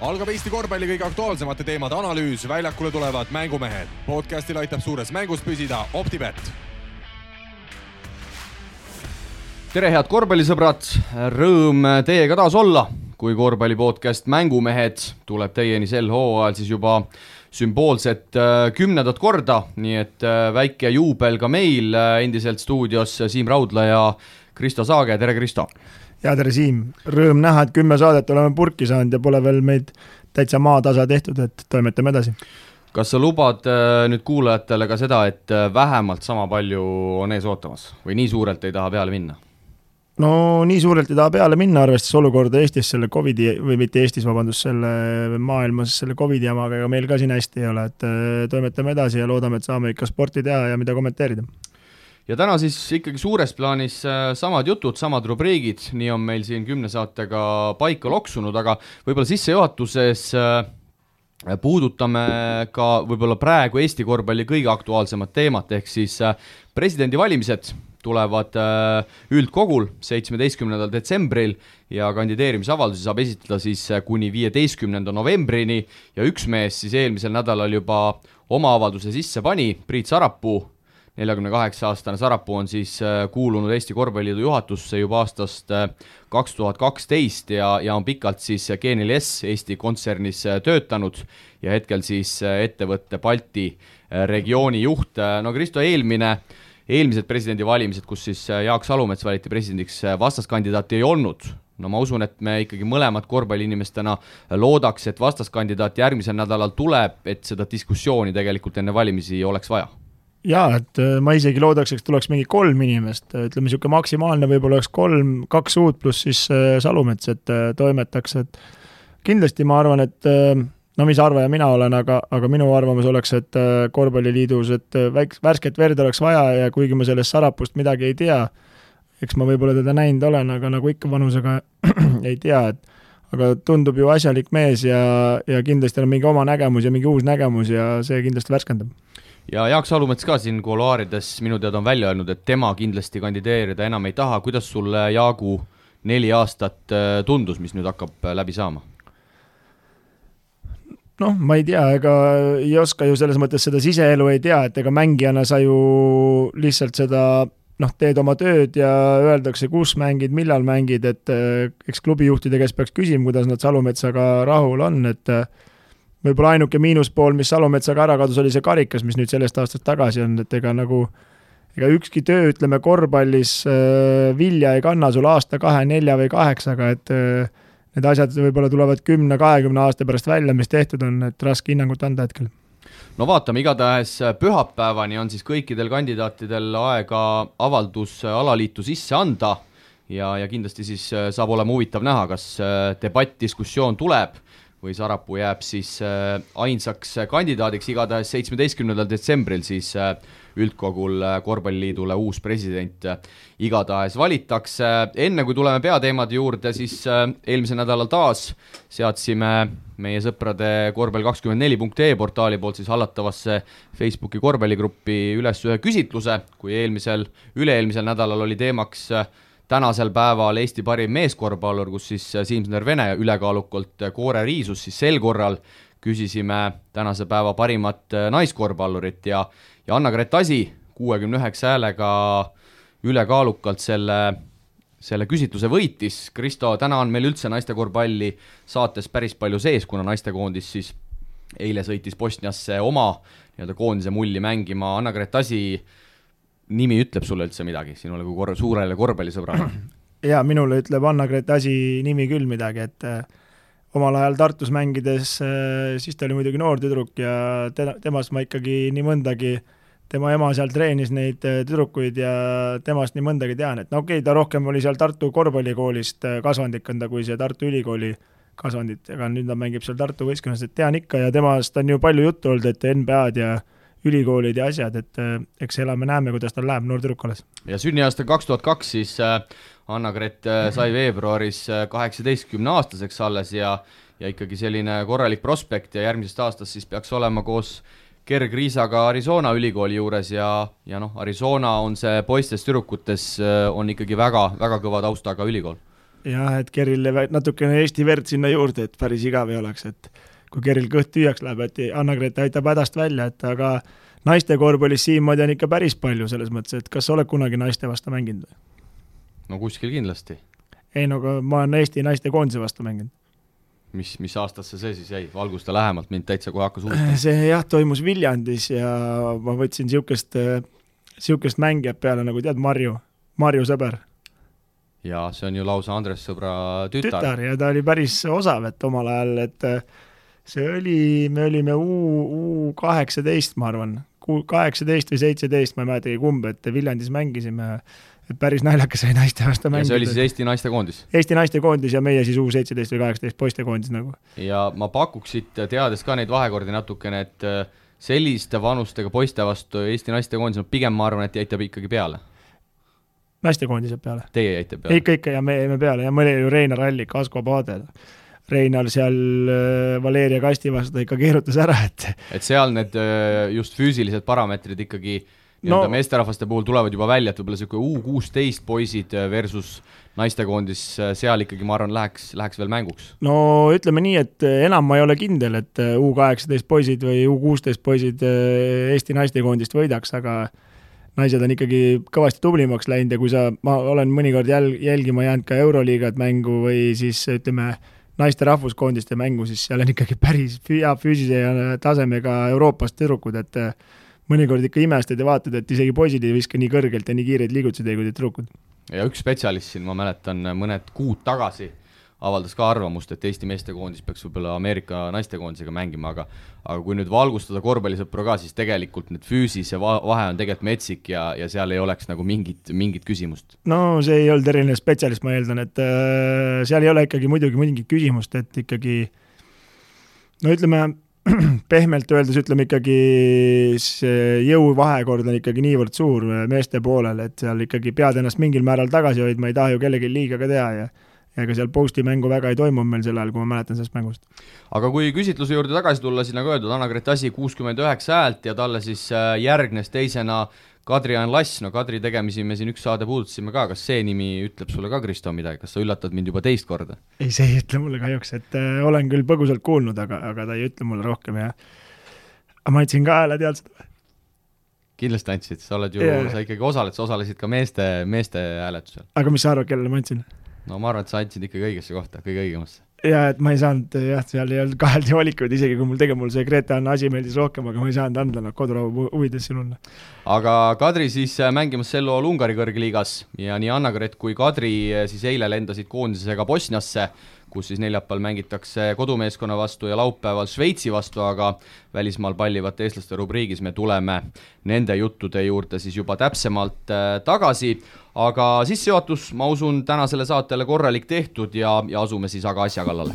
Algab Eesti korvpalli kõige aktuaalsemate teemade analüüs, väljakule tulevad mängumehed. Podcastil aitab suures mängus püsida OpTibet. Tere head korvpallisõbrad, rõõm teiega taas olla, kui korvpallipodcast Mängumehed tuleb teieni sel hooajal siis juba sümboolset 10. korda, nii et väike juubel ka meil endiselt stuudios Siim Raudla ja Kristo Saage. Tere Kristo! Ja tere Siim, rõõm näha, et 10 saadet oleme purki saanud ja pole veel meid täitsa maatasa tehtud, et toimetame edasi. Kas sa lubad nüüd kuulajatele ka seda, et vähemalt sama palju on ees ootamas või nii suurelt ei taha peale minna? No nii suurelt ei taha peale minna, arvestades olukorda Eestis selle COVID-i, või mitte Eestis, vabandust, selle maailmas selle COVID-i jamaga, aga meil ka siin hästi ei ole, et toimetame edasi ja loodame, et saame ikka sporti teha ja mida kommenteerida. Ja täna siis ikkagi suures plaanis samad jutud, samad rubriigid, nii on meil siin 10 saatega paika loksunud, aga võib-olla sissejuhatuses puudutame ka võib-olla praegu Eesti korvpalli kõige aktuaalsemat teemat, ehk siis presidendivalimised tulevad üldkogul 17. detsembril ja kandideerimisavaldusi saab esitada siis kuni 15. novembrini ja üks mees siis eelmisel nädalal juba oma avalduse sisse pani, Priit Sarapuu. 48-aastane Sarapuu on siis kuulunud Eesti Korvpalliliidu juhatusse juba aastast 2012 ja on pikalt siis G4S Eesti kontsernis töötanud ja hetkel siis ettevõtte Balti regiooni juht. No Kristo, eelmised presidendivalimised, kus siis Jaak Salumets valiti presidendiks, vastaskandidaati ei olnud. No ma usun, et me ikkagi mõlemad korvpalliinimestena loodaks, et vastaskandidaat järgmisel nädalal tuleb, et seda diskussiooni tegelikult enne valimisi oleks vaja. Jaa, et ma isegi loodaks, et tuleks mingi 3 inimest, ütleme niisugune maksimaalne võib-olla oleks 2 uut pluss siis Salumets, et toimetaks, et kindlasti ma arvan, et no mis arvaja mina olen, aga minu arvamus oleks, et korvpalliliidus, et värsket verd oleks vaja ja kuigi ma sellest Sarapust midagi ei tea, eks ma võib-olla teda näinud olen, aga nagu ikka vanusega ei tea, aga tundub ju asjalik mees ja kindlasti on mingi oma nägemus ja mingi uus nägemus ja see kindlasti värskendab. Ja Jaak Salumets ka siin kuluaarides minu teada on välja öelnud, et tema kindlasti kandideerida enam ei taha. Kuidas sulle Jaagu 4 aastat tundus, mis nüüd hakkab läbi saama? Noh, ma ei tea, ega ei oska ju selles mõttes seda siseelu ei tea, et ega mängijana sa ju lihtsalt seda teed oma tööd ja öeldakse, kus mängid, millal mängid, et eks klubijuhtide käest peaks küsima, kuidas nad Salumetsaga rahul on, et võib-olla ainuke miinuspool, mis Salumetsaga ära kadus, oli see karikas, mis nüüd sellest aastast tagasi on, et ega ükski töö, ütleme, korvpallis vilja ei kanna sul aasta, 2, 4 või 8, et need asjad võib-olla tulevad 10-20 aasta pärast välja, mis tehtud on, et raske hinnangut anda hetkel. No vaatame, igatahes pühapäevani on siis kõikidel kandidaatidel aega avaldus alaliitu sisse anda ja kindlasti siis saab olema huvitav näha, kas debatt, diskussioon tuleb või Sarapuu jääb siis ainsaks kandidaadiks. Igatahes 17. detsembril siis üldkogul korvpalliliidule uus president igatahes valitakse. Enne kui tuleme peateemade juurde, siis eelmisel nädalal taas seadsime meie sõprade korvpall24.ee portaali poolt siis hallatavasse Facebooki korvpalligruppi üles ühe küsitluse, kui üle-eelmisel nädalal oli teemaks tänasel päeval Eesti parim meeskorvpallur, kus siis Siim-Sander Vene ülekaalukalt koore riisus, siis sel korral küsisime tänase päeva parimat naiskorvpallurit ja Anna-Grett Asi 69 häälega ülekaalukalt selle küsitluse võitis. Kristo, täna on meil üldse naistekorvpalli saates päris palju sees, kuna naistekoondis siis eile sõitis Bosniasse oma koondise mulli mängima. Anna-Grett Asi nimi ütleb sulle üldse midagi, sinule kui suurele korvpallisõbrale? Ja minule ütleb Anna-Grett Asi nimi küll midagi, et omal ajal Tartus mängides, siis ta oli muidugi noor tüdruk ja temast ma ikkagi nii mõndagi, tema ema seal treenis neid tüdrukuid ja temast nii mõndagi tean, et ta rohkem oli seal Tartu korvpallikoolist kasvandikanda kui see Tartu ülikooli kasvandit, aga nüüd ta mängib seal Tartu võistkonnas, et tean ikka ja temast on ju palju juttu olnud, et NBA-d ja ülikoolid ja asjad, et eks elame näeme, kuidas tal läheb noor tüdruk alles. Ja sünniaasta 2002 siis Anna-Grett sai veebruaris 18-aastaseks alles ja ikkagi selline korralik prospekt ja järgmisest aastast siis peaks olema koos kergriisaga Arizona ülikooli juures ja Arizona on see poistes tüdrukutes on ikkagi väga, väga kõva taustaga ülikool. jah, et Kerrile natukene Eesti verd sinna juurde, et päris igav ei oleks, et kui Keril kõht tüüjaks läheb, et Anna-Grete aitab hädast välja, et aga naiste korvpallis siinmoodi on ikka päris palju selles mõttes, et kas sa oled kunagi naiste vastu mänginud? No kuskil kindlasti. Ei, no ma olen Eesti naiste koondise vastu mänginud. Mis aastasse see siis jäi? Valgusta lähemalt, mind täitsa kohe hakkas huvitama. See jah, toimus Viljandis ja ma võtsin siukest mängijat peale, nagu tead, Marju sõber. Ja see on ju lausa Andres sõbra tütar. Ja ta oli päris osav, et omal ajal, et see oli, me olime U18, ma arvan, 18 või 17, ma ei mäletagi kumb, et Viljandis mängisime, et päris naljakas oli naiste vastu mängida. Ja see oli siis Eesti naiste koondis? Eesti naiste koondis ja meie siis U17 või 18 poiste koondis nagu. Ja ma pakuksid, teades ka neid vahekordi natukene, et selliste vanustega poiste vastu Eesti naiste koondis, no pigem ma arvan, et jäitab ikkagi peale. Naiste koondised peale? Teie jäite peale? Ikka ja me jäime peale ja mõni ju Reinar Allik, Asko Paadel. Reinar seal Valeria Kasti vastu ikka keerutas ära, et seal need just füüsilised parameetrid ikkagi meesterahvaste puhul tulevad juba välja, et võib-olla selline U16 poisid versus naistekoondis, seal ikkagi ma arvan läheks veel mänguks. No ütleme nii, et enam ma ei ole kindel, et U18 poisid või U16 poisid Eesti naistekoondist võidaks, aga naised on ikkagi kõvasti tublimaks läinud ja kui ma olen mõnikord jälgima jäänud ka Euroliigat mängu või siis ütleme naiste rahvuskoondiste mängu, siis seal on ikkagi päris hea füüsise ja tasemega Euroopast tüdrukud, et mõnikord ikka imestad ja vaatad, et isegi poisid ei viska nii kõrgelt ja nii kiireid liigutusi kui tüdrukud. Ja üks spetsialist siin, ma mäletan, mõned kuud tagasi avaldas ka arvamust, et Eesti meestekoondis peaks võib-olla Ameerika naistekoondisega mängima, aga kui nüüd valgustada korvpallisõpru ka, siis tegelikult need füüsise vahe on tegelikult metsik ja seal ei oleks nagu mingit küsimust. No see ei olnud eriline spetsialist, ma eeldan, et seal ei ole ikkagi muidugi mingit küsimust, et ikkagi no ütleme, pehmelt öeldes ütleme ikkagi see jõuvahekord on ikkagi niivõrd suur meeste poolel, et seal ikkagi pead ennast mingil määral tagasi hoidma, ei taha ju kellegi liiga ka teha ja ega seal posti mängu väga ei toimu meil sel ajal, kui ma mäletan sellest mängust. Aga kui küsitluse juurde tagasi tulla, siis nagu öeldud, Anna-Grete Asi 69 häält ja talle siis järgnes teisena Kadri-Jaan Lass. No Kadri tegemisi me siin üks saade puudutasime ka, kas see nimi ütleb sulle ka, Kristo, midagi? Kas sa üllatad mind juba teist korda? Ei, see ei ütle mulle kahjuks, et olen küll põgusalt kuulnud, aga ta ei ütle mulle rohkem ja ma andsin ka hääle, tead seda? Kindlasti andsid, sa ikkagi osalesid ka meeste hääletusel. Aga mis sa arvad, kellele ma andsin? No ma arvan, et sa andsid ikkagi õigesse kohta, kõige õigemasse. Ja et ma ei saanud, seal ei olnud kaheldi valikuid, isegi kui mul see Grete-Anna Asi meeldis rohkem, aga ma ei saanud anda kodurahu huvides sinule. Aga Kadri siis mängimas sel lool Ungari kõrgliigas ja nii Anna-Grete kui Kadri siis eile lendasid koondisega Bosniasse, kus siis neljapäeval mängitakse kodumeeskonna vastu ja laupäeval Šveitsi vastu, aga välismaal pallivate eestlaste rubriigis me tuleme nende juttude juurde siis juba täpsemalt tagasi. Aga sissejuhatus, ma usun, tänasele saatele korralik tehtud ja asume siis aga asja kallale.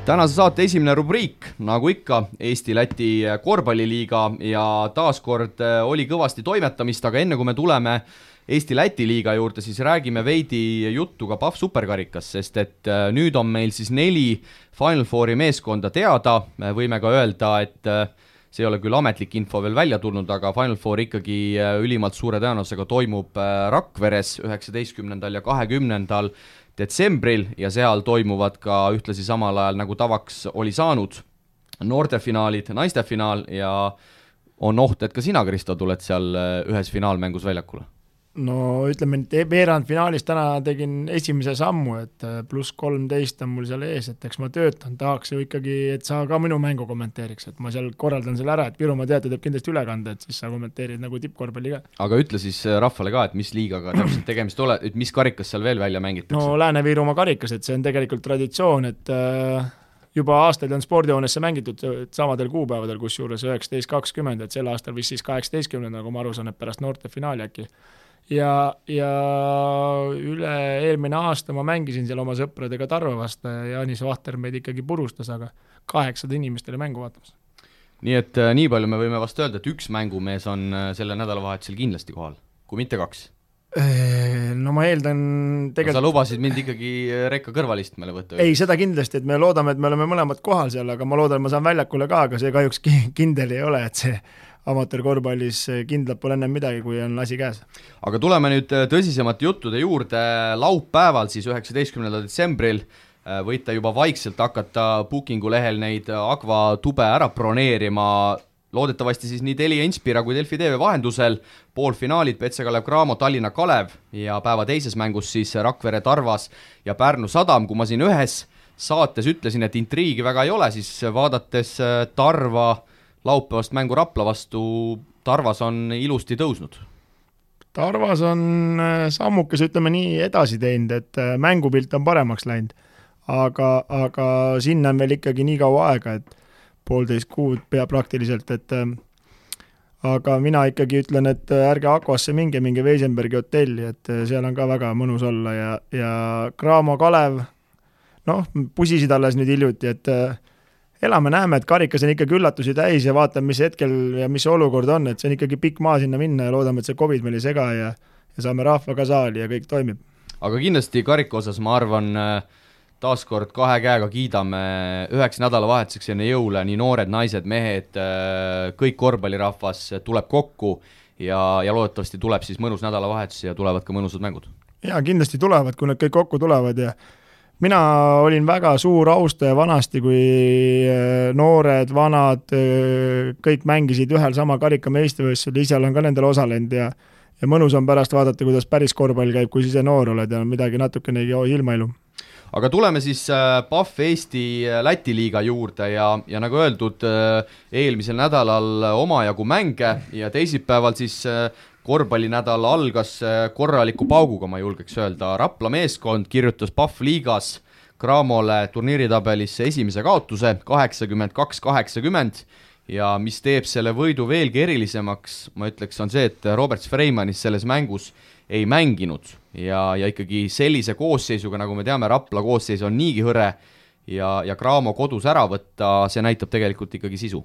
Tänase saate esimene rubriik, nagu ikka, Eesti-Läti korvpalliliiga ja taaskord oli kõvasti toimetamist, aga enne kui me tuleme Eesti-Läti liiga juurde, siis räägime veidi juttu ka PAF superkarikas, sest et nüüd on meil siis 4 Final Fouri meeskonda teada, me võime ka öelda, et see ei ole küll ametlik info veel välja tulnud, aga Final Four ikkagi ülimalt suure tõenäosusega toimub Rakveres 19. ja 20. detsembril ja seal toimuvad ka ühtlasi samal ajal nagu tavaks oli saanud noortefinaalid, naistefinaal ja on oht, et ka sina, Kristo, tuled seal ühes finaalmängus väljakule. No ütleme, et veerandfinaalis täna tegin esimese sammu, et pluss 13 on mul seal ees, et eks ma töötan, tahaks ju ikkagi, et sa ka minu mängu kommenteeriks, et ma seal korraldan selle ära, et Virumaa teatud teeb kindlasti ülekande, et siis sa kommenteerid nagu tippkorvpalli ka. Aga ütle siis rahvale ka, et mis liigaga täpselt tegemist ole, et mis karikas seal veel välja mängitakse? No Lääne-Virumaa karikas, et see on tegelikult traditsioon, et juba aastaid on spordihoonesse mängitud samadel kuupäevadel, kus juures 19.20, et sel aastal vist siis 18, nagu ma aru saan, et pärast noorte finaali äkki. Ja üle eelmine aasta ma mängisin seal oma sõpradega Tarva vastu ja Jaanis Vahter meid ikkagi purustas, aga 8 inimestele mängu vaatamas. Nii et nii palju me võime vast öelda, et üks mängumees on selle nädalavahetusel kindlasti kohal, kui mitte 2. No ma eeldan tegelikult... Sa lubasid mind ikkagi rekka kõrvalistmele võtta. Ei, seda kindlasti, et me loodame, et me oleme mõlemad kohal seal, aga ma loodan, et ma saan väljakule ka, aga see kahjuks kindel ei ole, et see amatöörkorvpallis kindlalt pole ennem midagi, kui on asi käes. Aga tuleme nüüd tõsisemate juttude juurde. Laupäeval siis 19. detsembril võite juba vaikselt hakata Bookingu lehel neid Agva tube ära broneerima. Loodetavasti siis nii Telia Inspira kui Delfi TV vahendusel. Poolfinaalid Petse Kalev Cramo, Tallinna Kalev ja päeva teises mängus siis Rakvere Tarvas ja Pärnu Sadam. Kui ma siin ühes saates ütlesin, et intriigi väga ei ole, siis vaadates Tarva laupäevast mängu Rapla vastu, Tarvas on ilusti tõusnud. Tarvas on sammukes, ütleme nii, edasi teinud, et mängupilt on paremaks läinud, aga sinna on veel ikkagi nii kaua aega, et 1,5 kuud pea praktiliselt, et aga mina ikkagi ütlen, et ärge Akvasse minge Weisenbergi hotelli, et seal on ka väga mõnus olla ja Cramo Kalev, pusisid alles nüüd hiljuti, et elame-näeme, et karikas on ikkagi üllatusi täis ja vaatame, mis hetkel ja mis olukord on, et see on ikkagi pikk maa sinna minna ja loodame, et see COVID meil ei sega ja saame rahva ka saali ja kõik toimib. Aga kindlasti karika osas ma arvan, taaskord 2 käega kiidame 9 nädalavahetuseks enne jõule, nii noored, naised, mehed, kõik korvpallirahvas tuleb kokku ja loodetavasti tuleb siis mõnus nädalavahetus ja tulevad ka mõnusad mängud. Ja kindlasti tulevad, kui nad kõik kokku tulevad ja mina olin väga suur austaja vanasti, kui noored, vanad, kõik mängisid ühel sama karikameistrivõistlusel, ise olen ka nendel osalenud ja mõnus on pärast vaadata, kuidas päris korvpall käib, kui ise noor oled ja midagi natukenegi ilmailu. Aga tuleme siis PAF Eesti Läti liiga juurde ja nagu öeldud, eelmisel nädalal omajagu mänge ja teisipäeval siis korvpallinädal algas korraliku pauguga, ma julgeks öelda. Rapla meeskond kirjutas PAF liigas Cramole turniiritabelisse esimese kaotuse 82-80 ja mis teeb selle võidu veelgi erilisemaks, ma ütleks, on see, et Robert Freimanis selles mängus ei mänginud ja ikkagi sellise koosseisuga, nagu me teame, Rapla koosseis on niigi hõre ja Cramo kodus ära võtta, see näitab tegelikult ikkagi sisu.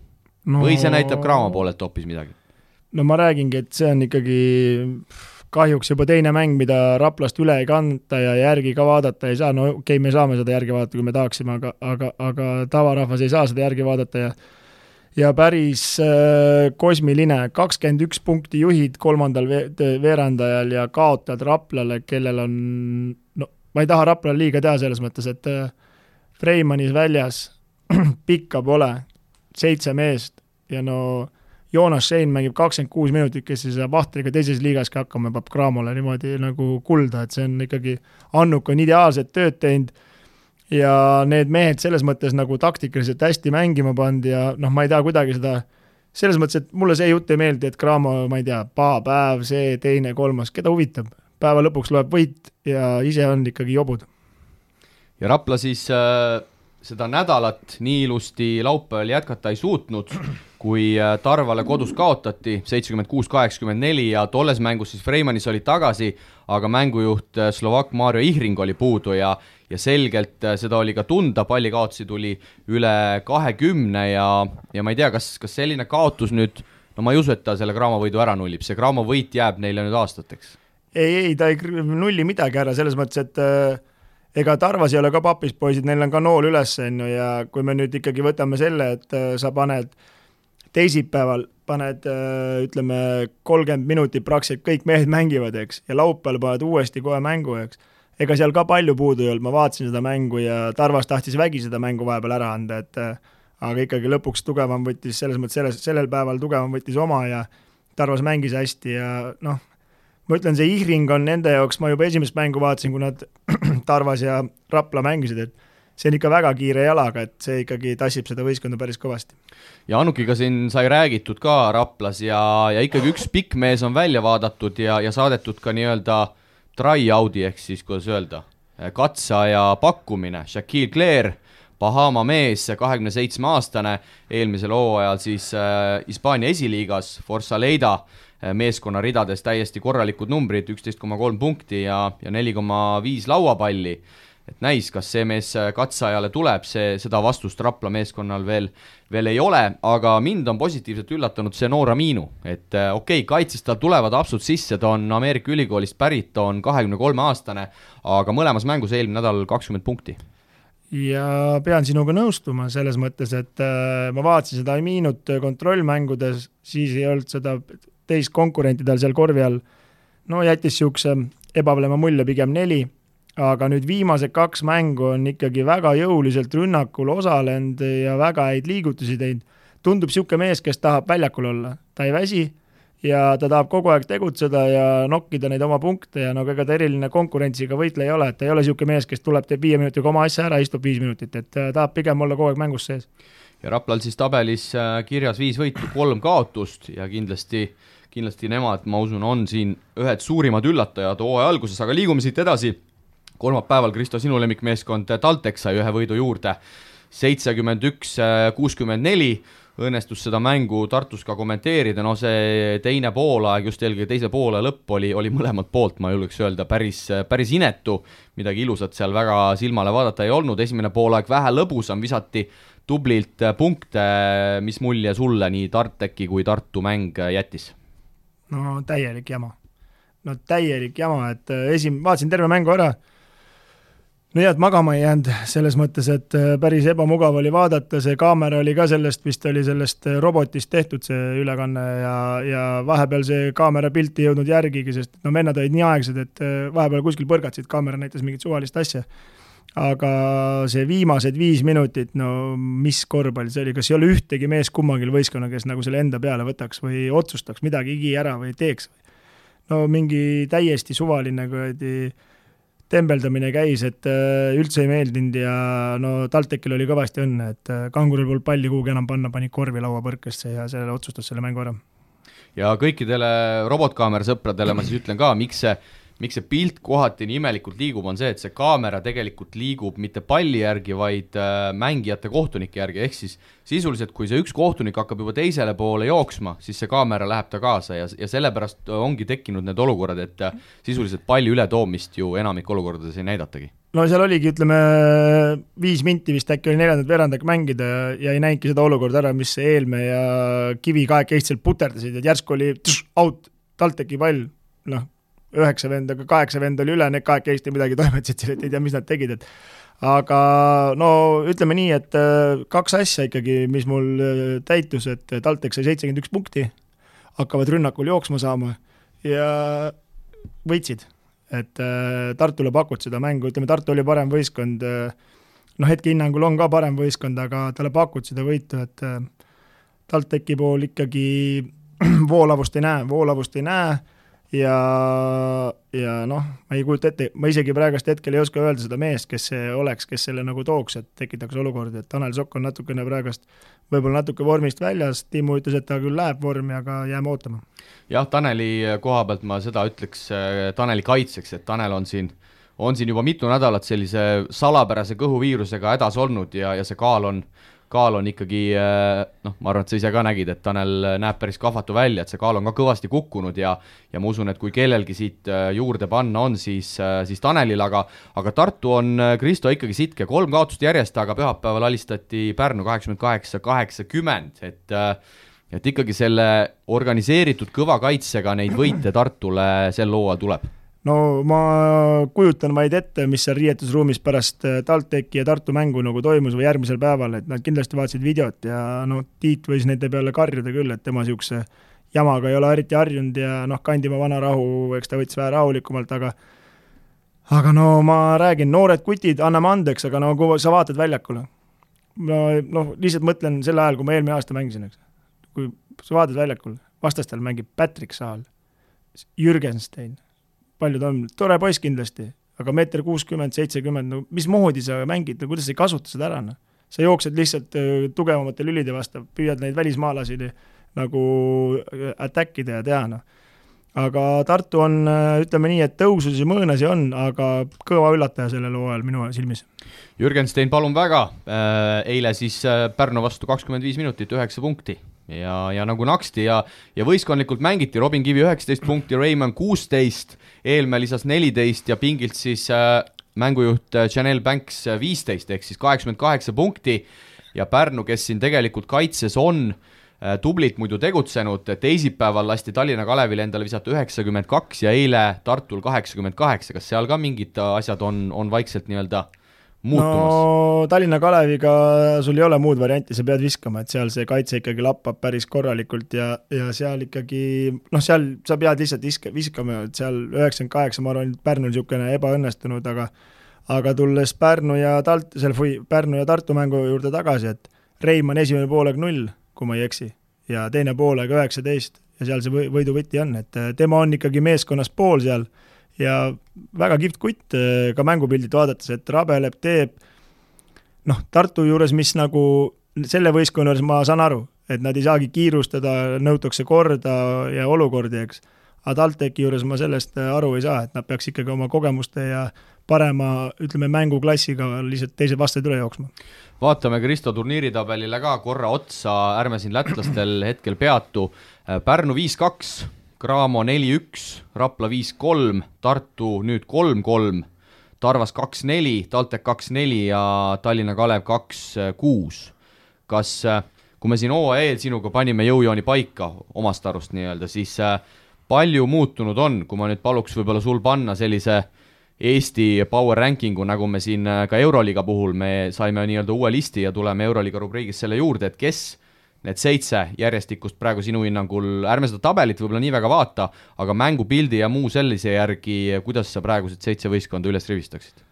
Või see näitab Cramo poolelt hoopis midagi? No ma räägingi, et see on ikkagi kahjuks juba teine mäng, mida Raplast üle ei kanta ja järgi ka vaadata ei saa. No okei, me saame seda järgi vaadata, kui me tahaksime, aga tavarahvas ei saa seda järgi vaadata ja päris kosmiline. 21 punkti juhid 3. veerandajal ja kaotad Raplale, kellel on, ma ei taha Raplale liiga teha selles mõttes, et Freimanis väljas pikka pole 7 meest ja Joonas Schein mängib 26 minutit, kes siis Vahtriga teises liigas ka hakkama peab Cramole niimoodi nagu kulda, et see on ikkagi, Annuk on ideaalset tööd teinud ja need mehed selles mõttes nagu taktikaliselt hästi mängima pandi ja ma ei tea kuidagi seda, selles mõttes, et mulle see jutt ei meeldi, et Cramo, ma ei tea, paha päev, see, teine, kolmas, keda huvitab, päeva lõpuks loeb võit ja ise on ikkagi jobud. Ja Rapla siis seda nädalat nii ilusti laupäeval jätkata ei suutnud, kui Tarvale kodus kaotati 76-84 ja tolles mängus siis Freimanis oli tagasi, aga mängujuht Slovak Mario Ihring oli puudu ja selgelt seda oli ka tunda, palli kaotusi tuli üle 20 ja ma ei tea, kas selline kaotus nüüd, ma ei usu, et ta selle Cramo võidu ära nullib, see Cramo võit jääb neile nüüd aastateks. Ei, ta ei nulli midagi ära, selles mõttes, et ega Tarvas ei ole ka papis poisid, neil on ka nool üles ja kui me nüüd ikkagi võtame selle, et sa paned teisipäeval, ütleme 30 minutit praktiliselt kõik mehed mängivad, eks, ja laupäeval paned uuesti kohe mängu, eks. Ega seal ka palju puudu ei olnud, ma vaatasin seda mängu ja Tarvas tahtis vägi seda mängu vahepeal ära anda, aga ikkagi lõpuks tugevam võttis, selles mõttes sellel päeval tugevam võttis oma ja Tarvas mängis hästi ja ma ütlen, see Ihring on nende jaoks, ma juba esimest mängu vaatasin, kui nad Tarvas ja Rapla mängisid, et see on ikka väga kiire jalaga, et see ikkagi tassib seda võistkonda päris kõvasti. Ja Annukiga siin sai räägitud ka Raplas ja ikkagi üks pikk mees on välja vaadatud ja saadetud ka nii-öelda try-out'i ehk siis, kuidas öelda, katseaja pakkumine. Shaquille Claire, Bahama mees, 27-aastane, eelmisel hooajal siis Hispaania esiliigas, Forza Leida meeskonna ridades täiesti korralikud numbrid, 11,3 punkti ja 4,5 lauapalli. Et näis, kas see mees katseajale tuleb, seda vastust Rapla meeskonnal veel ei ole, aga mind on positiivselt üllatanud see noor Aminu, et okei, kaitses tal tulevad absud sisse, ta on Ameerika ülikoolist pärit, ta on 23-aastane, aga mõlemas mängus eelmine nädal 20 punkti. ja pean sinuga nõustuma selles mõttes, et ma vaatasin seda Aminut kontrollmängudes, siis ei olnud seda teist konkurentidel seal korvi all. No jättis siukse ebavalema mulje pigem 4, aga nüüd viimased 2 mängu on ikkagi väga jõuliselt rünnakul osalenud ja väga häid liigutusi teinud. Tundub siuke mees, kes tahab väljakul olla. Ta ei väsi ja ta tahab kogu aeg tegutseda ja nokkida neid oma punkte ja ega ta eriline konkurentsiga võitle ei ole, et ta ei ole siuke mees, kes tuleb, teeb 5 minutiga oma asja ära, istub 5 minutit, et ta tahab pigem olla kogu aeg mängus sees. Ja Raplal siis tabelis kirjas 5 võitu, 3 kaotust ja kindlasti nemad, ma usun, on siin ühed suurimad üllatajad hooaja alguses, aga liigume siit edasi. Kolmapäeval, Kristo, sinu lemmikmeeskond TalTech sai 1 võidu juurde, 71-64, õnnestus seda mängu Tartus ka kommenteerida, see teine poolaeg, just eelkõige teise poole lõpp oli mõlemad poolt, ma julgeks öelda, päris inetu, midagi ilusat seal väga silmale vaadata ei olnud, esimene poolaeg vähe lõbusam, visati tublilt punkte, mis mulje sulle nii TalTechi kui Tartu mäng jättis? No täielik jama, et vaatasin terve mängu ära, no jah, et magama ei jäänud selles mõttes, et päris ebamugav oli vaadata, see kaamera oli ka vist oli sellest robotist tehtud see ülekanne ja vahepeal see kaamera pilti ei jõudnud järgigi, sest vennad olid nii aegsed, et vahepeal kuskil põrgatsid, kaamera näitas mingit suvalist asja. Aga see viimased 5 minutit, mis korvpall see oli, kas ei ole ühtegi mees kummagil võistkonna, kes nagu selle enda peale võtaks või otsustaks midagi ära või teeks? Mingi täiesti suvaline tembeldamine käis, et üldse ei meeldinud ja TalTechil oli kõvasti õnne, et Kanguril polnud palli kuhugi enam panna, pani korvi laua põrkesse ja sellele otsustas selle mängu ära. Ja kõikidele robotkaamera sõpradele ma siis ütlen ka, miks see pilt kohati nii imelikult liigub, on see, et see kaamera tegelikult liigub mitte palli järgi, vaid mängijate kohtunike järgi, ehk siis sisuliselt, kui see üks kohtunik hakkab juba teisele poole jooksma, siis see kaamera läheb ta kaasa ja sellepärast ongi tekkinud need olukorrad, et sisuliselt palli ületoomist ju enamik olukordades ei näidatagi. No seal oligi, 5 minti vist äkki oli 4. veerandak mängida ja ei näinudki seda olukorda ära, mis Eelme ja Kivi kahekesti puterdasid, et järsku oli out, TalTechi pall, 9 vend, aga 8 vend oli üle, need kahekesti midagi toimetasid seal, et ei tea, mis nad tegid, aga ütleme nii, et 2 asja ikkagi, mis mul täitus, et TalTech sai 71 punkti, hakkavad rünnakul jooksma saama ja võitsid, et Tartule pakud seda mängu, Tartu oli parem võistkond, hetke hinnangul on ka parem võistkond, aga talle pakud seda võitu, et TalTechi pool ikkagi voolavust ei näe ja ma ei kujuta ette, ma isegi praegust hetkel ei oska öelda seda meest, kes see oleks, kes selle nagu tooks, et tekitaks olukordi, et Tanel Sokk on natukene praegust võib-olla natuke vormist väljas, Tiimu ütles, et ta küll läheb vormi, aga jääme ootama. Jah, Taneli koha pealt ma seda ütleks Taneli kaitseks, et Tanel on siin juba mitu nädalat sellise salapärase kõhuviirusega hädas olnud ja see kaal on ikkagi, ma arvan, et sa ise ka nägid, et Tanel näeb päris kahvatu välja, et see kaal on ka kõvasti kukkunud ja ma usun, et kui kellelgi siit juurde panna on, siis Tanelil, aga Tartu on, Kristo, ikkagi sitke, 3 kaotust järjest, aga pühapäeval alistati Pärnu 88-80, et ikkagi selle organiseeritud kõva kaitsega neid võite Tartule sel hooajal tuleb. No ma kujutan vaid ette, mis seal riietusruumis pärast TalTechi ja Tartu mängu nagu toimus või järgmisel päeval, et nad kindlasti vaatasid videot ja Tiit võis nende peale karjuda küll, et tema siukse jamaga ei ole eriti harjunud ja Kandimaa vana rahu, eks ta võttis vähe rahulikumalt, aga ma räägin, noored kutid, anname andeks, aga kui sa vaatad väljakule, lihtsalt mõtlen selle ajal, kui ma eelmine aasta mängisin, eks. Kui sa vaatad väljakule, vastastel mängib Patrick Saal, Jürgenstein, paljud on, tore poiss kindlasti, aga 1.60-70, mis moodi sa mängid, kuidas sa ei kasuta seda ära? Sa jooksed lihtsalt tugevamate lülide vastu, püüad neid välismaalasi nagu attackida ja teha. Aga Tartu on, ütleme nii, et tõususi mõõnasi on, aga kõva üllataja sellel hooajal minu silmis. Jürgenstein, palun väga, eile siis Pärnu vastu 25 minutit, 9 punkti. Ja nagu naksti ja võistkondlikult mängiti, Robin Kivi 19 punkti, Raymond 16, Eelme lisas 14 ja pingilt siis mängujuht Janelle Banks 15, ehk siis 88 punkti ja Pärnu, kes siin tegelikult kaitses on tublit muidu tegutsenud, teisipäeval lasti Tallinna Kalevile endale visata 92 ja eile Tartul 88, kas seal ka mingid asjad on vaikselt nii-öelda muutumas? No Tallinna Kaleviga sul ei ole muud varianti, sa pead viskama, et seal see kaitse ikkagi lappab päris korralikult ja seal ikkagi, seal sa pead lihtsalt viskama, et seal 98, ma arvan, Pärnul niisugune ebaõnnestunud, aga tulles Pärnu ja Tartu mängu juurde tagasi, et Reimann esimene poolega 0, kui ma ei eksi, ja teine poolega 19 ja seal see võiduvõti on, et tema on ikkagi meeskonnas pool seal ja väga kihvt kutt ka mängupildit vaadates, et rabeleb, teeb Tartu juures, mis nagu selle võistkonna juures ma saan aru, et nad ei saagi kiirustada, nõutakse korda ja olukordi, eks. Aga TalTechi juures ma sellest aru ei saa, et nad peaks ikkagi oma kogemuste ja parema, ütleme, mänguklassiga lihtsalt teised vastased üle jooksma. Vaatame Kristo turniiritabelile ka korra otsa, ärme siin lätlastel hetkel peatu. Pärnu 5-2, Cramo 4-1, Rapla 5-3, Tartu nüüd 3-3, Tarvas 2-4, TalTech 2-4 ja Tallinna Kalev 2-6. Kas, kui me siin OAE sinuga panime jõujooni paika omast arust nii-öelda, siis palju muutunud on, kui ma nüüd paluks võib-olla sul panna sellise Eesti Power Rankingu, nagu me siin ka Euroliiga puhul, me saime nii-öelda uue listi ja tuleme Euroliiga rubriigis selle juurde, et kes need 7 järjestikust praegu sinu hinnangul, ärme seda tabelit võib-olla nii väga vaata, aga mängupildi ja muu sellise järgi, kuidas sa praegused 7 võistkonda üles rivistaksid?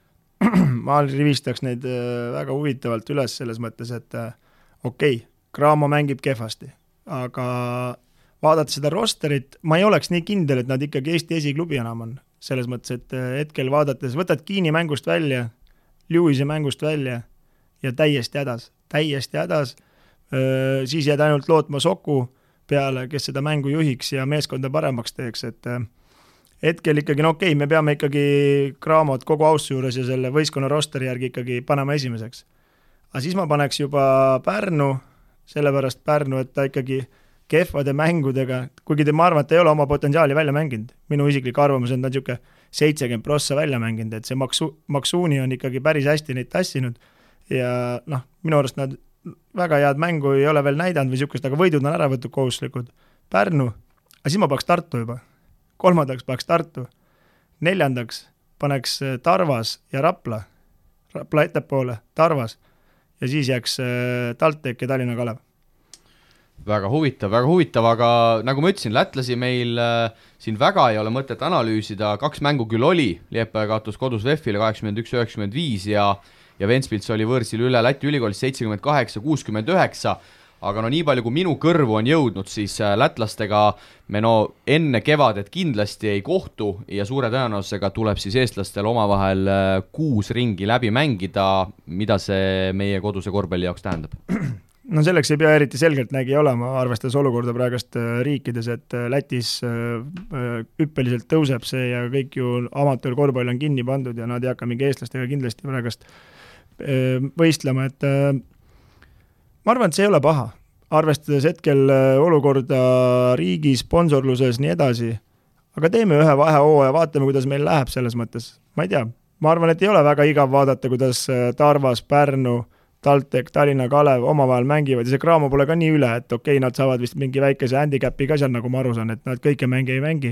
Ma rivistaks neid väga huvitavalt üles selles mõttes, et okei, Cramo mängib kehvasti, aga vaadates seda rosterit, ma ei oleks nii kindel, et nad ikkagi Eesti esiklubi enam on. Selles mõttes, et hetkel vaadates võtad Kiini mängust välja, Lewisi mängust välja ja täiesti hädas, siis jääd ainult lootma Soku peale, kes seda mängu juhiks ja meeskonda paremaks teeks, et hetkel ikkagi, okei, me peame ikkagi Cramot kogu ausse juures ja selle võistkonna rosteri järgi ikkagi panema esimeseks. Aga siis ma paneks juba Pärnu, sellepärast Pärnu, et ta ikkagi kehvade mängudega, kuigi ma arvan, et ta ei ole oma potentsiaali välja mänginud. Minu isiklik arvamus on ta niisugune 70% välja mänginud, et see Maksuuni on ikkagi päris hästi neid tassinud ja minu arust nad väga head mängu ei ole veel näidanud või niisugust, aga võidud on ära võtud kohustuslikud. Pärnu, aga siis ma paneks Tartu juba. 3. paneks Tartu. 4. paneks Tarvas ja Rapla ettepoole, Tarvas ja siis jääks TalTech ja Tallinna Kalev. Väga huvitav, aga nagu ma ütlesin, lätlasi meil siin väga ei ole mõtet analüüsida, 2 mängu küll oli, Liepaja kaotus kodus VEF-ile 81-95 ja Ventspils oli võõrsil üle Läti ülikoolis 78-69, aga nii palju kui minu kõrvu on jõudnud, siis lätlastega me enne kevadet kindlasti ei kohtu ja suure tõenäosusega tuleb siis eestlastel omavahel 6 ringi läbi mängida, mida see meie koduse korvpalli jaoks tähendab? Selleks ei pea eriti selgelt nägi olema, arvestades olukorda praegust riikides, et Lätis hüppeliselt tõuseb see ja kõik ju amatöörkorvpall on kinni pandud ja nad ei hakka mingi eestlastega kindlasti praegust võistlema, et ma arvan, et see ei ole paha, arvestades hetkel olukorda riigi sponsorluses nii edasi, aga teeme ühe vahehooaja ja vaatame, kuidas meil läheb selles mõttes, ma ei tea, ma arvan, et ei ole väga igav vaadata, kuidas Tarvas, Pärnu, TalTech, Tallinna Kalev omavahel mängivad ja see Cramo pole ka nii üle, et okei, nad saavad vist mingi väikese handicapi ka seal, nagu ma aru saan, et nad kõike mängi ei mängi,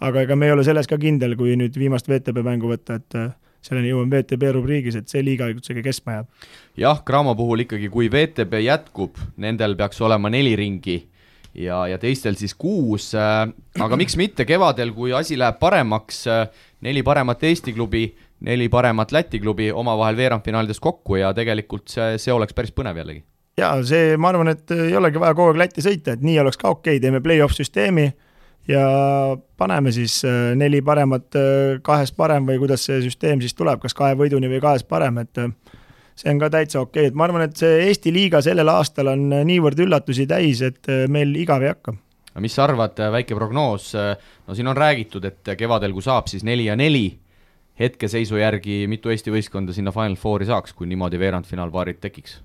aga ega me ei ole selles ka kindel, kui nüüd viimast VTB mängu võtta, et selleni jõuame VTB rubriigis, et see liiga üldse kestma jääb. Jah, Cramo puhul ikkagi, kui VTB jätkub, nendel peaks olema 4 ringi ja teistel siis 6, aga miks mitte kevadel, kui asi läheb paremaks, 4 paremat Eesti klubi, 4 paremat Läti klubi omavahel veerandfinaalides kokku ja tegelikult see oleks päris põnev jällegi. Jaa, see ma arvan, et ei olegi vaja kogu aeg Lätti sõita, et nii oleks ka okei, teeme play-off süsteemi ja paneme siis 4 paremat 2 parem või kuidas see süsteem siis tuleb, kas 2 võiduni või 2 parem, et see on ka täitsa okei, et ma arvan, et see Eesti liiga sellel aastal on niivõrd üllatusi täis, et meil igav ei hakka. Mis sa arvad, väike prognoos, siin on räägitud, et kevadel kui saab siis 4 ja 4, hetkeseisu järgi mitu Eesti võistkonda sinna Final Fouri saaks, kui niimoodi veerandfinaalpaarid tekiks?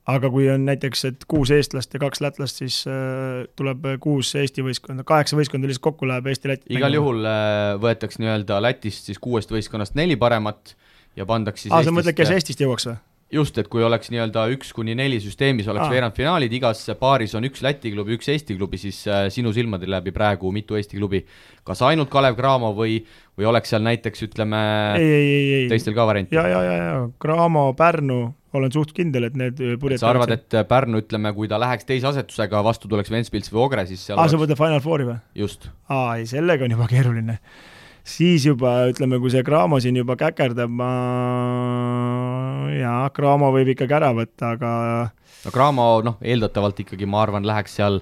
Aga kui on näiteks, et 6 eestlast ja 2 lätlast, siis tuleb 6 Eesti võistkonda, 8 võistkonda lihtsalt kokku läheb Eesti-Läti. Igal juhul võetaks nii-öelda Lätist siis 6 võistkonnast 4 paremat ja pandaks siis sa mõtled, kes Eestist jõuaks või? just, et kui oleks nii-öelda 1-4 süsteemis oleks veerandfinaalid, igas paaris on üks Läti klubi, üks Eesti klubi, siis sinu silmade läbi praegu mitu Eesti klubi, kas ainult Kalev Cramo või oleks seal näiteks, ütleme, teistel ka varianti? Ja, Cramo, Pärnu, olen suht kindel, et need purjetavad. Sa arvad, et Pärnu, ütleme, kui ta läheks teise asetusega, vastu tuleks Ventspils või Ogre, siis seal sa võtta Final Fouri või? Just. Ei, sellega on juba keeruline. Siis juba, ütleme, kui see Cramo siin juba käkerdab, Cramo võib ikkagi ära võtta, aga no Cramo, eeldatavalt ikkagi, ma arvan, läheks seal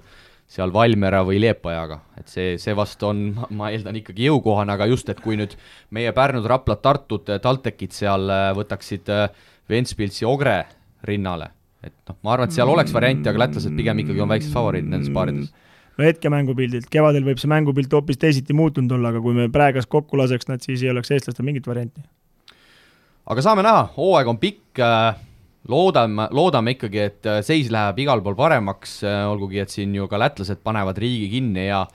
Valmiera või Liepajaga, et see vast on, ma eeldan ikkagi jõukohane, aga just, et kui nüüd meie Pärnud, Raplat, Tartud, TalTechid seal võtaksid Ventspilsi Ogre rinnale, et ma arvan, et seal oleks varianti, aga lätlased pigem ikkagi on väiksed favoriid nendes paarides. No hetke mängupildilt, kevadel võib see mängupilt hoopis teisiti muutunud olla, aga kui me praegas kokku laseks nad, siis ei oleks eestlastel mingit varianti. Aga saame näha, hooaeg on pikk, loodame ikkagi, et seis läheb igal pool paremaks, olgugi, et siin ju ka lätlased panevad riigi kinni ja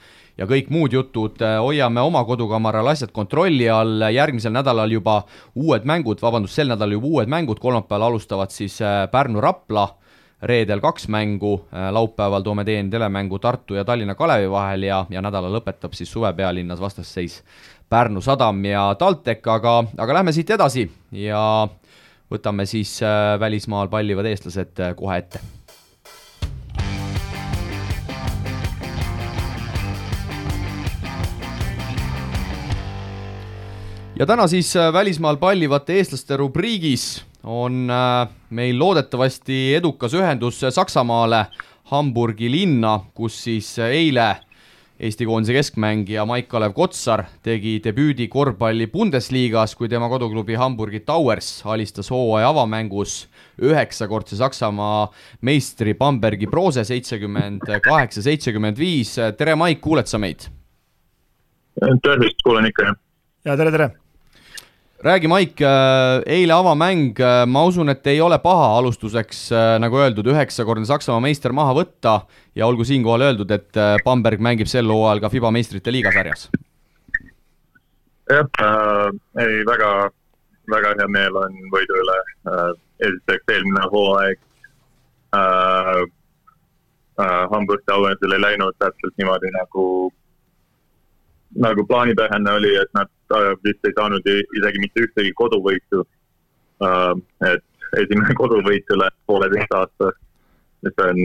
kõik muud jutud, hoiame oma kodukamaral asjad kontrolli all, järgmisel nädalal juba sel nädalal juba uued mängud, kolmapäeval alustavad siis Pärnu-Rapla, reedel 2 mängu, laupäeval toome telemängu Tartu ja Tallinna Kalevi vahel ja nädala lõpetab siis suvepealinnas vastasseis Pärnu Sadam ja TalTech, aga lähme siit edasi ja võtame siis välismaal pallivad eestlased kohe ette. Ja täna siis välismaal pallivate eestlaste rubriigis on meil loodetavasti edukas ühendus Saksamaale, Hamburgi linna, kus siis eile Eesti koondise keskmängija Maik-Kalev Kotsar tegi debüüdi korvpalli Bundesliigas, kui tema koduklubi Hamburgi Towers alistas hooaja avamängus 9-kordse Saksamaa meistri Bambergi Brose 78-75. Tere Maik, kuuled sa meid? Tervist, kuulen ikka. Ja tere. Räägi Maik, eile avamäng, ma usun, et ei ole paha alustuseks, nagu öeldud, 9-kordne Saksamaa meister maha võtta ja olgu siinkohal öeldud, et Bamberg mängib sel hooajal ka FIBA meistrite liiga sarjas. Jah, väga, väga hea meel on võidu üle. Esiteks eelmine hooaeg Hamburg Towersile ei läinud täpselt niimoodi nagu plaanipärane oli, et nad vist ei saanud isegi mitte ühtegi koduvõitu. Et esimene koduvõit üle 1,5 aasta, mis on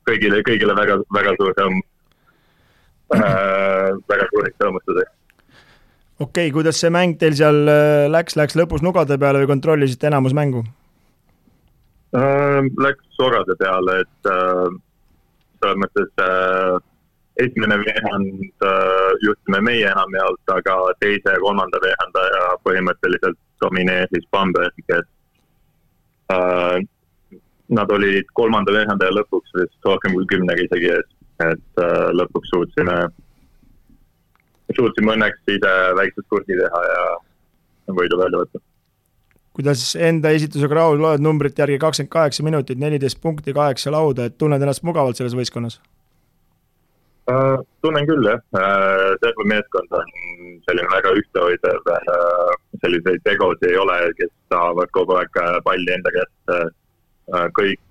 kõigile väga, väga suur rõõm. Väga suuriks rõõmustuseks. Okei, kuidas see mäng teil seal läks lõpus nugade peale või kontrollisite enamus mängu? Läks sorade peale, et selles mõttes esimene veehand juhtusime meie enamjaolt, aga teise ja kolmanda veehandaja põhimõtteliselt domineeris Bamberg, et nad olid kolmanda veehandaja lõpuks vist rohkem kui 10 isegi, et lõpuks suutsime õnneks ise väikses kursi teha ja võidu välja võtta. Kuidas enda esitusega rahul loed numbrit järgi 28 minutit, 14 punkti, 8 lauda, et tunned ennast mugavalt selles võistkonnas? Tunnen küll, jah. Terve meeskond on selline väga ühtehoidev, selliseid tegosi ei ole, kes tahavad kogu aeg palli enda käest. Kõik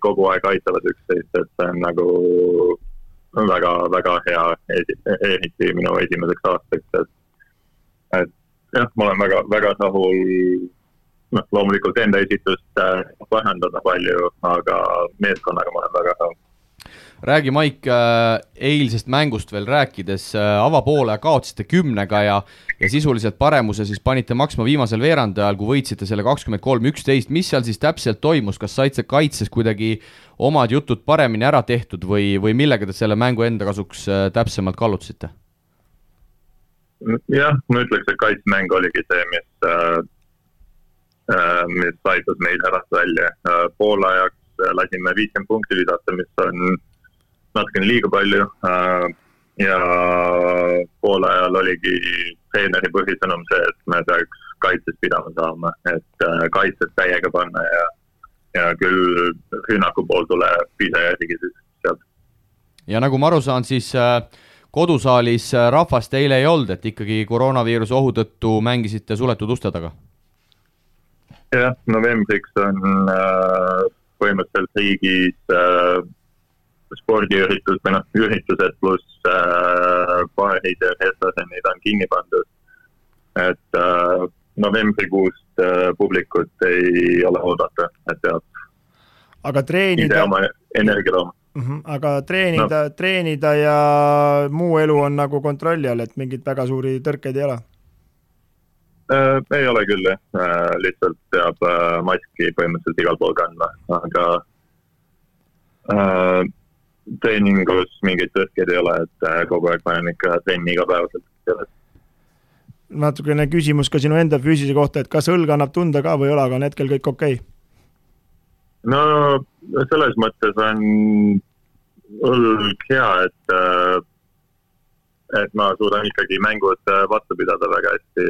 kogu aeg aitavad üksteist, et see on nagu väga, väga hea ehiti minu esimeseks aastaks. Et jah, ma olen väga, väga rahul, loomulikult enda esitust vahendada palju, aga meeskonnaga ma olen väga rahul. Räägi Maik, eilsest mängust veel rääkides, avapoole kaotsite 10-ga ja sisuliselt paremuse siis panite maksma viimasel veerandajal, kui võitsite selle 23-11. Mis seal siis täpselt toimus? Kas saite kaitses kuidagi omad jutud paremini ära tehtud või millega te selle mängu enda kasuks täpsemalt kallutsite? Jah, ma ütleks, et kaitsmäng oligi see, mis aitas meid ärast välja. Poolajaks lasime 50 punkti visata, mis on natukene liiga palju ja poolajal oligi treeneri põhisõnum see, et me peaks kaitses pidama saama, et kaitses täiega panna ja küll rünnaku pool tuleb ise järgi siis sealt. Ja nagu ma aru saan, siis kodusaalis rahvast eile ei olnud, et ikkagi koroonaviiruse ohu tõttu mängisite suletud uste taga? jah, novembriks on põhimõtteliselt riigis spordiüritus või üritused pluss baarid ja restoranid on kinni pandud. Et novembrikuust publikut ei ole oodata, et peab aga treenida... ise oma energia looma. Aga treenida ja muu elu on nagu kontrolli all, et mingid väga suuri tõrkeid ei ole? Ei ole küll, lihtsalt peab maski põhimõtteliselt igal pool kandma, aga treeningus mingeid tõrkeid ei ole, et kogu aeg panen ikka trenni igapäevaselt. Natukene küsimus ka sinu enda füüsise kohta, et kas õlg annab tunda ka või ei ole, aga on hetkel kõik okei? No selles mõttes on õlg hea, et ma suudan ikkagi mängud vastu pidada väga hästi,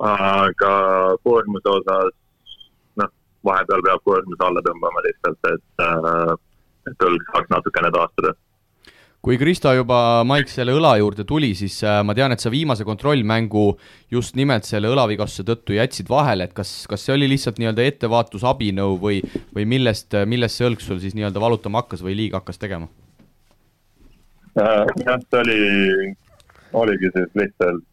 aga koormuse osas, vahepeal peab koormuse alla tõmbama lihtsalt, et õlg saaks natukene taastada. Kui Kristo juba Maik selle õla juurde tuli, siis ma tean, et sa viimase kontrollmängu just nimelt selle õlavigastuse tõttu jätsid vahele, et kas see oli lihtsalt nii-öelda ettevaatusabinõu või millest see õlg sul siis nii-öelda valutama hakkas või liiga hakkas tegema? Jah, see oligi siis lihtsalt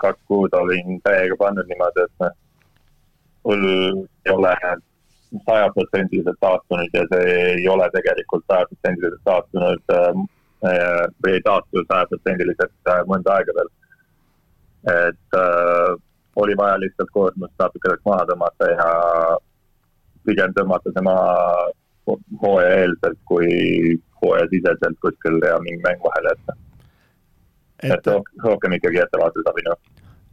2 kuud olin täiega pannud niimoodi, et õlg ei ole 100% taastunud ja see ei ole tegelikult 100% taastunud või ei taastu 100% mõnda aega veel. Et oli vaja lihtsalt koormust natukene maha tõmmata ja pigem tõmmata see maha hooaja eelselt kui hooaja siseselt kuskil ja mingi mäng vahele jätta. Et rohkem ikkagi ettevaatusabinu.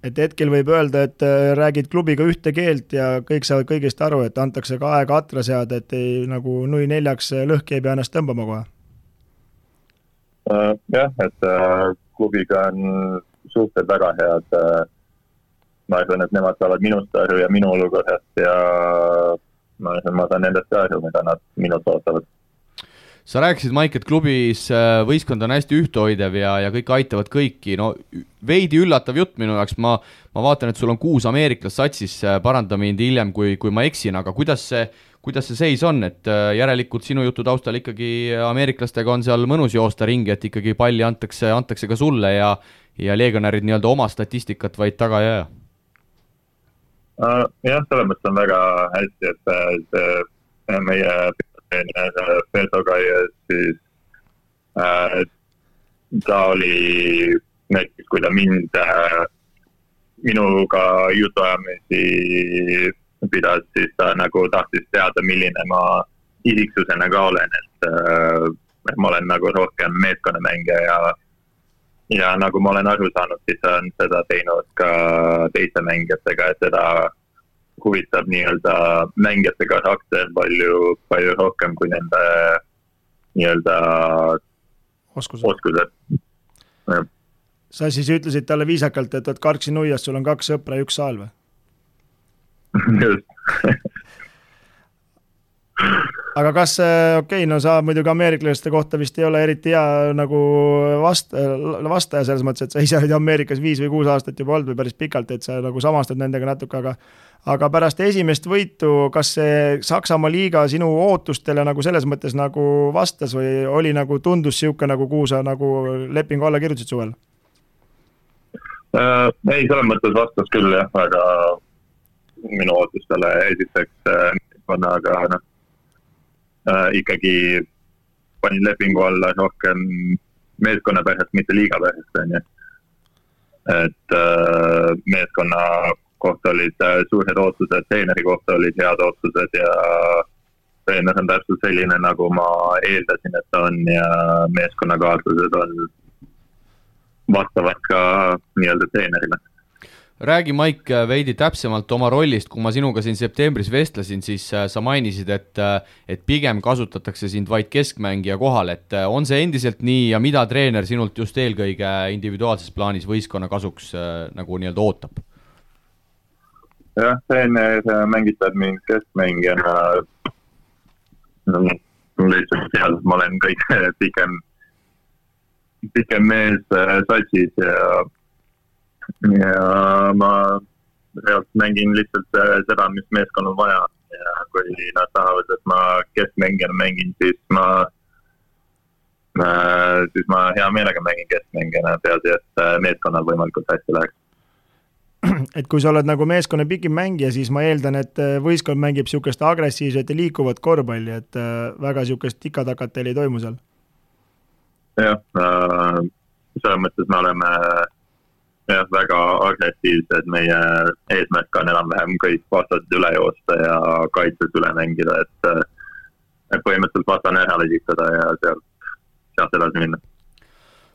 Et hetkel võib öelda, et räägid klubiga ühte keelt ja kõik saavad kõigest aru, et antakse ka aega atra seada, et ei nagu nui 4 lõhki ei pea ennast tõmbama kohe. Jah, et klubiga on suhted väga head. Ma arvan, et nemad saavad minust aru ja minu olukorrast ja ma saan nendest aru, mida nad minult ootavad. Sa rääkisid, Maik, et klubis võistkond on hästi ühtehoidev ja kõik aitavad kõiki. No, veidi üllatav jutt minu jaoks. Ma vaatan, et sul on 6 ameeriklast satsis, paranda mind hiljem, kui ma eksin, aga kuidas see seis on, et järelikult sinu jutu taustal ikkagi ameeriklastega on seal mõnus joosta ringi, et ikkagi palli antakse ka sulle ja legionärid nii-öelda oma statistikat vaid taga ei aja? Jah, selles mõttes on väga hästi, et meie Peltoga ja siis ta oli näiteks, kui ta minuga jutuajamisi pidas, siis ta nagu tahtis teada, milline ma isiksusena ka olen, et ma olen nagu rohkem meeskonnamängija ja nagu ma olen aru saanud, siis on seda teinud ka teiste mängijatega, et seda huvitab nii-öelda mängijate karakter palju rohkem kui nende nii-öelda oskused. Sa siis ütlesid talle viisakalt, et karksi nuias, sul on 2 sõpra ja 1 saal või? Just. Aga kas, no sa muidugi ameeriklaste kohta vist ei ole eriti hea nagu vastaja selles mõttes, et sa ise olid Ameerikas 5 või 6 aastat juba olnud või päris pikalt, et sa nagu samastad nendega natuke, aga pärast esimest võitu, kas see Saksamaa liiga sinu ootustele nagu selles mõttes nagu vastas või oli nagu tundus siuke nagu kuhu sa nagu lepingu alla kirjutasid suvel? Ei, selles mõttes vastas küll jah, aga minu ootustele esiteks aga ikkagi panin lepingu alla rohkem meeskonna pärast, mitte liiga pärast. Et meeskonna kohta olid suured ootused, treeneri kohta olid head ootused ja treener on täpselt selline, nagu ma eeldasin, et on ja meeskonnakaaslased on vastavad ka nii-öelda treenerile. Räägi, Maik, veidi täpsemalt oma rollist, kui ma sinuga siin septembris vestlesin, siis sa mainisid, et pigem kasutatakse sind vaid keskmängija kohal, et on see endiselt nii ja mida treener sinult just eelkõige individuaalses plaanis võistkonna kasuks nagu nii-öelda ootab? Jah, treener mängitab mind keskmängijana. Lihtsalt seal ma olen kõik pikem mees satsis ja ma mängin lihtsalt seda, mis meeskonnal vaja ja kui nad tahavad, et ma keskmängijana mängin, siis ma hea meelega mängin keskmängijana, peaasi, et meeskonnal võimalikult hästi läheks. Et kui sa oled nagu meeskonna pikim mängija, siis ma eeldan, et võistkond mängib siukest agressiivset ja liikuvat korvpalli, et väga siukest tikatakat teil ei toimu seal. Jah, selles mõttes me oleme väga agressiivsed, meie eesmärk on enam-vähem kõik vastased üle joosta ja kaitses üle mängida, et põhimõtteliselt vastane ära lesitada ja sealt edasi minna.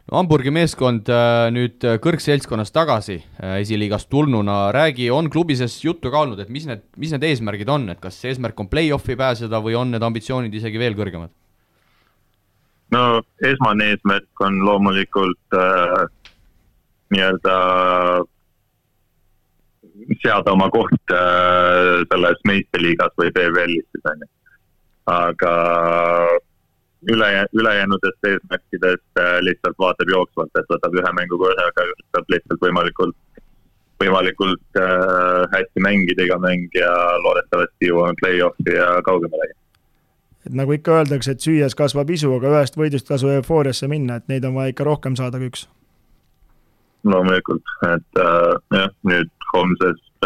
No, Hamburgi meeskond nüüd kõrgseltskonnas tagasi esiliigast tulnuna, räägi, on klubi sees juttu ka olnud, et mis need eesmärgid on, et kas eesmärk on play-offi pääseda või on need ambitsioonid isegi veel kõrgemad? No esmane eesmärk on loomulikult nii-öelda seada oma koht selles meistriliigas või BVL-is, aga ülejäänudest eesmärkidest lihtsalt vaatab jooksvalt, et võtab ühe mängu korraga, üritab lihtsalt võimalikult hästi mängida iga mäng ja loodetavasti jõuame play-offi ja kaugemalegi. Et nagu ikka öeldakse, et süües kasvab isu, aga ühest võidust tasu eufooriasse minna, et neid on vaja ikka rohkem saada kui üks. Loomulikult, et nüüd homsest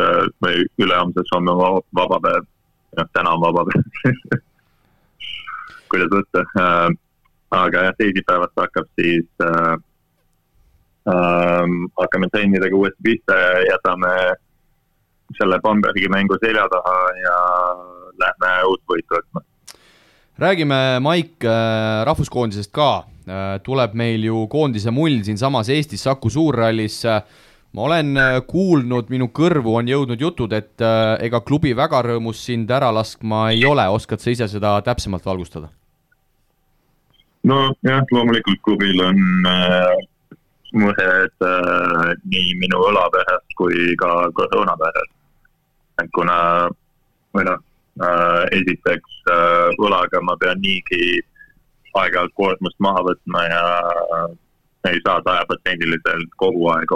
või ülehomsest on vaba päev, täna on vaba päev. Kuidas võtta, aga teisipäevast hakkab siis hakkame trennidega uuesti pista ja jätame selle Bambergi mängu selja taha ja lähme uut võitu võtma. Räägime, Maik, rahvuskoondisest ka. Tuleb meil ju koondise mull siin samas Eestis Saku Suurrallis. Ma olen kuulnud, minu kõrvu on jõudnud jutud, et ega klubi väga rõõmus sind ära laskma ei ole. Oskad sa ise seda täpsemalt valgustada? No jah, loomulikult klubil on mured nii minu õlapärast kui ka koroona pärast. Kuna esiteks õlaga ma pean niigi aeg-ajalt koormust maha võtma ja ei saa 100% kogu aeg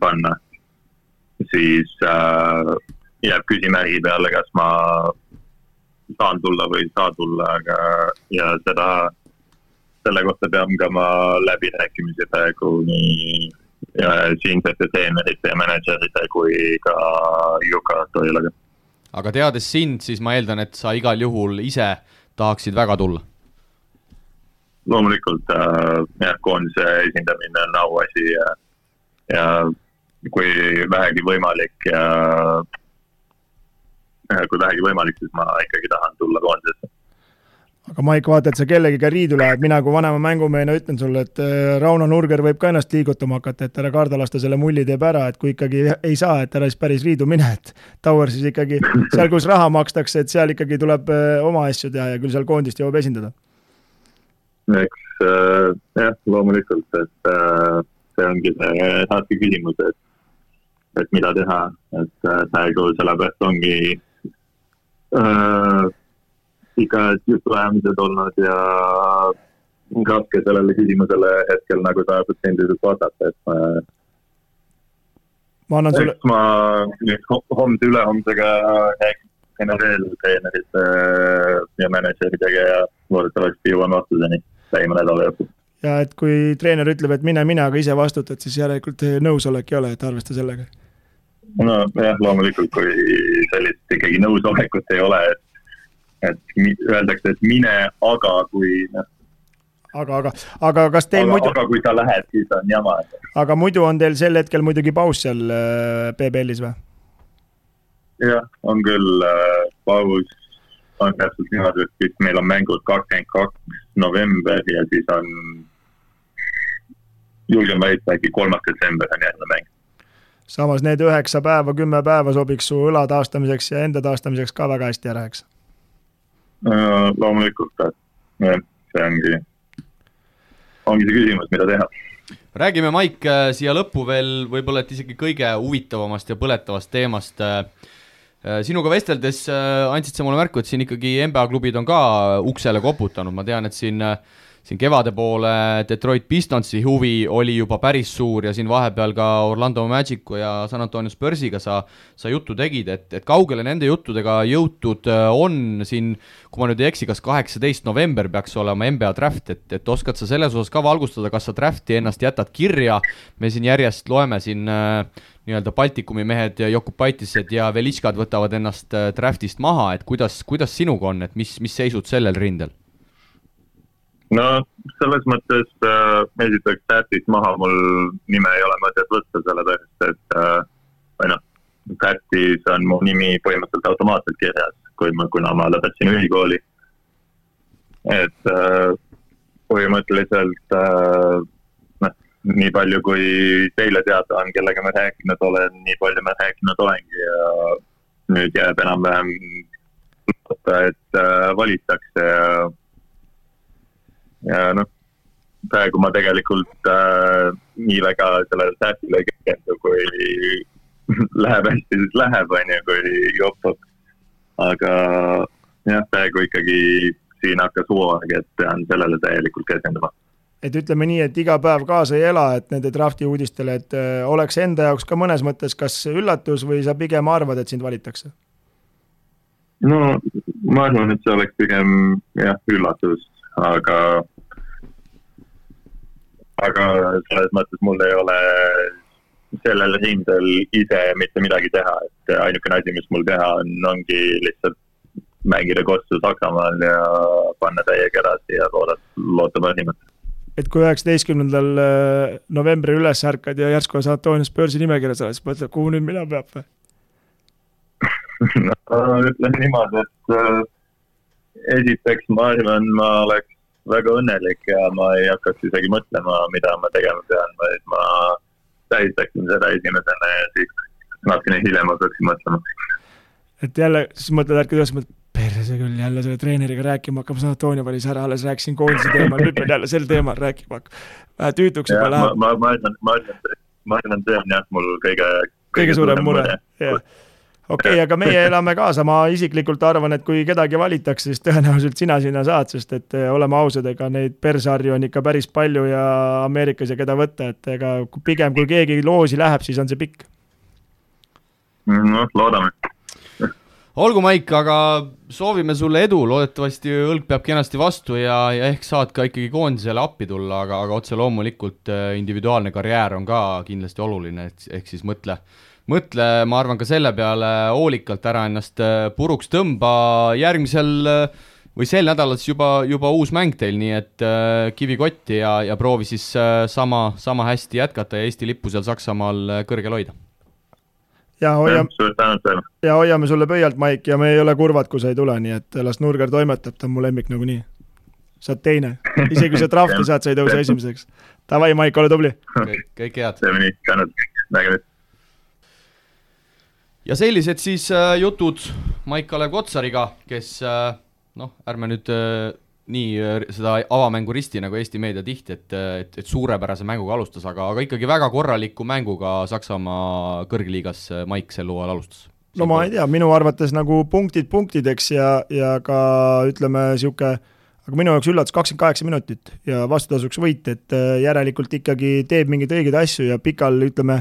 panna. Siis jääb küsimärgi peale, kas ma saan tulla või ei saa tulla, aga ja selle kohta pean ka ma läbirääkimisi praegu nii siinsete treenerite ja managerite kui ka Juka Toilaga. Aga teades sind, siis ma eeldan, et sa igal juhul ise tahaksid väga tulla. Loomulikult koondise esindamine on auasi ja kui vähegi võimalik siis ma ikkagi tahan tulla koondisesse. Aga Maik, vaata, et sa kellegiga riidu lähed, mina kui vanema mängumehena ütlen sulle, et Rauno Nurger võib ka ennast liigutama hakata, et ära karda lasta selle mulli teeb ära, et kui ikkagi ei saa, et ära siis päris riidu mine, et Tower siis ikkagi seal, kus raha makstakse, et seal ikkagi tuleb oma asju teha ja küll seal koondist jõuab esindada. Eks loomulikult, et see ongi see saatki küsimus, et mida teha, et praegu sellepärast ongi ikka jutuajamised olnud ja raske sellele küsimusele hetkel nagu 100% vastata, et ma annan sulle... ma nüüd homse ülehomsega räägin veel treenerite ja manageritega ja loodetavasti jõuan vastuseni lähima nädala jooksul. Ja et kui treener ütleb, et mine, aga ise vastutad, siis järelikult nõusolek ei ole, et arvesta sellega. No jah, loomulikult, kui sellist ikkagi nõusolekut ei ole, et öeldakse, et mine, aga kui... Aga kas teil muidu... Aga kui sa lähed, siis on jama. Aga muidu on teil sel hetkel muidugi paus seal PBL-is või? Jah, on küll paus. On täpselt niimoodi, et meil on mängud 22. november ja siis on julgen väita, äkki 3. detsember on järgne mäng. Samas need 9 päeva, 10 päeva sobiks su õla taastamiseks ja enda taastamiseks ka väga hästi ära, eks? Loomulikult, see ongi see küsimus, mida teha. Räägime, Maik, siia lõppu veel võib-olla, et isegi kõige huvitavamast ja põletavast teemast. Sinuga vesteldes andsid sa mulle märku, et siin ikkagi NBA klubid on ka uksele koputanud. Ma tean, et siin siin kevade poole Detroit Pistonsi huvi oli juba päris suur ja siin vahepeal ka Orlando Magicu ja San Antonio Spursiga sa juttu tegid, et kaugele nende juttudega jõutud on siin, kui ma nüüd ei eksi, kas 18 november peaks olema NBA draft, et oskad sa selles osas ka valgustada, kas sa drafti ennast jätad kirja, me siin järjest loeme siin nii-öelda Baltikumi mehed ja Jokubaitised ja Velitškad võtavad ennast draftist maha, et kuidas sinuga on, et mis seisud sellel rindel? No selles mõttes esiteks draftist maha mul nime ei ole mõtet võtta, sellepärast, et draftis on mu nimi põhimõtteliselt automaatselt kirjas, kuna ma lõpetasin ülikooli. Et põhimõtteliselt nii palju, kui teile teada on, kellega ma rääkinud olen, nii palju ma rääkinud olengi ja nüüd jääb enam-vähem loota, et valitakse ja praegu ma tegelikult nii väga sellele säästile ei keskendu, kui läheb hästi, siis läheb, kui jopub. Aga jah, praegu ikkagi siin hakkas hooaeg, et pean sellele täielikult keskenduma. Et ütleme nii, et iga päev kaasa ei ela, et nende drafti uudistele, et oleks enda jaoks ka mõnes mõttes kas üllatus või sa pigem arvad, et sind valitakse? No ma arvan, et see oleks pigem üllatus, aga selles mõttes mul ei ole sellel rindel ise mitte midagi teha, et ainukene asi, mis mul teha ongi lihtsalt mängida kostu Saksamaal ja panna täiega edasi ja loota parimat. Et kui 19. novembri üles ärkad ja järsku San Antonio Spursi nimekirjas oled, siis mõtled, kuhu nüüd mina peab või? Ütlen niimoodi, et esiteks ma arvan, ma oleks väga õnnelik ja ma ei hakkaks isegi mõtlema, mida ma tegema pean, vaid ma tähistaksin seda esimesena ja siis natukene hiljem hakkaksin mõtlema. Et jälle, siis mõtled ärkad üles, perse küll jälle selle treeneriga rääkima hakkab, San Antonio valis ära, alles rääkisin koondise teemal, nüüd pean jälle sel teemal rääkima hakkab. Vähe tüütuks juba läheb. Ma arvan, see on jah mul kõige suurem mure. Okei, aga meie elame kaasa, ma isiklikult arvan, et kui kedagi valitakse, siis tõenäoliselt sina sinna saad, sest et oleme ausad, ega neid persarju on ikka päris palju ja Ameerikas ja keda võtta, et ega pigem kui keegi loosi läheb, siis on see pikk. No, loodame. Olgu, Maik, aga soovime sulle edu, loodetavasti õlg peab kenasti vastu ja ehk saad ka ikkagi koondisele appi tulla, aga otse loomulikult individuaalne karjäär on ka kindlasti oluline, ehk siis mõtle, ma arvan ka selle peale hoolikalt ära ennast puruks tõmba järgmisel või sel nädalal juba uus mäng teil, nii et kivi kotti ja proovi siis sama hästi jätkata ja Eesti lippu seal Saksamaal kõrgel hoida. Ja hoiame sulle pöialt, Maik, ja me ei ole kurvad, kui sa ei tule, nii et las Nurger toimetab, ta on mu lemmik nagu nii. Saad teine. Isegi kui sa drafti saad, sa ei tõuse esimeseks. Tavai, Maik, ole tubli. Kõik head. See on nii, tänud. Ja sellised siis jutud Maik-Kalev Kotsariga, kes, ärme nüüd nii seda avamängu risti nagu Eesti meedia tihti, et suurepärase mänguga alustas, aga ikkagi väga korraliku mänguga Saksamaa kõrgliigas Maik sel hooajal alustas. No ma ei tea, minu arvates nagu punktideks ja ka ütleme siuke, aga minu jaoks üllatus 28 minutit ja vastutasuks võit, et järelikult ikkagi teeb mingeid õigeid asju ja pikal ütleme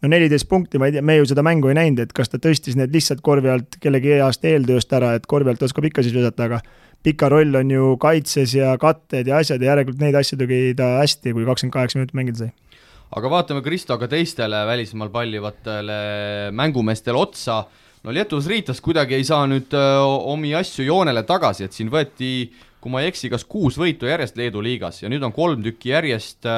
14 punkti, ma ei tea, me ju seda mängu ei näinud, et kas ta tõstis need lihtsalt korvi alt kellegi heast eeltööst ära, et korvi alt oskab ikka siis vedata, aga pika roll on ju kaitses ja katted ja asjad ja järelikult neid asju tegi ta hästi, kui 28 minutit mängida sai. Aga vaatame Kristo ka teistele välismaal pallivatele mängumeestele otsa. No Lietuvas Riitas kuidagi ei saa nüüd omi asju joonele tagasi, et siin võeti, kui ma ei eksi, kas 6 võitu järjest Leedu liigas ja nüüd on 3 tükki järjest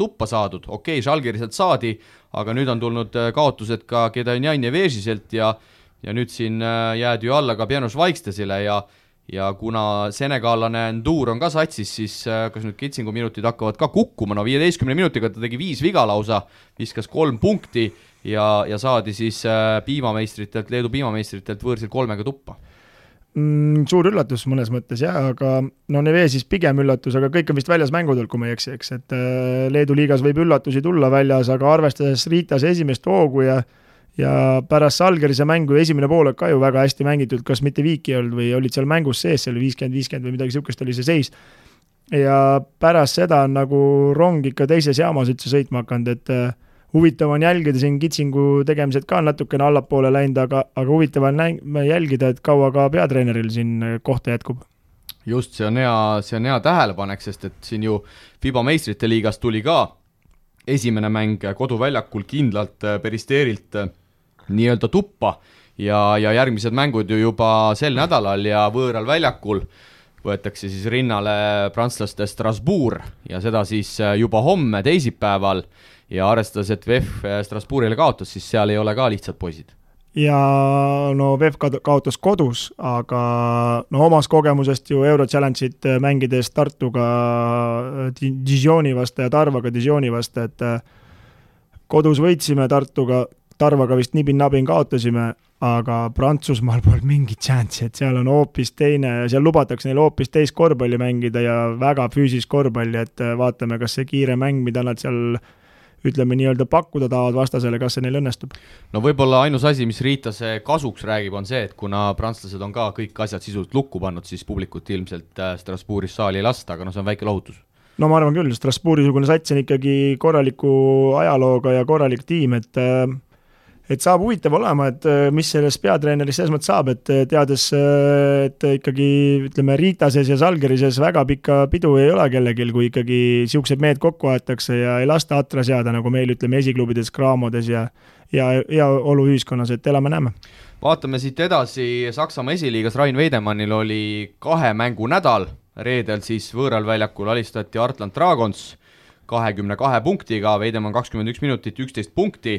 tuppa saadud. Okei, Žalgiriselt saadi, aga nüüd on tulnud kaotused ka Kedanjan ja Vežiselt ja nüüd siin jääd ju alla ka Pianos Vaikstesile ja kuna senegaalane Ndur on ka satsis, siis kas nüüd Kitsingu minutid hakkavad ka kukkuma, 15 minutiga ta tegi 5 viga lausa, viskas 3 punkti ja saadi siis Leedu piimameistritelt võõrsil 3 tuppa. Suur üllatus mõnes mõttes aga Nevesis pigem üllatus, aga kõik on vist väljas mängudel, kui ma ei eksi, eks, et Leedu liigas võib üllatusi tulla väljas, aga arvestades Riitas esimest hoogu ja pärast Žalgirise mängu esimene poolek ka ju väga hästi mängitud, kas mitte viiki olnud või olid seal mängus sees, see oli 50-50 või midagi sihukest oli see seis. ja pärast seda on nagu rong ikka teises jaamas üldse sõitma hakanud, et huvitav on jälgida, siin kitsingu tegemised ka natukene allapoole läinud, aga huvitav on jälgida, et kaua ka peatreeneril siin kohta jätkub. Just, see on hea tähelepanek, sest et siin ju FIBA meistrite liigas tuli ka esimene mäng koduväljakul kindlalt Peristeerilt nii-öelda tuppa ja järgmised mängud ju juba sel nädalal ja võõral väljakul võetakse siis rinnale prantslaste Strasbourg ja seda siis juba homme teisipäeval ja arvestades, et VEF Strasbourgile kaotas, siis seal ei ole ka lihtsad poisid. Ja no VEF kaotas kodus, aga no omas kogemusest ju Euro Challenge'it mängides Tartuga Dijoni vastu ja Tarvaga Dijoni vastu, et kodus võitsime Tarvaga vist nibin-nabin kaotasime, aga Prantsusmaal pole mingit chance'i, et seal on hoopis teine ja seal lubatakse neil hoopis teist korvpalli mängida ja väga füüsilist korvpalli, et vaatame, kas see kiire mäng, mida nad seal ütleme nii-öelda pakkuda tahavad vastasele, kas see neil õnnestub? No võib-olla ainus asi, mis Riitase kasuks räägib, on see, et kuna prantslased on ka kõik asjad sisuliselt lukku pannud, siis publikut ilmselt Strasbourgis saali ei lasta, aga no see on väike lohutus. No ma arvan küll, Strasbourgi-sugune sats on ikkagi korraliku ajalooga ja korralik tiim, et saab huvitav olema, et mis sellest peatreenerist selles mõttes saab, et teades, et ikkagi ütleme Riitases ja Salgerises väga pikka pidu ei ole kellegil, kui ikkagi siuksed mehed kokku aetakse ja ei lasta atra seada, nagu meil ütleme esiklubides, kraamodes ja olu ühiskonnas, et elame-näeme. Vaatame siit edasi, Saksamaa esiliigas Rain Veidemannil oli 2 mängu nädal, reedel siis võõral väljakul alistati Artland Dragons 22 punktiga, Veidemann 21 minutit, 11 punkti,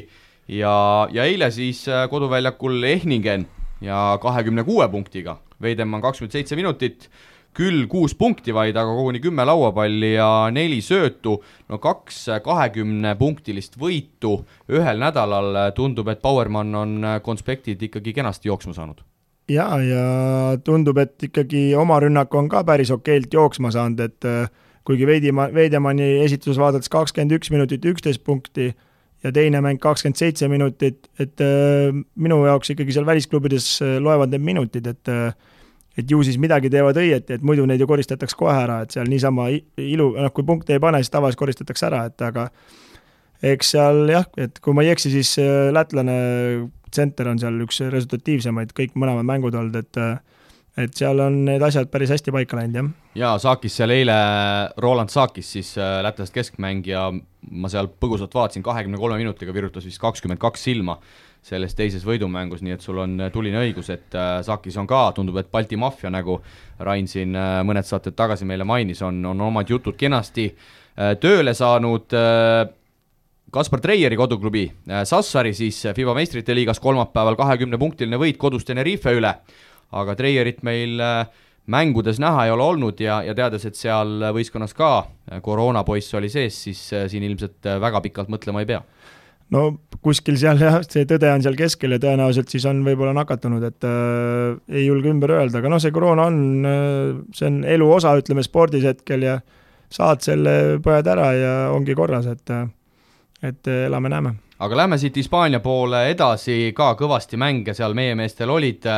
ja eile siis koduväljakul Ehningen ja 26 punktiga, Veidemann 27 minutit, küll 6 punkti vaid, aga koguni 10 lauapalli ja 4 söötu, no 2 20-punktilist võitu ühel nädalal, tundub, et Bauermann on konspektid ikkagi kenasti jooksma saanud. Ja tundub, et ikkagi oma rünnak on ka päris okeilt jooksma saanud, et kuigi Veidemanni esitus vaadates 21 minutit, 11 punkti, ja teine mäng 27 minutit, et minu jaoks ikkagi seal välisklubides loevad need minutid, et ju siis midagi teevad õieti, et muidu neid ju koristatakse kohe ära, et seal niisama kui punkte ei pane, siis tavaliselt koristatakse ära, et aga eks seal jah, et kui ma ei eksi, siis lätlane tsenter on seal üks resultatiivsemaid kõik mõlemad mängud olnud, et seal on need asjad päris hästi paika läinud, jah. Ja Saakis seal eile, Roland Saakis siis lätlast keskmängija, ma seal põgusalt vaatasin, 23 minutiga virutas vist 22 silma selles teises võidumängus, nii et sul on tuline õigus, et Saakis on ka, tundub, et Balti maffia, nagu Rain siin mõned saated tagasi meile mainis, on omad jutud kenasti tööle saanud. Kaspar Treieri koduklubi Sassari siis FIBA meistrite liigas kolmapäeval 20-punktiline võit kodus Tenerife üle, aga Treierit meil mängudes näha ei ole olnud ja teades, et seal võistkonnas ka koroonapoiss oli sees, siis siin ilmselt väga pikalt mõtlema ei pea. No kuskil seal jah, see tõde on seal keskel ja tõenäoliselt siis on võib-olla nakatunud, et ei julge ümber öelda, aga see koroona on, see on elu osa, ütleme spordis hetkel ja saad selle põed ära ja ongi korras, et elame-näeme. Aga lähme siit Hispaania poole edasi, ka kõvasti mänge seal meie meestel olid.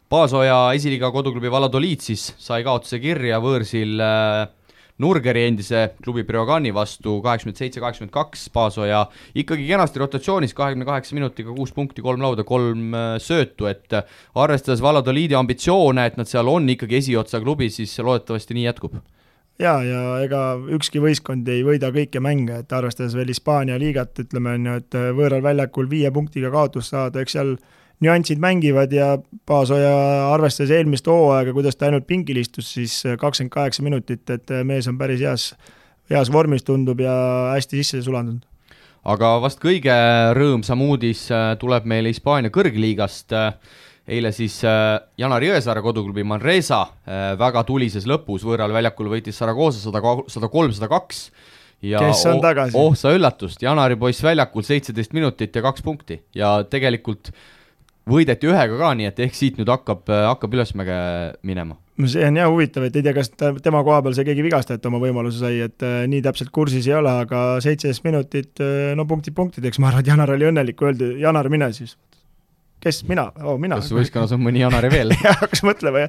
Paasoja esiliiga koduklubi Valladolid siis sai kaotuse kirja võõrsil Nurgeri endise klubi Breogani vastu 87-82, Paasoja ikkagi kenasti rotatsioonis 28 minutiga 6 punkti, 3 lauda, 3 söötu, et arvestades Valladolidi ambitsioone, et nad seal on ikkagi esiotsa klubi, siis loodetavasti nii jätkub. Ja ega ükski võistkond ei võida kõike mänge, et arvestades veel Hispaania liigat, ütleme, et võõral väljakul 5 punktiga kaotus saada, eks seal nüansid mängivad ja Paasoja arvestades eelmist hooaega, kuidas ta ainult pingil istus, siis 28 minutit, et mees on päris heas vormis tundub ja hästi sisse sulandunud. Aga vast kõige rõõmsam uudis tuleb meile Hispaania kõrgliigast. Eile siis Janar Jõesaare koduklubi Manresa väga tulises lõpus võõral väljakul võitis Saragossa 103-102 ja kes on tagasi? Sa üllatust, Janari poiss väljakul 17 minutit ja 2 punkti ja tegelikult võideti ühega ka, nii et ehk siit nüüd hakkab ülesmäge minema. See on jah huvitav, et ei tea, kas tema koha peal see keegi vigastajat oma võimaluse sai, et nii täpselt kursis ei ole, aga 17 minutit, no punktideks, ma arvan, et Janar oli õnnelik, öeldi, Janar mine siis. kes, mina? Mina. Kas võistkonnas on mõni Janari veel? Hakkas mõtlema,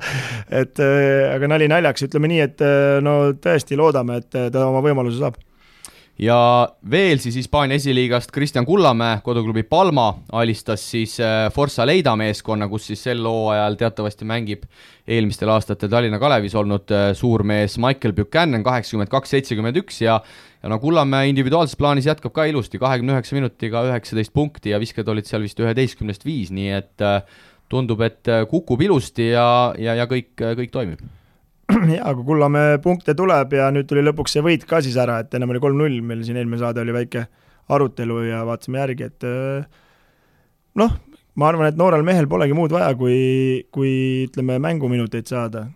et aga nali naljaks, ütleme nii, et no tõesti loodame, et ta oma võimaluse saab. Ja veel siis Hispaania esiliigast Kristjan Kullamäe, koduklubi Palma, alistas siis Forza Leida meeskonna, kus siis sel hooajal teatavasti mängib eelmistel aastatel Tallinna Kalevis olnud suurmees Michael Buchanan 82-71 ja no Kullamäe individuaalses plaanis jätkab ka ilusti 29 minutiga 19 punkti ja visked olid seal vist 11-5, nii et tundub, et kukub ilusti ja kõik toimib. Ja, kui Kullamäe punkte tuleb ja nüüd tuli lõpuks see võit ka siis ära, et ennem oli 3-0, meil siin eelmine saade oli väike arutelu ja vaatasime järgi, et noh, ma arvan, et noorel mehel polegi muud vaja, kui ütleme mänguminuteid saada.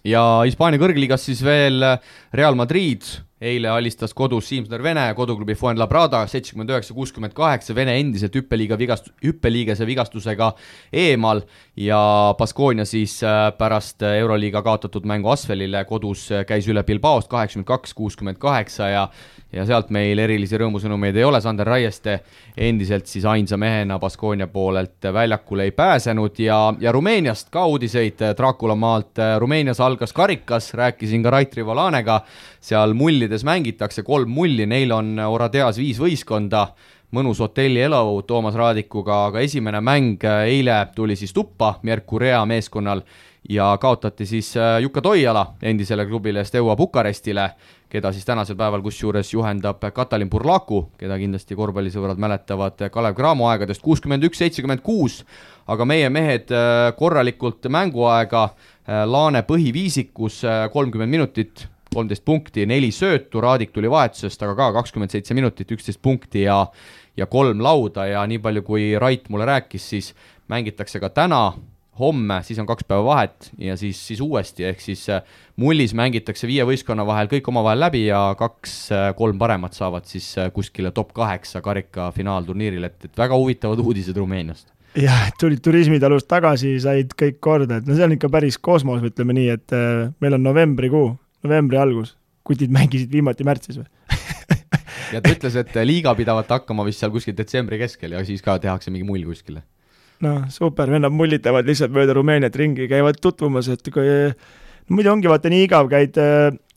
Ja Hispaania kõrgliigas siis veel Real Madrid eile alistas kodus Siimsner Vene koduklubi Fuenlabrada 79-68, Vene endiselt hüppeliigese vigastusega eemal ja Baskonia siis pärast Euroliiga kaotatud mängu Asvelile kodus käis üle Bilbaost 82-68 ja sealt meil erilisi rõõmusõnumeid ei ole, Sander Raieste endiselt siis ainsa mehena Baskonia poolelt väljakule ei pääsenud ja Rumeeniast ka uudiseid Dracula maalt. Rumeenias algas karikas, rääkisin ka Rait Rivolanega, seal mullides mängitakse 3 mulli, neil on Oradeas 5 võistkonda, mõnus hotelli elu Toomas Raadikuga, aga esimene mäng eile tuli siis tuppa Mercurea meeskonnal ja kaotati siis Jukka Toiala endisele klubile Steaua Bukarestile, keda siis tänasel päeval kusjuures juhendab Katalin Burlaku, keda kindlasti korvpallisõbrad mäletavad Kalev Cramo aegadest 61-76, aga meie mehed korralikult mänguaega, Laane põhiviisikus 30 minutit, 13 punkti, 4 söötu, Raadik tuli vahetusest, aga ka 27 minutit, 11 punkti ja 3 lauda ja nii palju kui Rait mulle rääkis, siis mängitakse ka täna, homme, siis on 2 päeva vahet ja siis uuesti, ehk siis mullis mängitakse 5 võistkonna vahel kõik omavahel läbi ja 2-3 paremat saavad siis kuskile top 8 karika finaalturniiril, et väga huvitavad uudised Rumeeniast. Jah, tulid turismitalust tagasi, said kõik korda, et no see on ikka päris kosmos, ütleme nii, et meil on novembri algus, kutid mängisid viimati märtsis või? Ja ta ütles, et liiga pidavat hakkama vist seal kuskil detsembri keskel ja siis ka tehakse mingi mull kuskile. No super, vennad mullitavad lihtsalt mööda Rumeeniat ringi, käivad tutvumas, et kui muidu ongi vaata nii igav, käid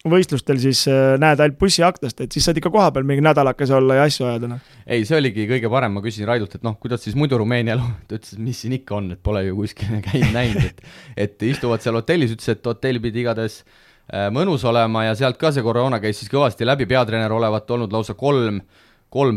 võistlustel, siis näed ainult bussiaktast, et siis saad ikka koha peal mingi nädalakas olla ja asju ajada. Ei, see oligi kõige parem, ma küsisin Raidult, et kuidas siis muidu Rumeenia elu, ta ütles, et mis siin ikka on, et pole ju kuskil käinud näinud, et istuvad seal hotellis, ütles, et hotell pidi igades mõnus olema ja sealt ka see koroona käis siis kõvasti läbi, peatreener olevat olnud lausa 3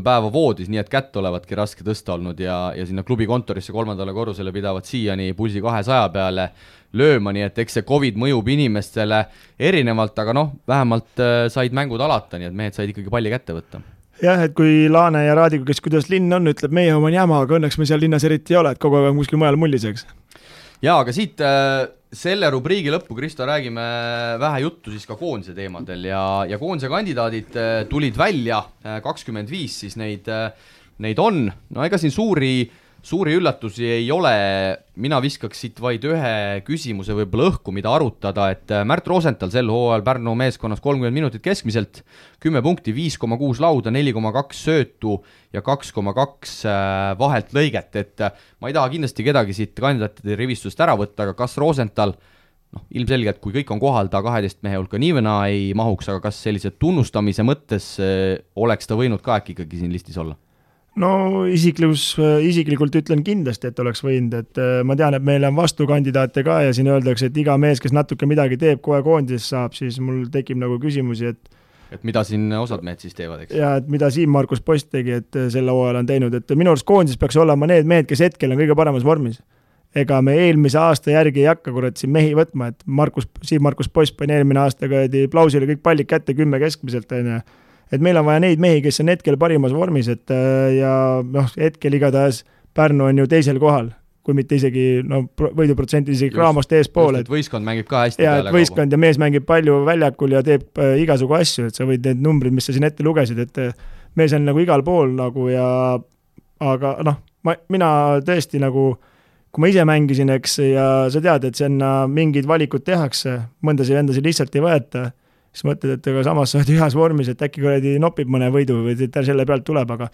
päeva voodis, nii et kätt olevatki raske tõsta olnud ja sinna klubi kontorisse 3. korrusele pidavad siiani pulsi 200 peale lööma, nii et eks see COVID mõjub inimestele erinevalt, aga vähemalt said mängud alata, nii et mehed said ikkagi palli kätte võtta. Jah, et kui Laane ja Raadiku, kes kuidas linn on, ütleb meie oma jama, aga õnneks me seal linnas eriti ei ole, et kogu aeg on kuskil mujal mulliseks. Jaa, aga siit selle rubriigi lõppu, Kristo, räägime vähe juttu siis ka koondise teemadel ja koondise kandidaadid tulid välja, 25 siis neid on, no ega siin suuri üllatusi ei ole, mina viskaks siit vaid ühe küsimuse võib-olla õhku, mida arutada, et Märt Rosenthal sel hooajal Pärnu meeskonnas 30 minutit keskmiselt, 10 punkti, 5,6 lauda, 4,2 söötu ja 2,2 vahelt lõiget, et ma ei taha kindlasti kedagi siit kandidaatide rivistust ära võtta, aga kas Rosenthal, ilmselgelt kui kõik on kohal, ta 12 mehe hulka niivõna ei mahuks, aga kas sellise tunnustamise mõttes oleks ta võinud ka äkki ikkagi siin listis olla? No isiklikult ütlen kindlasti, et oleks võinud, et ma tean, et meil on vastukandidaate ka ja siin öeldakse, et iga mees, kes natuke midagi teeb, kohe koondises saab, siis mul tekib nagu küsimusi, et mida siin osad mehed siis teevad, eks? Ja, et mida Siim-Markus Post tegi, et selle hooajal on teinud, et minu arust koondises peaks olema need mehed, kes hetkel on kõige paremas vormis. Ega me eelmise aasta järgi ei hakka siin mehi võtma, et Siim-Markus Post pani eelmine aasta Plausile kõik pallid kätte 10 keskmiselt, et meil on vaja neid mehi, kes on hetkel parimas vormis, et ja hetkel igatahes Pärnu on ju teisel kohal, kui mitte isegi võiduprotsenti isegi Craamost eespool. Et võistkond mängib ka hästi peale kauba. Võistkond ja mees mängib palju väljakul ja teeb igasugu asju, et sa võid need numbrid, mis sa siin ette lugesid, et mees on nagu igal pool nagu ja aga mina tõesti nagu, kui ma ise mängisin, eks, ja sa tead, et sinna mingid valikud tehakse, mõndasid vendasid lihtsalt ei võeta, siis mõtled, et aga samas sa oled ühes vormis, et äkki kuradi nopib mõne võidu või selle pealt tuleb, aga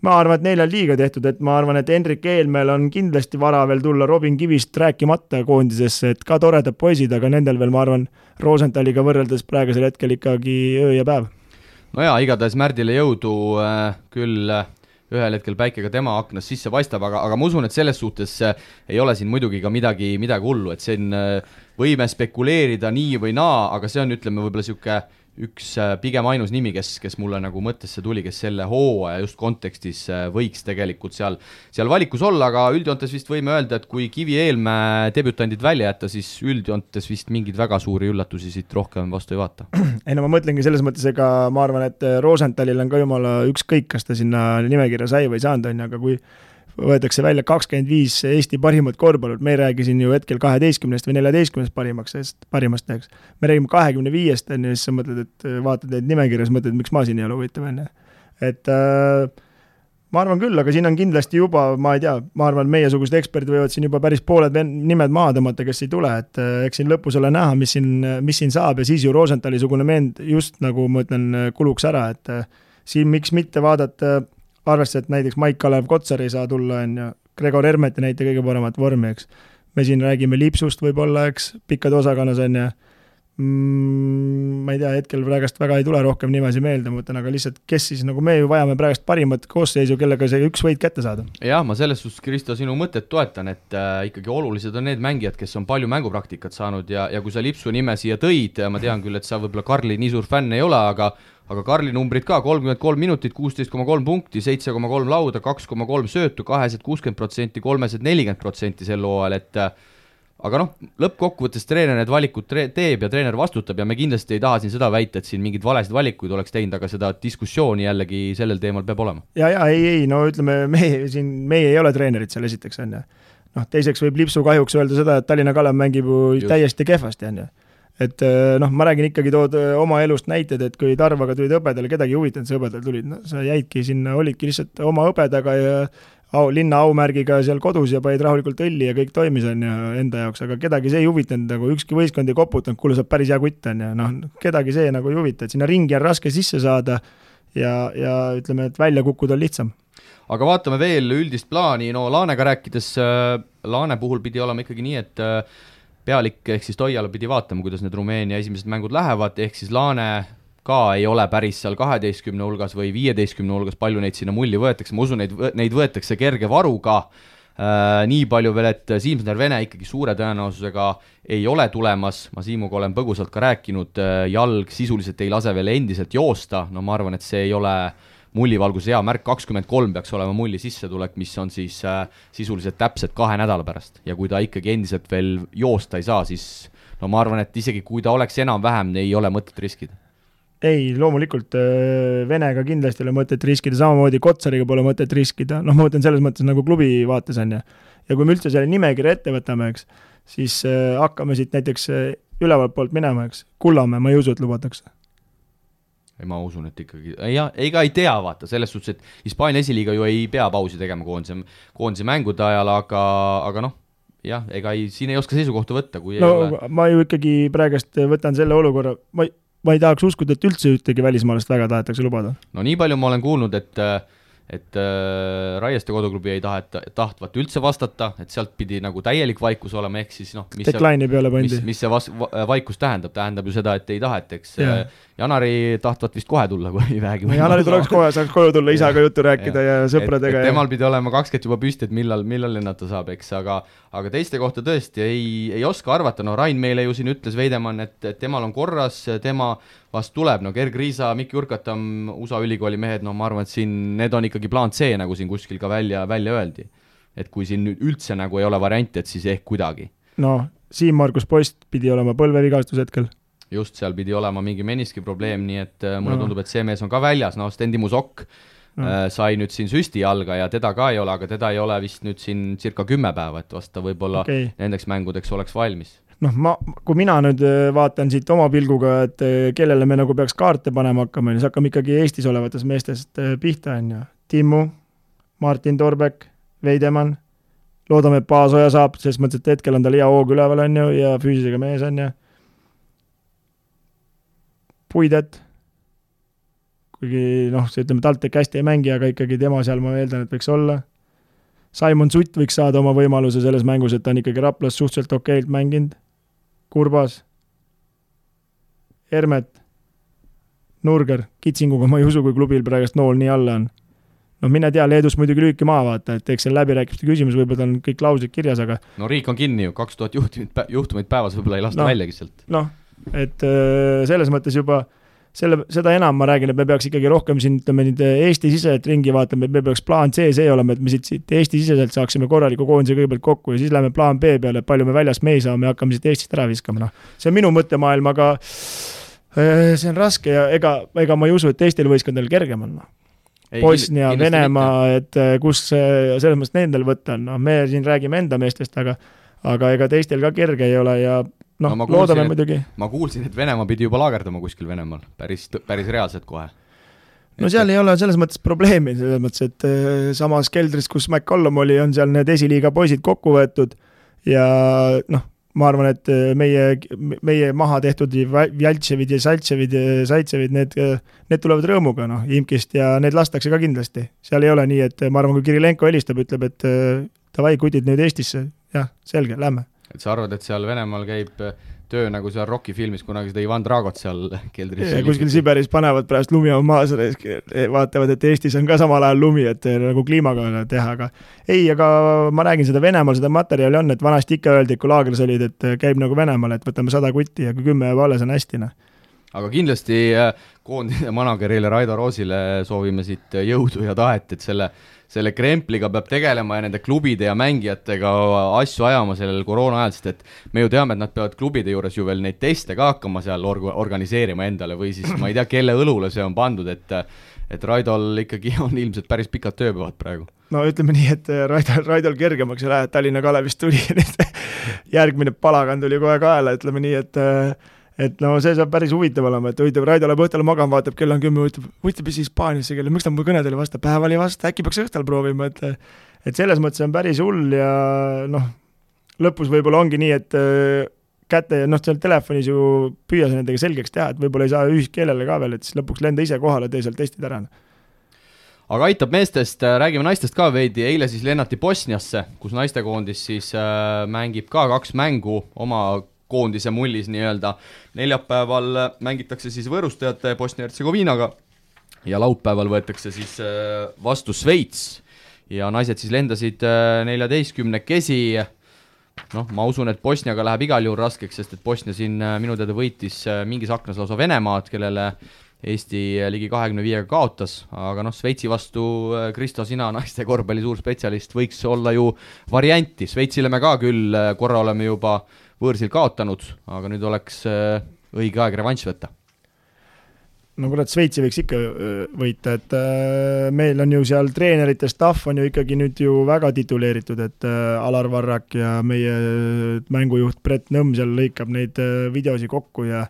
ma arvan, et neil on liiga tehtud, et ma arvan, et Hendrik Eelmäel on kindlasti vara veel tulla Robin Kivist rääkimata koondisesse, et ka toredad poisid, aga nendel veel, ma arvan, Rosenthaliga võrreldes praegusel hetkel ikkagi öö ja päev. No jaa, igatahes Märdile jõudu, küll ühel hetkel päike ka tema aknas sisse paistab, aga ma usun, et selles suhtes ei ole siin muidugi ka midagi hullu, et siin võime spekuleerida nii või naa, aga see on, ütleme, võib-olla sihuke üks pigem ainus nimi, kes mulle nagu mõttesse tuli, kes selle hooaja just kontekstis võiks tegelikult seal valikus olla, aga üldjoontes vist võime öelda, et kui Kivi Eelmäe debütandid välja jätta, siis üldjoontes vist mingeid väga suuri üllatusi siit rohkem vastu ei vaata. Ei no ma mõtlengi selles mõttes, ega ma arvan, et Rosenthalil on ka jumala ükskõik, kas ta sinna nimekirja sai või saanud on, aga kui võetakse välja 25 Eesti parimat korvpallut, me ei räägi siin ju hetkel 12 või 14 parimast teeks. Me räägime 25-st, ja siis sa mõtled, et vaatad neid nimekirjas, mõtled, miks ma siin ei ole huvitav enne. Et ma arvan küll, aga siin on kindlasti juba, ma ei tea, ma arvan, meiesugused eksperdid võivad siin juba päris pooled nimed maha tõmmata, kes ei tule, et eks siin lõpus ole näha, mis siin saab ja siis ju Rosenthali sugune meend just nagu ma ütlen, kuluks ära, et siin miks mitte vaadata arvestades, et näiteks Maik-Kalev Kotsar ei saa tulla, on ju, Gregor Hermet ei näita kõige paremat vormi, eks. Me siin räägime Lipsust võib-olla, eks, pikkad osakonnas on ja ma ei tea, hetkel praegast väga ei tule rohkem nimesi meelde, mõtlen, aga lihtsalt, kes siis, nagu me ju vajame praegast parimat koosseisu, kellega see üks võit kätte saada. Jah, ma selles suhtes, Kristo, sinu mõtet toetan, et ikkagi olulised on need mängijad, kes on palju mängupraktikat saanud ja kui sa Lipsu nime siia tõid, ma tean küll, et sa võib-olla Karli nii suur fänn ei ole, aga Karli numbrid ka, 33 minutit, 16,3 punkti, 7,3 lauda, 2,3 söötu, 260%, 340% sel hooajal, et aga noh, lõppkokkuvõttes treener need valikud teeb ja treener vastutab ja me kindlasti ei taha siin seda väita, et siin mingid valesid valikuid oleks teinud, aga seda diskussiooni jällegi sellel teemal peab olema. Ei, no ütleme, meie ei ole treenerid seal esiteks, on ju. Noh, teiseks võib Lipsu kahjuks öelda seda, et Tallinna Kalev mängib ju täiesti kehvasti, on ju. Et noh, ma räägin ikkagi tood oma elust näited, et kui Tarvaga tulid õbedale, kedagi huvitanud see õbedal tulid, no sa jäidki sinna, olidki lihtsalt oma õbedaga ja linna aumärgiga seal kodus ja panid rahulikult õlli ja kõik toimis on ja enda jaoks, aga kedagi see ei huvitanud, nagu ükski võistkond ei koputanud, kuule saab päris hea kutt on ja noh, kedagi see nagu ei huvita, et sinna ringi on raske sisse saada ja ütleme, et välja kukkuda on lihtsam. Aga vaatame veel üldist plaani, no Laanega rääkides, Laane puhul pidi olema ikkagi nii, et pealik ehk siis Toiala pidi vaatama, kuidas need Rumeenia esimesed mängud lähevad, ehk siis Laane ka ei ole päris seal 12 hulgas või 15 hulgas, palju neid sinna mulli võetakse, ma usun, neid võetakse kerge varuga, nii palju veel, et Siimsner Vene ikkagi suure tõenäosusega ei ole tulemas, ma Siimuga olen põgusalt ka rääkinud, jalg sisuliselt ei lase veel endiselt joosta, no ma arvan, et see ei ole mullivalguse hea märk, 23 peaks olema mulli sissetulek, mis on siis sisuliselt täpselt 2 nädala pärast ja kui ta ikkagi endiselt veel joosta ei saa, siis no ma arvan, et isegi kui ta oleks enam-vähem, ei ole mõtet riskida. Ei, loomulikult Venega kindlasti ei ole mõtet riskida, samamoodi Kotsariga pole mõtet riskida, noh ma mõtlen selles mõttes nagu klubi vaates on ja kui me üldse selle nimekirja ette võtame, eks, siis hakkame siit näiteks ülevalt poolt minema, eks, Kullamäe, ma ei usu, et lubatakse. Ei, ma usun, et ikkagi, ei tea vaata, selles suhtes, et Hispaania esiliiga ju ei pea pausi tegema koondise mängude ajal, aga noh, jah, siin ei oska seisukohta võtta, kui no, ei ole. Ma ju ikkagi praegust võtan selle olukorra, ma ei tahaks uskuda, et üldse ühtegi välismaalast väga tahetakse lubada. No nii palju ma olen kuulnud, et Raieste koduklubi ei tahtvat üldse vastata, et sealt pidi nagu täielik vaikus olema, ehk siis noh, mis see vaikus tähendab ju seda, et ei taheteks. Janari tahtvat vist kohe tulla, kui vähegi. Janari tuleks kohe, saaks koju tulla, isaga juttu rääkida ja sõpradega. Temal pidi olema 20 juba püsti, et millal lennata saab, eks, aga teiste kohta tõesti ei oska arvata, no Rain meile ju siin ütles Veidemann, et temal on korras, tema vast tuleb, no Gerg Riisa, Mikki Urkatam, USA ülikooli mehed, no ma arvan, et siin need on ikkagi plaan C, nagu siin kuskil ka välja öeldi. Et kui siin nüüd üldse nagu ei ole varianti, et siis ehk kuidagi. No, Siim-Markus Post pidi olema põlvevigastus hetkel. Just, seal pidi olema mingi meniski probleem, nii et mulle tundub, et see mees on ka väljas, no Stendi Musok sai nüüd siin süsti jalga ja teda ka ei ole, aga teda ei ole vist nüüd siin circa 10 päeva, et vasta võib-olla nendeks mängudeks oleks valmis. Noh, kui mina nüüd vaatan siit oma pilguga, et kellele me nagu peaks kaarte panema hakkama, siis hakkame ikkagi Eestis olevatest meestest pihta, on ju. Timmu, Martin Torbek, Veidemann, loodame, et Paasoja saab, sest mõttes, et hetkel on tal hea hoog üleval, on ju, ja füüsisega mees, on ju. Puidet, kuigi noh, see ütleme, TalTech hästi ei mängi, aga ikkagi tema seal ma eeldan, et võiks olla. Simon Sutt võiks saada oma võimaluse selles mängus, et ta on ikkagi Raplas suhteliselt okeilt mänginud. Kurbas, Hermet, Nurger, Kitsinguga ma ei usu, kui klubil praegust nool nii alla on. No mine tea, Leedus muidugi lüüki maa vaata, et eks seal läbirääkimiste küsimus võib-olla on kõik lausid kirjas, aga... No riik on kinni ju, 2000 juhtumeid päevas võib-olla ei lasta väljagi sealt. Noh, et selles mõttes juba seda enam ma räägin, et me peaks ikkagi rohkem siin, ütleme, Eesti-siseselt ringi vaatama, et me peaks plaan C olema, et me siit Eesti-siseselt saaksime korraliku koondise kõigepealt kokku ja siis läheme plaan B peale, et palju me väljas me ei saa, me hakkame siit Eestist ära viskama. No. See on minu mõttemaailm, aga see on raske ja ega ma ei usu, et Eestil võistkondadel kergem on. Bosnia, Venemaa, et kus selles mõttes nendel võtta on. No, me siin räägime enda meestest, aga ega teistel ka kerge ei ole ja noh, no, loodame muidugi. Ma kuulsin, et Venemaa pidi juba laagerdama kuskil Venemaal, päris reaalselt kohe. No seal ei ole selles mõttes probleemi, selles mõttes, et samas keldris, kus McCollum oli, on seal need esiliiga poisid kokku võetud ja noh, ma arvan, et meie maha tehtud Vjaltševid ja Saitševid, need tulevad rõõmuga, noh, Imkist ja need lastakse ka kindlasti. Seal ei ole nii, et ma arvan, kui Kirilenko helistab, ütleb, et davai, kutid nüüd Eestisse, jah, selge, lähme. Et sa arvad, et seal Venemaal käib töö nagu seal Rocki filmis, kunagi seda Ivan Dragot seal keldris. Ja kuskil Siberis panevad pärast lumi on maas, vaatavad, et Eestis on ka samal ajal lumi, et nagu kliimaga teha, aga ei, aga ma räägin seda Venemaal, seda materjali on, et vanasti ikka öeldi, kui laagris olid, et käib nagu Venemaal, et võtame 100 kutti ja kui 10 jääb alles on hästi. Aga kindlasti koondise managerile Raido Roosile soovime siit jõudu ja tahet, et selle krempliga peab tegelema ja nende klubide ja mängijatega asju ajama sellel koroona ajal, sest et me ju teame, et nad peavad klubide juures ju veel neid teste ka hakkama seal organiseerima endale või siis ma ei tea, kelle õlule see on pandud, et Raidol ikkagi on ilmselt päris pikad tööpäevad praegu. No ütleme nii, et Raidol kergemaks ei lähe, Tallinna Kalevist tuli järgmine palagan tuli kohe kaela, ütleme nii, et no see saab päris huvitav olema, et huvitav, Raido läheb õhtul magama, vaatab, kell on 10, huvitav siis Hispaaniasse kelle, miks ta mu kõnedele vasta, päeval ei vasta, äkki peaks õhtul proovima, et selles mõttes on päris hull ja noh, lõpus võib-olla ongi nii, et käte, noh, seal telefonis ju püüa see nendega selgeks teha, et võib-olla ei saa ühiskeelele ka veel, et siis lõpuks lenda ise kohale, tee seal testid ära. Aga aitab meestest, räägime naistest ka veidi, eile siis lennati Bosniasse, kus naistekoondis siis mängib ka 2 mängu oma koondise mullis nii-öelda. Neljapäeval mängitakse siis võõrustajate Bosnia-Hertsegoviinaga ja laupäeval võetakse siis vastu Sveits ja naised siis lendasid 14-kesi. Noh, ma usun, et Bosniaga läheb igal juhul raskeks, sest et Bosnia siin minu teada võitis mingis aknas lausa Venemaad, kellele Eesti ligi 25-ga kaotas, aga noh, Sveitsi vastu Kristo, sina naiste korvpalli suur spetsialist, võiks olla ju varianti. Sveitsile me ka küll korra oleme juba võõrsil kaotanud, aga nüüd oleks õige aeg revanš võtta. No kurat, Sveitsi võiks ikka võita, et meil on ju seal treenerite staff on ju ikkagi nüüd ju väga tituleeritud, et Alar Varrak ja meie mängujuht Brett Nõmm seal lõikab neid videosi kokku ja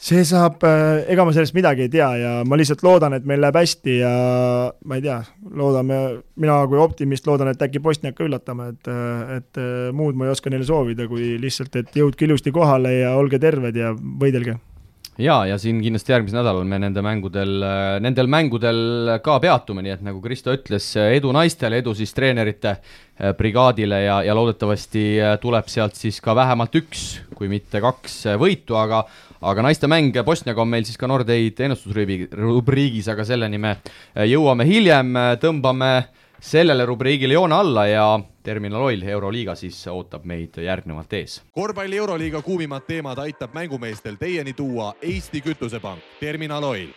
see saab, ega ma sellest midagi ei tea ja ma lihtsalt loodan, et meil läheb hästi ja ma ei tea, loodame, mina kui optimist loodan, et äkki Bosniak ka üllatame, et muud ma ei oska neile soovida, kui lihtsalt, et jõudke ilusti kohale ja olge terved ja võidelge. Ja siin kindlasti järgmisel nädalal me nendel mängudel ka peatume, nii et nagu Kristo ütles, edu naistele, edu siis treenerite brigaadile ja loodetavasti tuleb sealt siis ka vähemalt 1, kui mitte 2 võitu, aga naiste mäng Bosniaga on meil siis ka Nordeid ennustusrubriigis, aga selleni me jõuame hiljem, tõmbame sellele rubriigile joone alla ja Terminal Oil Euroliiga siis ootab meid järgnevalt ees. Korvpalli Euroliiga kuumimad teemad aitab mängumeestel teieni tuua Eesti Kütusepank, Terminal Oil.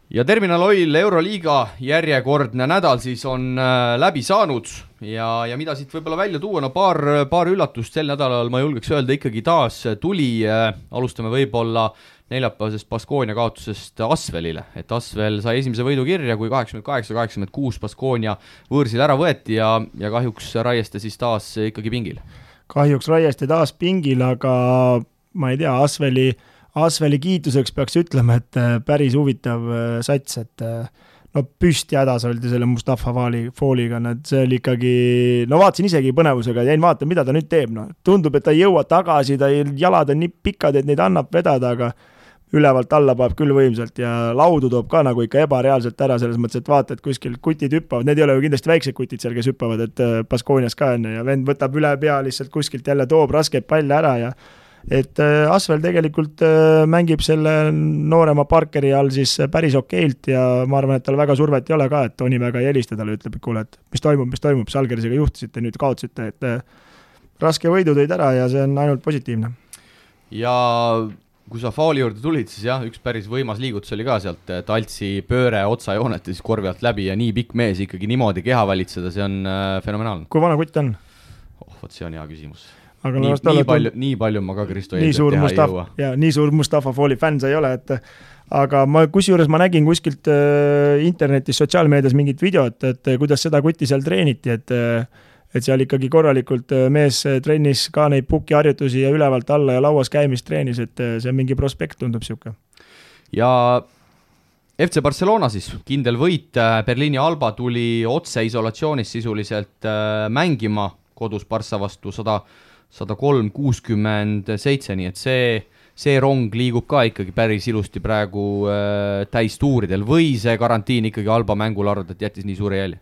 Ja Terminal Oil Euroliiga järjekordne nädal siis on läbi saanud ja mida siit võib-olla välja tuua, no paar üllatust sel nädalal ma julgeks öelda ikkagi taas tuli, alustame võib-olla neljapäevasest Baskonia kaotusest Asvelile, et Asvel sai esimese võidu kirja, kui 88-86 Baskonia võõrsil ära võeti ja kahjuks Raieste siis taas ikkagi pingil. Kahjuks Raieste taas pingil, aga ma ei tea, Asveli kiituseks peaks ütlema, et päris huvitav sats, et no püsti hädas oldi selle Mustafa Fooliga, see oli ikkagi, no vaatasin isegi põnevusega, jäin vaata, mida ta nüüd teeb, no. Tundub, et ta ei jõua tagasi, jalad on nii pikad, et neid annab vedada, aga ülevalt alla paneb küll võimsalt ja laudu toob ka nagu ikka ebareaalselt ära, selles mõttes, et vaata, et kuskil kutid hüppavad, need ei ole ju kindlasti väiksed kutid seal, kes hüppavad, et Baskoonias ka on ja vend võtab üle pea lihtsalt kuskilt jälle toob raskeid palle ära ja et Asvel tegelikult mängib selle noorema Parkeri all siis päris okeilt ja ma arvan, et tal väga survet ei ole ka, et Toni väga ei helista talle, ütleb, et kuule, et mis toimub, Žalgirisega juhtisite, nüüd kaotasite, et raske võidu tõid ära ja see on ainult positiivne. Ja kui sa fauli juurde tulid, siis jah, üks päris võimas liigutus oli ka sealt Taltsi pööre otsajoonet ja siis korvi alt läbi ja nii pikk mees ikkagi niimoodi keha valitseda, see on fenomenaalne. Kui vana kutt on? Võt see on hea küsimus. Aga nii palju ma ka Kristo eeldab teha ei jõua. Ja nii suur Mustafa Fooli fänn sa ei ole, et aga kusjuures ma nägin kuskilt internetis, sotsiaalmeedias mingit videot, et kuidas seda kutti seal treeniti, et seal ikkagi korralikult mees trennis ka neid pukiharjutusi ja ülevalt alla ja lauas käimist treenis, et see on mingi prospekt, tundub siuke. Ja FC Barcelona siis, kindel võit, Berliini Alba tuli otse isolatsioonis sisuliselt mängima kodus Barca vastu 103-67, nii et see rong liigub ka ikkagi päris ilusti praegu täistuuridel või see karantiin ikkagi Alba mängul arvab, et jättis nii suure jälje?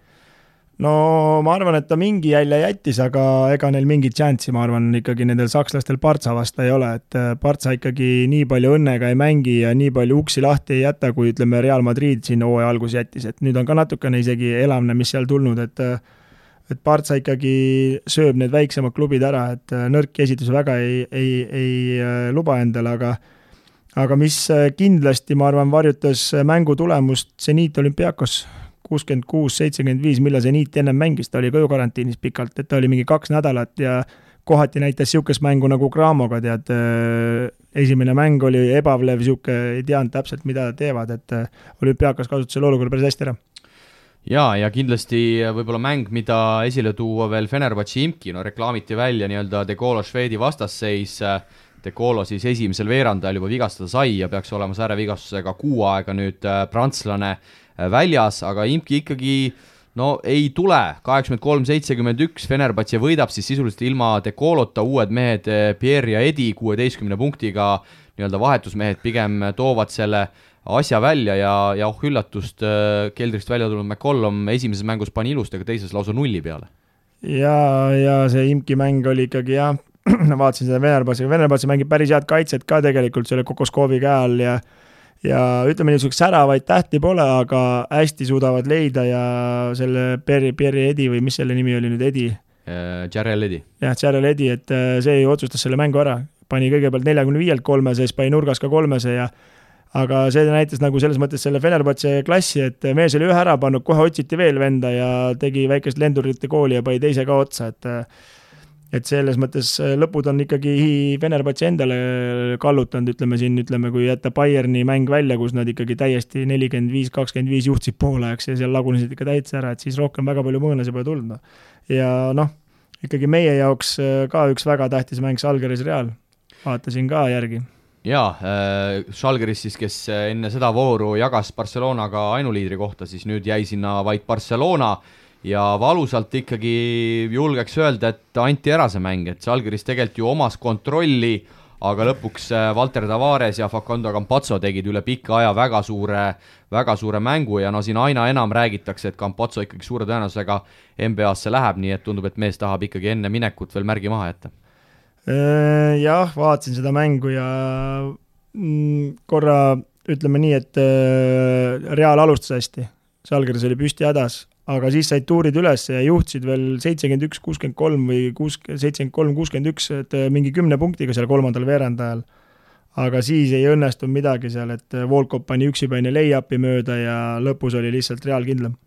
No ma arvan, et ta mingi jälje jättis, aga ega neil mingit chanssi, ma arvan, ikkagi nendel sakslastel Barca vasta ei ole, et Barca ikkagi nii palju õnnega ei mängi ja nii palju uksi lahti ei jäta, kui ütleme Real Madrid siin hooaja algus jättis, et nüüd on ka natukene isegi elamne, mis seal tulnud, et Barca ikkagi sööb need väiksemad klubid ära, et nõrki esitus väga ei luba endale, aga mis kindlasti, ma arvan, varjutas mängu tulemust Zenit Olympiakos 66-75, mille Zenit ennem mängis, ta oli ka ju karantiinis pikalt, et ta oli mingi 2 nädalat ja kohati näitas siukest mängu nagu Gramoga, tead, esimene mäng oli ebavlev, siuke ei teadnud täpselt, mida teevad, et Olümpiakas kasutas selle olukorra päris hästi ära. Ja kindlasti võib-olla mäng, mida esile tuua veel Fenerbahce Imki, no reklaamiti välja nii-öelda De Colo Švedi vastasseis, De Colo siis esimesel veerandajal juba vigastada sai ja peaks olema säärevigastusega 6 aega nüüd prantslane väljas, aga Imki ikkagi ei tule, 83-71, Fenerbahce võidab siis sisuliselt ilma De Colota, uued mehed Pierre ja Edi 16 punktiga, nii-öelda vahetusmehed pigem toovad selle asja välja ja üllatust keldrist välja tulnud McCollum esimeses mängus pani ilusti, aga teises lausa 0 peale. Ja see Imki mäng oli ikkagi jah, vaatasin seda Fenerbahce mängib päris head kaitset ka tegelikult selle Kokoskovi käe all ja ütleme niisuguseks säravaid tähti pole, aga hästi suudavad leida ja selle Pierre Edi või mis selle nimi oli nüüd, Edi? Jarrell Edi. Jah, Jarrell Edi, et see ju otsustas selle mängu ära. Pani kõigepealt 45-lt 3, siis pani nurgas ka 3 ja aga see näitas nagu selles mõttes selle Fenerbahce klassi, et mees oli ühe ära pannud, kohe otsiti veel venda ja tegi väikest lendurite kooli ja pani teise ka otsa, et selles mõttes lõpud on ikkagi Fenerbahce endale kallutanud, ütleme, kui jätta Bayerni mäng välja, kus nad ikkagi täiesti 45-25 juhtsid poolajaks ja seal lagunesid ikka täitsa ära, et siis rohkem väga palju mõõnasi pole tulnud. Ja ikkagi meie jaoks ka üks väga tähtis mäng Žalgiris Real, vaatasin ka järgi. Jaa, Žalgiris siis, kes enne seda vooru jagas Barcelonaga ainuliidri kohta, siis nüüd jäi sinna vaid Barcelona ja valusalt ikkagi julgeks öelda, et anti ära see mäng, et Žalgiris tegelikult ju omas kontrolli, aga lõpuks Walter Tavares ja Facundo Campazzo tegid üle pika aja väga suure mängu ja siin aina enam räägitakse, et Campazzo ikkagi suure tõenäosusega NBA-sse läheb, nii et tundub, et mees tahab ikkagi enne minekut veel märgi maha jätta. Jah, vaatasin seda mängu ja korra ütleme nii, et Real alustas hästi, Žalgiris oli püsti hädas, aga siis said tuurid üles ja juhtisid veel 71-63 või 73-61, et mingi 10 punktiga seal kolmandal veerandajal. Aga siis ei õnnestunud midagi seal, et Volkov pani üksipäine lay-upi mööda ja lõpus oli lihtsalt Real kindlam.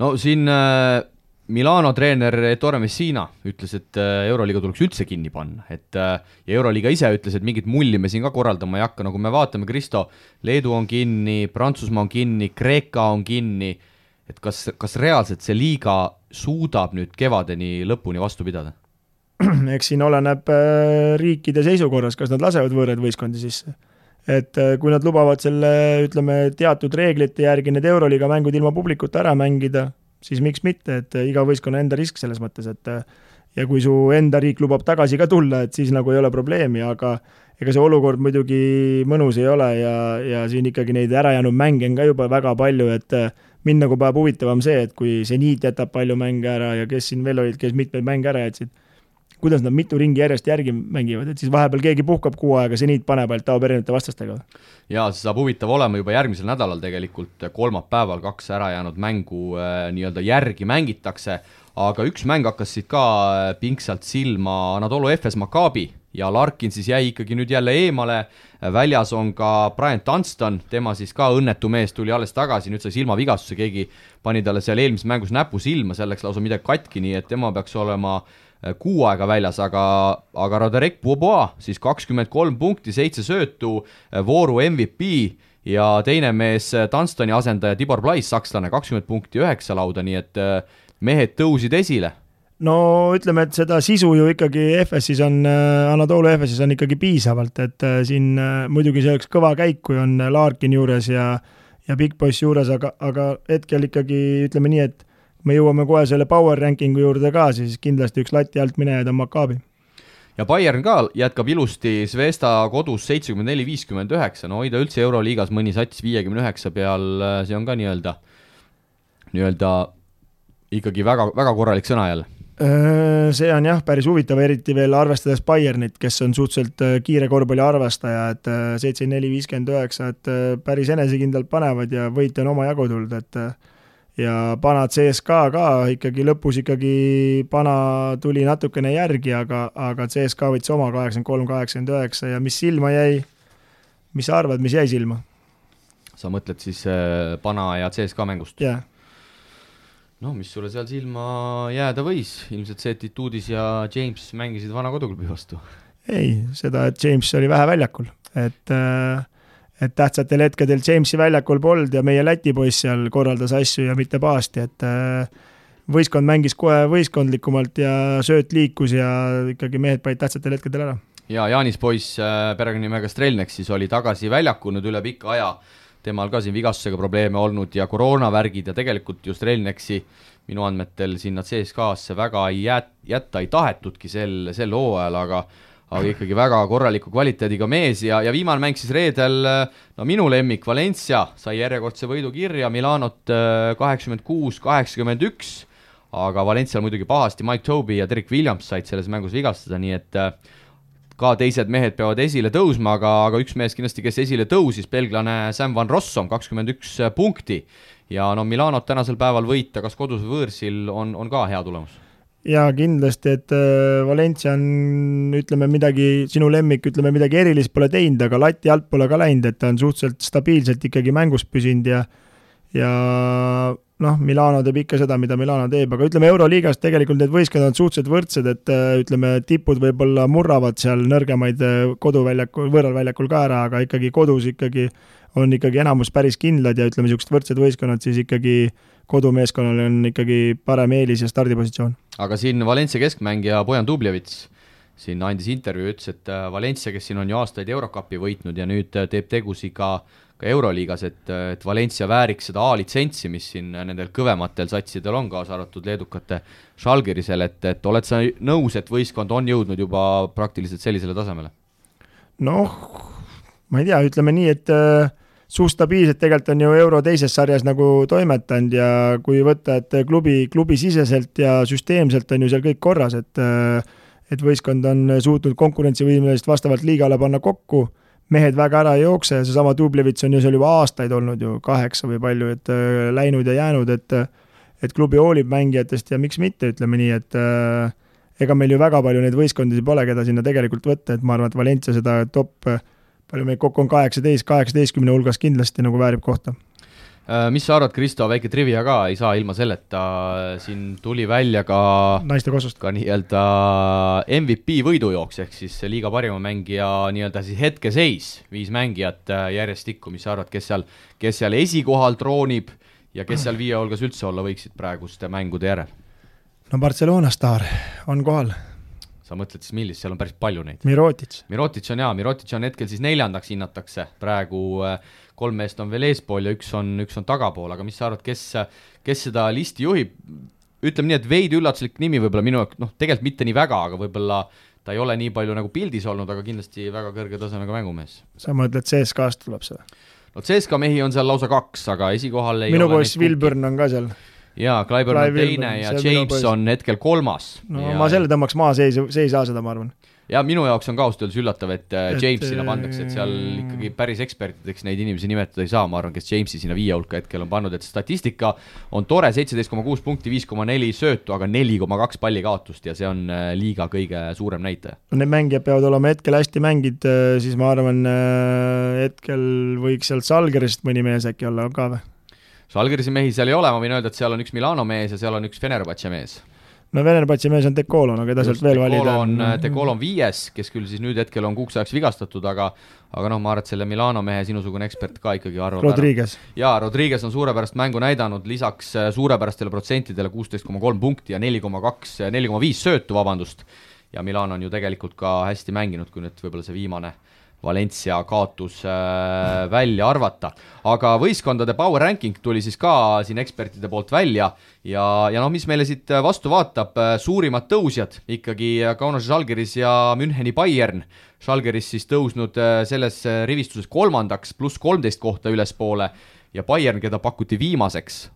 No siin Milano treener Ettore Messina ütles, et Euroliiga tuleks üldse kinni panna, ja Euroliiga ise ütles, et mingit mulli me siin ka korraldama ei hakka, nagu me vaatame, Kristo, Leedu on kinni, Prantsusmaa on kinni, Kreeka on kinni, et kas reaalselt see liiga suudab nüüd kevadeni lõpuni vastu pidada? Eks siin oleneb riikide seisukorras, kas nad lasevad võõrad võistkondi sisse. Et kui nad lubavad selle, ütleme, teatud reeglite järgi need Euroliiga mängud ilma publikuta ära mängida, siis miks mitte, et iga võistkonna enda risk selles mõttes, et ja kui su enda riik lubab tagasi ka tulla, et siis nagu ei ole probleemi, aga ega see olukord muidugi mõnus ei ole ja siin ikkagi neid ärajäänud mänge on ka juba väga palju, et mind nagu päev huvitavam see, et kui Zeniit jätab palju mänge ära ja kes siin veel olid, kes mitmeid mänge ära jätsid, kuidas nad mitu ringi järjest järgi mängivad, et siis vahepeal keegi puhkab 6 aega, Zeniit paneb ainult taob erinevate vastastega. Ja see saab huvitav olema juba järgmisel nädalal tegelikult, kolmapäeval 2 ära jäänud mängu nii-öelda järgi mängitakse, aga üks mäng hakkas siit ka pingsalt silma, Anadolu Efes Maccabi ja Larkin siis jäi ikkagi nüüd jälle eemale, väljas on ka Brian Dunston, tema siis ka õnnetu mees tuli alles tagasi, nüüd sai silmavigastuse, keegi pani talle seal eelmises mängus näpu silma, selleks lausa midagi katki, nii et tema peaks olema 6 aega väljas, aga Roderick Bobois siis 23 punkti, 7 söötu, vooru MVP ja teine mees Dunstoni asendaja Tibor Plais, sakslane, 20 punkti, 9 lauda, nii et mehed tõusid esile. No ütleme, et seda sisu ju ikkagi FS-is on, Anadolu FS-is on ikkagi piisavalt, et siin muidugi see oleks kõva käik, kui on Larkin juures ja Big Boss juures, aga hetkel ikkagi ütleme nii, et me jõuame kohe selle power rankingu juurde ka, siis kindlasti üks lati alt minejaid on Maccabi. Ja Bayern ka jätkab ilusti Zvezda kodus 74-59, no hoida üldse Euroliigas mõni sats 59 peal, see on ka nii-öelda ikkagi väga, väga korralik sõna jälle. See on jah, päris huvitav, eriti veel arvestades Bayernit, kes on suhteliselt kiire korvpalli arvastaja, et 74-59, et päris enesekindlalt panevad ja võit on oma jagu tulnud, et ja Pana CSKA ka ikkagi lõpus Pana tuli natukene järgi, aga CSKA võttis oma 83-89 ja mis silma jäi, mis sa arvad, mis jäi silma? Sa mõtled siis Pana ja CSKA mängust? Jah. No, mis sulle seal silma jääda võis? Ilmselt see, et Ituudis ja James mängisid vana koduklubi vastu. Ei, seda, et James oli vähe väljakul. Et tähtsatel hetkedel Jamesi väljakul polnud ja meie Läti poiss seal korraldas asju ja mitte paasti, et võistkond mängis kohe võistkondlikumalt ja sööt liikus ja ikkagi mehed panid tähtsatel hetkedel ära. Ja Jaanis poiss perekonnimega Strelnek siis oli tagasi väljakunud üle pikka aja. Temal ka siin vigastusega probleeme olnud ja koroonavärgid ja tegelikult just Relneksi minu andmetel sinna CSKA-sse väga jätta ei tahetudki sel hooajal, aga ikkagi väga korraliku kvaliteediga mees ja viimane mäng siis reedel, no minu lemmik Valencia sai järjekordse võidu kirja, Milanot 86-81, aga Valencial muidugi pahasti Mike Tobey ja Derek Williams said selles mängus vigastada, nii et ka teised mehed peavad esile tõusma, aga üks mees kindlasti, kes esile tõusis, belglane Sam Van Rossum, 21 punkti. Ja no Milanot tänasel päeval võita, kas kodus või võõrsil, on ka hea tulemus. Ja kindlasti, et Valencia on, ütleme midagi, sinu lemmik, ütleme midagi erilist pole teinud, aga lati alt pole ka läinud, et ta on suhteliselt stabiilselt ikkagi mängus püsinud ja noh, Milano teeb ikka seda, mida Milano teeb, aga ütleme Euroliigas tegelikult need võistkond on suhteliselt võrdsed, et ütleme tipud võib-olla murravad seal nõrgemaid koduväljakul, võõralväljakul ka ära, aga ikkagi kodus on ikkagi enamus päris kindlad ja ütleme niisugused võrdsed võistkonnad, siis ikkagi kodumeeskonnal on ikkagi parem eelis ja stardipositsioon. Aga siin Valencia keskmängija Bojan Dubljevits siin andis intervjuu, ütles, et Valencia, kes siin on ju aastaid Eurocupi võitnud ja nüüd teeb tegusi ka Euroliigas, et Valencia vääriks seda A-litsentsi, mis siin nendel kõvematel satsidel on, kaasa arvatud leedukate Žalgirisel, et oled sa nõus, et võistkond on jõudnud juba praktiliselt sellisele tasemele? Noh, ma ei tea, ütleme nii, et suustabiilselt tegelikult on ju Euro teises sarjas nagu toimetanud ja kui võtta, et klubi siseselt ja süsteemselt on ju seal kõik korras, et võistkond on suutnud konkurentsivõimelist vastavalt liigale panna kokku, mehed väga ära ei jookse, seesama Dublevits on ju seal juba aastaid olnud ju 8 või palju, et läinud ja jäänud, et klubi hoolib mängijatest ja miks mitte, ütleme nii, et ega meil ju väga palju neid võistkondisi pole, keda sinna tegelikult võtta, et ma arvan, et Valencia seda top, palju meil kokku on 18 hulgas kindlasti nagu väärib kohta. Mis sa arvad, Kristo, väike trivia ka, ei saa ilma selleta, siin tuli välja ka naiste kossust ka nii-öelda MVP võidujooks, ehk siis liiga parima mängija nii-öelda siis hetkeseis, 5 mängijat järjestikku, mis sa arvad, kes seal esikohal troonib ja kes seal 5 hulgas üldse olla võiksid praeguste mängude järel? No Barcelona staar on kohal. Sa mõtled siis millist, seal on päris palju neid. Mirotic on hetkel siis 4. hinnatakse, praegu 3 meest on veel eespool ja üks on tagapool, aga mis sa arvad, kes seda listi juhib? Ütleme nii, et veidi üllatuslik nimi võib-olla minu, tegelikult mitte nii väga, aga võib-olla ta ei ole nii palju nagu pildis olnud, aga kindlasti väga kõrge tasemega mängumees. Sa mõtled, CSKA-st tuleb seda? No CSKA mehi on seal lausa 2, aga esikohal ei minu ole poiss Wilburn on ka seal. Jaa, Clyburn on teine ja James on hetkel 3. No ma selle tõmbaks maa seisa seda, ma arvan. Ja minu jaoks on ka ausalt öeldes üllatav, et James sinna pandakse, et seal ikkagi päris ekspertideks neid inimesi nimetada ei saa, ma arvan, kes Jamesi sinna 5 hulka hetkel on pannud, et statistika on tore, 17,6 punkti, 5,4 söötu, aga 4,2 palli kaotust ja see on liiga kõige suurem näitaja. Need mängijad peavad olema hetkel hästi mängid, siis ma arvan, hetkel võiks sealt Žalgirist mõni mees äkki olla ka või? Žalgirisi mehi seal ei ole, ma võin öelda, et seal on üks Milano mees ja seal on üks Fenerbahce mees. No Fenerbahce mees on Dekolo, no keda sealt veel valida on. Dekolo on 5, kes küll siis nüüd hetkel on kuuks ajaks vigastatud, aga noh, ma arvan, et selle Milano mehe sinusugune ekspert ka ikkagi arvab Rodriguez. Jaa, Rodriguez on suurepärast mängu näidanud, lisaks suurepärastele protsentidele 16,3 punkti ja 4,5 söötu, vabandust. Ja Milano on ju tegelikult ka hästi mänginud, kui nüüd võib-olla see viimane Valencia kaotus välja arvata. Aga võistkondade power ranking tuli siis ka siin ekspertide poolt välja ja noh, mis meile siit vastu vaatab, suurimad tõusjad ikkagi Kaunas Žalgiris ja Müncheni Bayern. Žalgiris siis tõusnud selles rivistuses 3. pluss 13 kohta ülespoole ja Bayern, keda pakuti viimaseks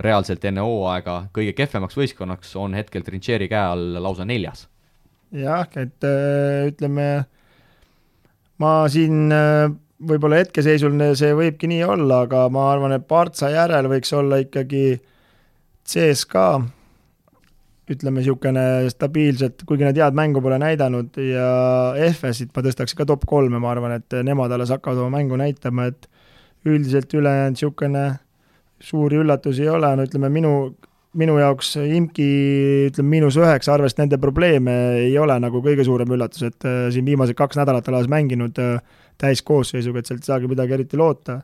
reaalselt enne hooaega kõige kehvemaks võistkonnaks, on hetkel Trincheri käe all lausa 4. Jah, et ütleme, ma siin võib-olla hetkeseisul see võibki nii olla, aga ma arvan, et Partsa järel võiks olla ikkagi CSKA, ütleme niisugune stabiilselt, kuigi nad head mängu pole näidanud ja FS-it ma tõstaks ka top 3, ma arvan, et nemad alles hakkavad oma mängu näitama, et üldiselt ülejäänud niisugune suuri üllatusi ei ole, no ütleme minu jaoks Imki ütleme -9, arvest nende probleeme ei ole nagu kõige suurem üllatus, et siin viimased 2 nädalat alas mänginud täiskoosseisuga, et sealt ei saagi midagi eriti loota.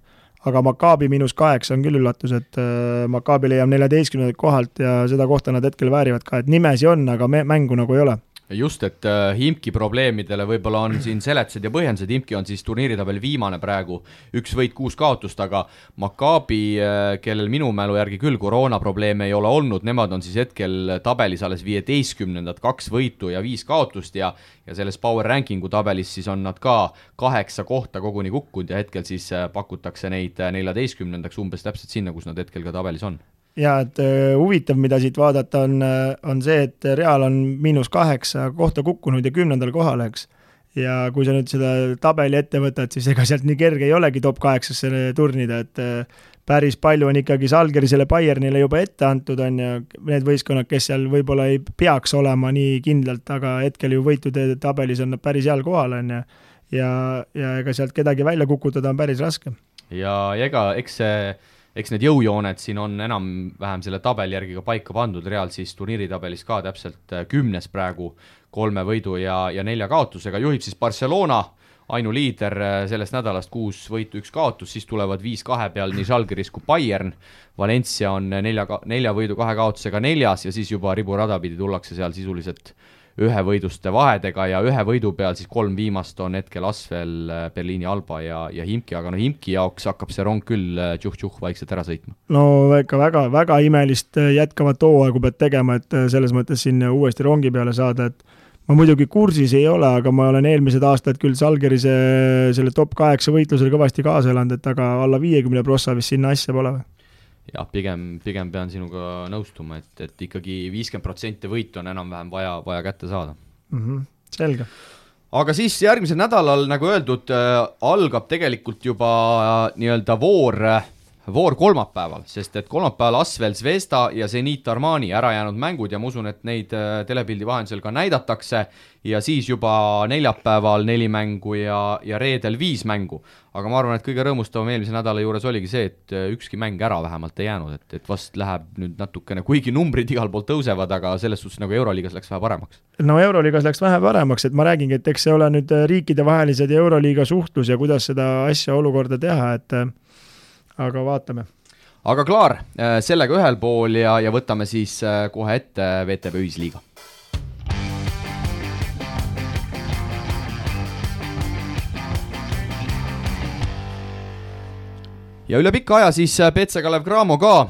Aga Maccabi -8 on küll üllatus, et Maccabi leiab 14. kohalt ja seda kohta nad hetkel väärivad ka, et nimesi on, aga mängu nagu ei ole. Just, et Imki probleemidele võib-olla on siin seletused ja põhjendused, Imki on siis turniiritabel viimane praegu, 1 võit 6 kaotust, aga Maccabi, kellel minu mälu järgi küll koroonaprobleeme ei ole olnud, nemad on siis hetkel tabelis alles 15, 2 võitu ja 5 kaotust ja selles power rankingu tabelis siis on nad ka 8 kohta koguni kukkunud ja hetkel siis pakutakse neid 14. umbes täpselt sinna, kus nad hetkel ka tabelis on. Ja et huvitav, mida siit vaadata on see, et Real on -8 kohta kukkunud ja 10. kohal, eks. Ja kui sa nüüd seda tabeli ette võtad, siis ega sealt nii kerge ei olegi top 8-sse turnida, et päris palju on ikkagi Žalgirisele Bayernile juba ette antud, on ja need võistkonnad, kes seal võib-olla ei peaks olema nii kindlalt, aga hetkel ju võitude tabelis on nad päris heal kohal, on ja ega sealt kedagi välja kukutada on päris raske. Ja ega eks need jõujooned siin on enam-vähem selle tabeli järgi ka paika pandud, Real siis turniiritabelis ka täpselt 10 praegu 3 võidu ja 4 kaotusega, juhib siis Barcelona, ainuliider sellest nädalast 6 võitu 1 kaotus, siis tulevad 5-2 peal nii Žalgiris kui Bayern, Valencia on 4 võidu 2 kaotusega 4 ja siis juba riburada pidi tullakse seal sisuliselt 1 võiduste vahedega ja 1 võidu peal siis 3 viimast on hetkel Asvel, Berliini Alba ja Himki, aga no Himki jaoks hakkab see rong küll tšuh-tšuh vaikselt ära sõitma. No ikka väga, väga imelist jätkavat hooaegu pead tegema, et selles mõttes siin uuesti rongi peale saada, et ma muidugi kursis ei ole, aga ma olen eelmised aastad küll Žalgirise selle top 8 võitlusel kõvasti kaasa elanud, et aga alla 50 prossa vist sinna asja pole või? Jah, pigem pean sinuga nõustuma, et ikkagi 50% võitu on enam-vähem vaja kätte saada. Selge. Aga siis järgmisel nädalal, nagu öeldud, algab tegelikult juba nii-öelda voor kolmapäeval, sest et kolmapäeval Asvel Zvezda ja Zenit Armani ära jäänud mängud ja ma usun, et neid telepildi vahendusel ka näidatakse ja siis juba neljapäeval 4 mängu ja reedel 5 mängu. Aga ma arvan, et kõige rõõmustavam eelmise nädala juures oligi see, et ükski mäng ära vähemalt ei jäänud, et vast läheb nüüd natukene, kuigi numbrid igal pool tõusevad, aga selles suhtes nagu Euroliigas läks vähe paremaks. No Euroliigas läks vähe paremaks, et ma räägingi, et eks see ole nüüd riikidevahelised ja Euroliiga suhtlus ja kuidas seda asja olukorda teha, et aga vaatame. Aga klaar, sellega ühel pool ja võtame siis kohe ette VTB ühisliiga. Ja üle pikka aja siis PC Kalev Cramo ka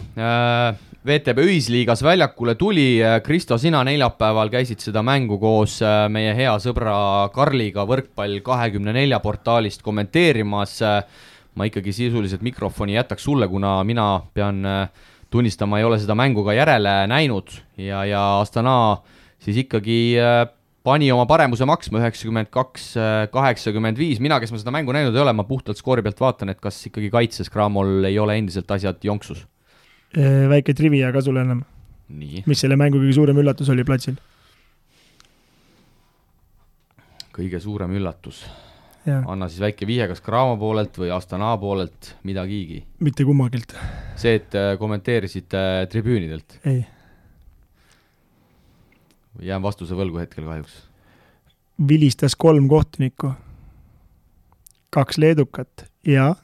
VTB ühisliigas väljakule tuli. Kristo, sina neljapäeval käisid seda mängu koos meie hea sõbra Karliga Võrkpall 24 portaalist kommenteerimas. Ma ikkagi sisuliselt mikrofoni jätaks sulle, kuna mina pean tunnistama, ei ole seda mängu ka järele näinud ja Astana siis ikkagi pani oma paremuse maksma 92-85. Mina, kes ma seda mängu näinud ei ole, ma puhtalt skoori pealt vaatan, et kas ikkagi kaitses Cramol ei ole endiselt asjad jonksus. Väike trivia ka sulle enam. Nii. Mis selle mängu kõige suurem üllatus oli platsil? Kõige suurem üllatus. Ja. Anna siis väike vihje, kas Cramo poolelt või Astana poolelt midagigi? Mitte kummagilt. See, et kommenteerisid tribüünidelt? Ei. Jään vastuse võlgu hetkel kahjuks. Vilistas 3 kohtunikku, 2 leedukat ja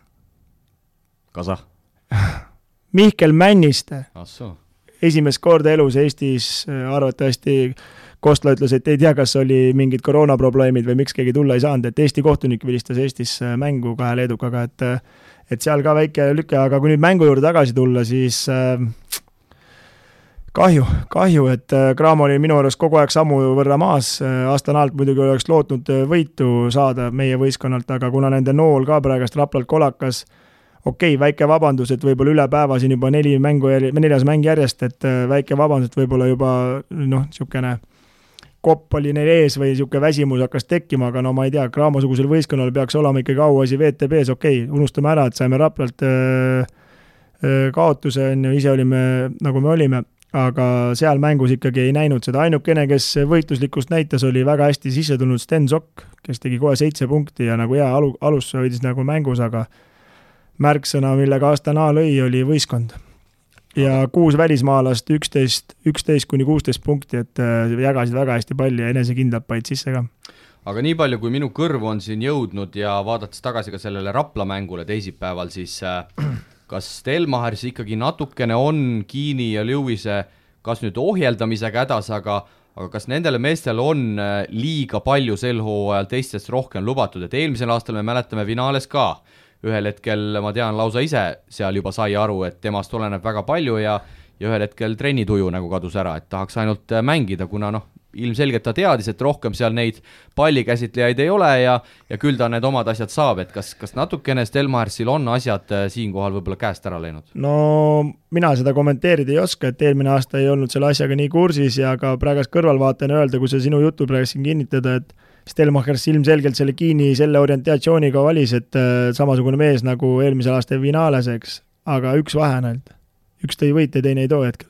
Kasa? Mihkel Männiste. Assoo. Esimest korda elus Eestis arvatavasti Kostla ütles, et ei tea, kas oli mingid koroonaprobleemid või miks keegi tulla ei saanud, et Eesti kohtunik vilistas Eestis mängu 2 leedukaga, et seal ka väike lüke, aga kui nüüd mängu juurde tagasi tulla, siis kahju, et Cramo oli minu arust kogu aeg sammu võrra maas. Astanalt muidugi oleks lootnud võitu saada meie võistkonnalt, aga kuna nende nool ka praegast Raplalt kolakas, väike vabandus, et võib-olla üle päeva siin juba 4 mäng järjest, et väike vabandus, et võib-olla juba niisugune kopp oli neil ees või niisugune väsimus hakkas tekkima, aga ma ei tea, Cramo-sugusel võistkonnal peaks olema ikkagi auasi VTB-s, unustame ära, et saime Raplalt kaotuse, ise olime nagu me olime, aga seal mängus ikkagi ei näinud seda. Ainukene, kes võitluslikkust näitas, oli väga hästi sisse tulnud Sten Sokk, kes tegi kohe 7 punkti ja nagu hea alus hoidis nagu mängus, aga märksõna, millega Astana lõi, oli võistkond. Ja 6 välismaalast, 11-16 punkti, et jagasid väga hästi palli ja enesekindlalt paid sisse ka. Aga nii palju, kui minu kõrv on siin jõudnud ja vaadates tagasi ka sellele Rapla mängule teisipäeval, siis kas Stelmachers ikkagi natukene on Kiini ja Lewise kas nüüd ohjeldamisega hädas, aga kas nendele meestel on liiga palju sel hooajal teistest rohkem lubatud, et eelmisel aastal me mäletame finaales ka. Ühel hetkel, ma tean, lausa ise seal juba sai aru, et temast oleneb väga palju ja ühel hetkel trennituju nagu kadus ära, et tahaks ainult mängida, kuna ilmselgelt ta teadis, et rohkem seal neid pallikäsitlejaid ei ole ja küll ta need omad asjad saab, et kas natukene Stelmachersil on asjad siinkohal võib-olla käest ära läinud? No mina seda kommenteerida ei oska, et eelmine aasta ei olnud selle asjaga nii kursis ja ka praegast kõrvalvaatajana öelda, kui see sinu jutu praegu siin kinnitada, et Stelmachers ilmselgelt selle Kiini selle orientatsiooniga valis, et samasugune mees nagu eelmisel aasta finaales, eks, aga üks vahe on ainult. Üks tõi võite, teine ei too hetkel.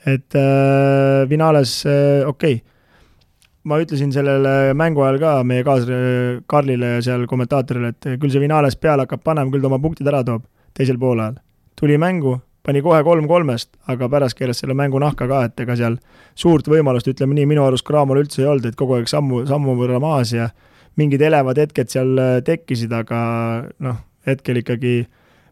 Et finaales, ma ütlesin sellele mängu ajal ka meie Karlile ja seal kommentaatorile, et küll see finaales peale hakkab panema, küll ta oma punktid ära toob teisel poolajal. Tuli mängu, pani kohe 3-3, aga pärast keeles selle mängu nahka ka, et ega seal suurt võimalust, ütleme nii, minu arust Cramol üldse ei olnud, et kogu aeg sammu võrra maas ja mingid elevad hetked seal tekkisid, aga hetkel ikkagi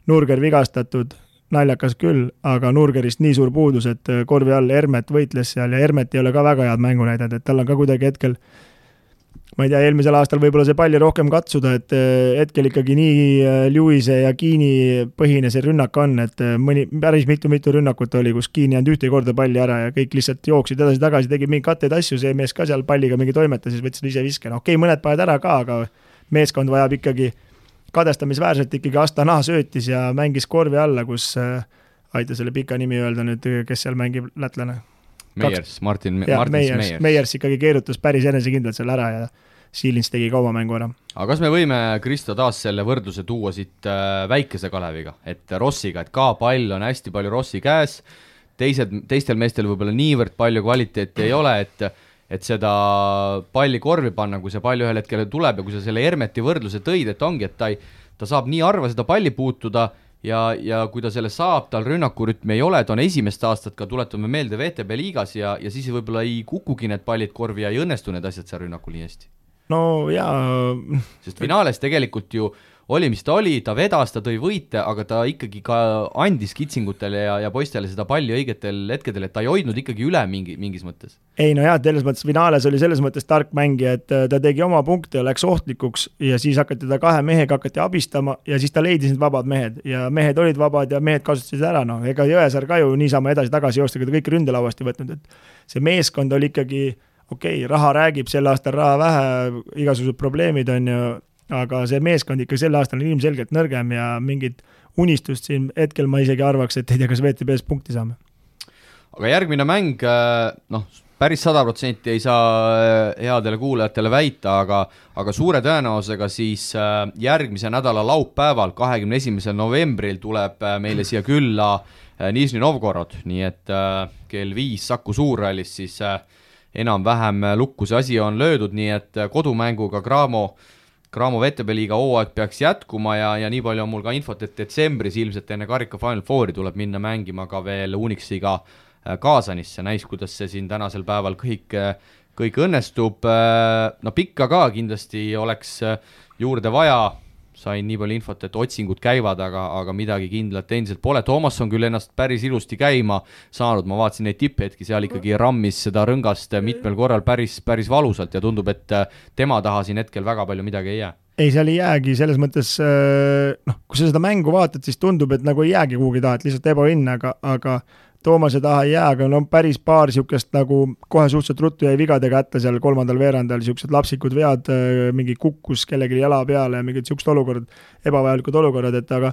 Nurger vigastatud, naljakas küll, aga Nurgerist nii suur puudus, et korvi all Hermet võitles seal ja Hermet ei ole ka väga head mängu näidanud, et tal on ka kuidagi hetkel, ma ei tea, eelmisel aastal võib-olla see palli rohkem katsuda, et hetkel ikkagi nii Lewise ja Kiini põhine see rünnak on, et päris mitu rünnakut oli, kus Kiini jäänud ühte korda palli ära ja kõik lihtsalt jooksid edasi-tagasi, tegid mingi katteid asju, see mees ka seal palliga mingi toimeta, siis võtsid ise viske. Mõned paned ära ka, aga meeskond vajab ikkagi kadestamisväärselt ikkagi Astana söötis ja mängis korvi alla, kus aita selle pika nimi öelda nüüd, kes seal mängib lätlane. Martin Meiers. Meiers ikkagi keerutas päris enesekindlalt seal ära ja Siilins tegi ka oma mängu ära. Aga kas me võime, Kristo, taas selle võrdluse tuua siit väikese Kaleviga, et Rossiga, et ka pall on hästi palju Rossi käes, teistel meestel võib-olla niivõrd palju kvaliteeti ei ole, et seda palli korvi panna, kui see pall ühel hetkel tuleb ja kui sa selle Hermeti võrdluse tõid, et ongi, et ta saab nii harva seda palli puutuda ja kui ta selle saab, tal rünnakurütmi ei ole, ta on esimest aastat ka, tuletame meelde VTB liigas ja siis võib-olla ei kukugi need pallid korvi ja ei õnnestu need asjad seal rünnakul nii hästi. No jaa. Sest finaales tegelikult ju oli, mis ta oli, ta vedas, ta tõi võite, aga ta ikkagi ka andis kitsingutele ja poistele seda palli õigetel hetkedel, et ta ei hoidnud ikkagi üle mingis mõttes. Ei no jah, selles mõttes Vinales oli selles mõttes tark mängija, et ta tegi oma punkte ja läks ohtlikuks ja siis hakati ta 2 mehega abistama ja siis ta leidis need vabad mehed ja mehed olid vabad ja mehed kasutasid ära, noh, ega Jõesaar ka ju niisama edasi-tagasi joostega ta kõik ründelauast ei võtnud, et see meeskond oli ikkagi okei, raha räägib, sel aastal raha vähe, igasugused probleemid on ju, aga see meeskond ikka sel aastal on ilmselgelt nõrgem ja mingit unistust siin hetkel ma isegi arvaks, et ei tea, kas VTB-s punkti saame. Aga järgmine mäng, noh, päris 100% ei saa headele kuulajatele väita, aga suure tõenäosusega siis järgmise nädala laupäeval, 21. novembril tuleb meile siia külla Nižni Novgorod, nii et kell 5 Saku Suurhallis siis enam-vähem lukku see asi on löödud, nii et kodumänguga Cramo VTB liiga hooaeg peaks jätkuma ja nii palju on mul ka infot, et detsembris ilmselt enne karika Final Fouri tuleb minna mängima ka veel Unixiga Kaasanisse, näis, kuidas see siin tänasel päeval kõik õnnestub. No pikka ka kindlasti oleks juurde vaja, sain nii palju infot, et otsingud käivad, aga midagi kindlat endiselt pole. Toomas on küll ennast päris ilusti käima saanud, ma vaatasin neid tipphetki, seal ikkagi rammis seda rõngast mitmel korral päris valusalt ja tundub, et tema taha siin hetkel väga palju midagi ei jää. Ei, seal ei jäägi, selles mõttes, noh, kui sa seda mängu vaatad, siis tundub, et nagu ei jäägi kuhugi taha, et lihtsalt ebaõnn, aga Toomase taha ei jää, aga no päris paar siukest nagu kohe suhteliselt ruttu jäi vigadega ätta seal 3. veerandal, siuksed lapsikud vead, mingi kukkus kellegi jala peale ja mingid siuksed olukorrad, ebavajalikud olukorrad, et aga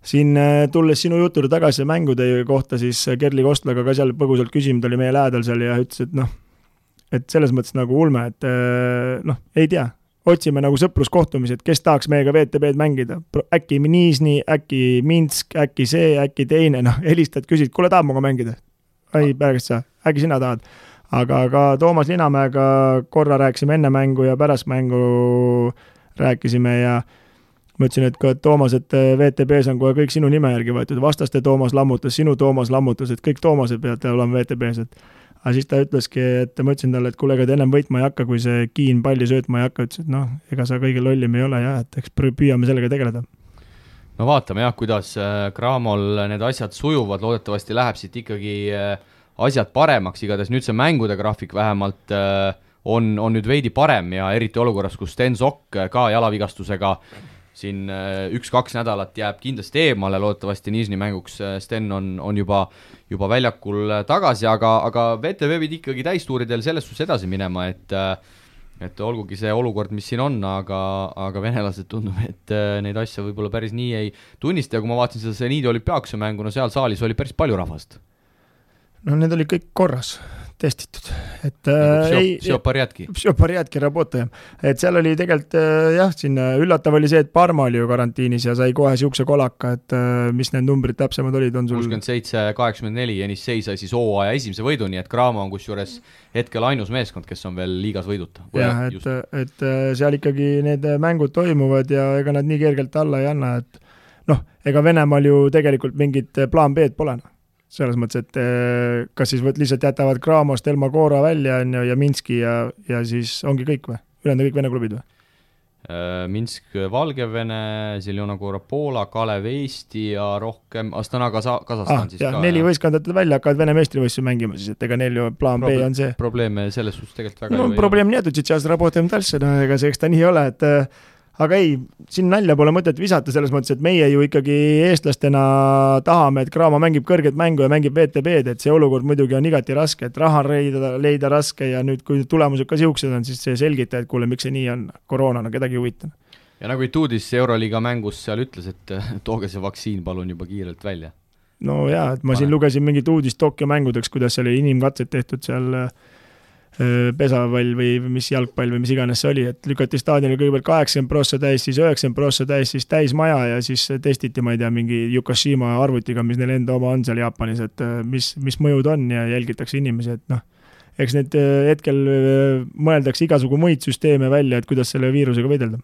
siin tulles sinu jutule tagasi mängude kohta, siis Kerli Kostlaga ka seal põgusalt küsinud oli meie lähedal seal ja ütles, et noh, et selles mõttes nagu ulme, et noh, ei tea, otsime nagu sõpruskohtumised, kes tahaks meiega VTB-d mängida, äkki Nižni, äkki Minsk, äkki see, äkki teine, noh, helistad, küsid, kuule tahab muga mängida? Ei, pärast sa, äkki sina tahad? Aga Toomas Linamäega korra rääkisime enne mängu ja pärast mängu rääkisime ja ma ütlesin, et ka Toomas, et VTB-s on kohe kõik sinu nime järgi võetud, vastaste Toomas lammutas, sinu Toomas lammutas, et kõik Toomased peavad olema VTB-s, aga siis ta ütleski, et ma ütlesin talle, et kuule, ega ta ennem võitma ei hakka, kui see Kiin palli söötma ei hakka, ütles, et noh, ega sa kõige lollim ei ole ja et eks püüame sellega tegeleda. No vaatame jah, kuidas Cramol need asjad sujuvad, loodetavasti läheb siit ikkagi asjad paremaks, igatahes nüüd see mängude graafik vähemalt on nüüd veidi parem ja eriti olukorras, kus Sten Sokk ka jalavigastusega siin 1-2 nädalat jääb kindlasti eemale, loodetavasti Nižni mänguks Sten on juba väljakul tagasi, aga VTB pidi ikkagi täistuuridel selles suhtes edasi minema, et olgugi see olukord, mis siin on, aga venelased tundub, et neid asja võib-olla päris nii ei tunnista ja kui ma vaatasin seda Seniidi olümpiaakuse mängu, no seal saalis oli päris palju rahvast. No need oli kõik korras, testitud. Et Psjoparjatki rabotaja. Et seal oli tegelikult jah, siin üllatav oli see, et Parma oli ju karantiinis ja sai kohe siukse kolaka, et mis need numbrid täpsemad olid, on sul 67-84 ja Nissei sai siis hooaja esimese võidu, nii et Cramo on kusjuures hetkel ainus meeskond, kes on veel liigas võiduta. Jah, et seal ikkagi need mängud toimuvad ja ega nad nii kergelt alla ei anna, et noh, ega Venemaal ju tegelikult mingit plaan B-d pole. Selles mõttes, et kas siis lihtsalt jätavad Cramost Elma Koora välja ja Minski ja siis ongi kõik või? Ülejäänud kõik Vene klubid või? Minsk, Valgevene, Zeljona Koora, Poola, Kalev, Eesti ja rohkem Astana, Kasahstan siis ka. 4 võistkondade välja hakkavad Vene meistrivõistlusi mängima siis, et ega neil ju plaan B on see. Probleeme selles suhtes tegelikult väga no, probleem nii, et сейчас работаем дальше, no ega see eks ta nii ole, et aga ei, siin nalja pole mõtet visata selles mõttes, et meie ju ikkagi eestlastena tahame, et Cramo mängib kõrget mängu ja mängib VTB-d, et see olukord muidugi on igati raske, et raha leida raske ja nüüd, kui tulemused ka siuksed on, siis see selgita, et kuule, miks see nii on, koroonana, kedagi huvitan. Ja nagu Ituudis Euroliiga mängus seal ütles, et tooge see vaktsiin palun juba kiirelt välja. No jaa, et ma siin lugesin mingit uudist Tokyo mängudeks, kuidas oli inimkatsed tehtud seal pesapall või mis jalgpall või mis iganes see oli, et lükati staadionil kõigepealt 80% täis, siis 90% täis, siis täis maja ja siis testiti, ma ei tea, mingi Yukashima arvutiga, mis neil enda oma on seal Jaapanis, et mis mõjud on ja jälgitakse inimesi, et noh, eks need hetkel mõeldakse igasugu muid süsteeme välja, et kuidas selle viirusega võidelda.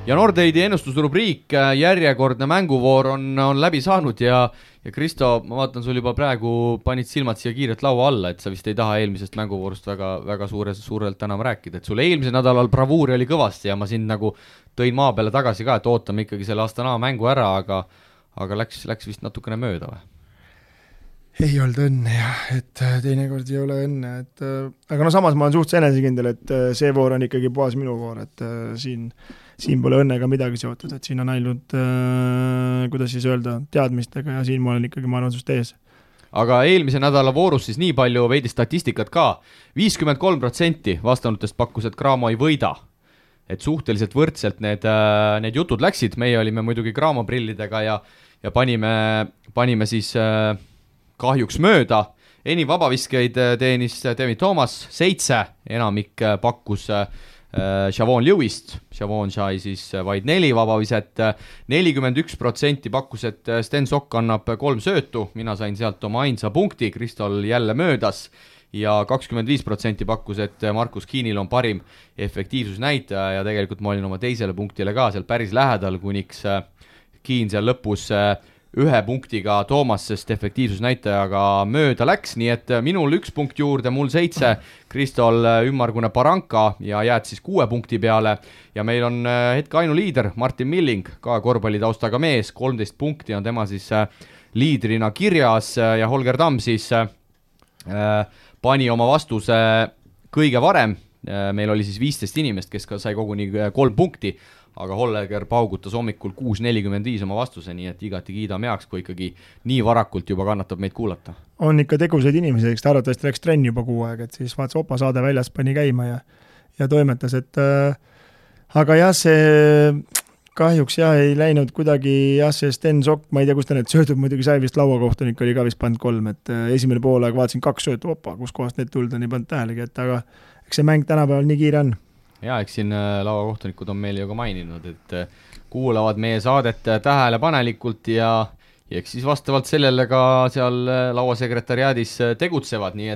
Ja Nordeidi ennustusrubriik, järjekordne mänguvoor on läbi saanud ja ja Kristo, ma vaatan, sul juba praegu panid silmad siia kiirelt laua alla, et sa vist ei taha eelmisest mänguvoorust väga suurelt enam rääkida, et sul eelmisel nädalal bravuuri oli kõvasti ja ma sind nagu tõin maa peale tagasi ka, et ootame ikkagi selle Astana mängu ära, aga läks vist natukene mööda või? Ei olnud õnne jah, et teinekord ei ole õnne, et aga no samas ma olen suhteliselt enesekindel, et see voor on ikkagi puhas minu voor, et siin pole õnnega midagi seotud, et siin on ainult, kuidas siis öelda, teadmistega ja siin ma olen ikkagi, ma arvan, sust ees. Aga eelmise nädala voorus siis nii palju veidi statistikat ka, 53% vastanutest pakkus, et Cramo ei võida. Et suhteliselt võrdselt need jutud läksid, meie olime muidugi Cramo prillidega ja panime siis kahjuks mööda. Enim vabaviskeid teenis David Thomas 7, enamik pakkus Chavon Lewist, Chavon sai siis vaid 4 vabaviset, 41% pakkus, et Sten Sokk annab 3 söötu, mina sain sealt oma ainsa punkti, Kristol jälle möödas ja 25% pakkus, et Markus Kiinil on parim efektiivsusnäitaja ja tegelikult ma olin oma teisele punktile ka seal päris lähedal, kuniks Kiin seal lõpus 1 punktiga Toomasest efektiivsusnäitajaga mööda läks, nii et minul 1 punkt juurde, mul 7, Kristol ümmargune Baranka ja jääd siis 6 punkti peale ja meil on hetke ainuliider Martin Milling, ka korvpallitaustaga mees, 13 punkti on tema siis liidrina kirjas ja Holger Tamm siis pani oma vastuse kõige varem, meil oli siis 15 inimest, kes ka sai koguni 3 punkti, aga Holger paugutas hommikul 6.45 oma vastuse, nii et igati kiidame heaks, kui ikkagi nii varakult juba kannatab meid kuulata. On ikka tegusaid inimesi, eks ta arvatavasti läks trenni juba 6 aeg, et siis vaatas Opa saade väljas, pani käima ja toimetas, et aga jah, see kahjuks jah, ei läinud kuidagi, jah, see Sten Sokk, ma ei tea, kus ta need söödud muidugi sai, vist lauakohtunik oli ka vist pannud 3, et esimene poolaeg vaatasin 2 söötu, Opa, kus kohast need tulda, nii pannud tähelegi, et aga eks see mäng tänapäeval nii kiire on. Ja eks siin lauakohtunikud on meile ju ka maininud, et kuulavad meie saadet tähelepanelikult ja eks siis vastavalt sellele ka seal lauasekretariaadis tegutsevad, nii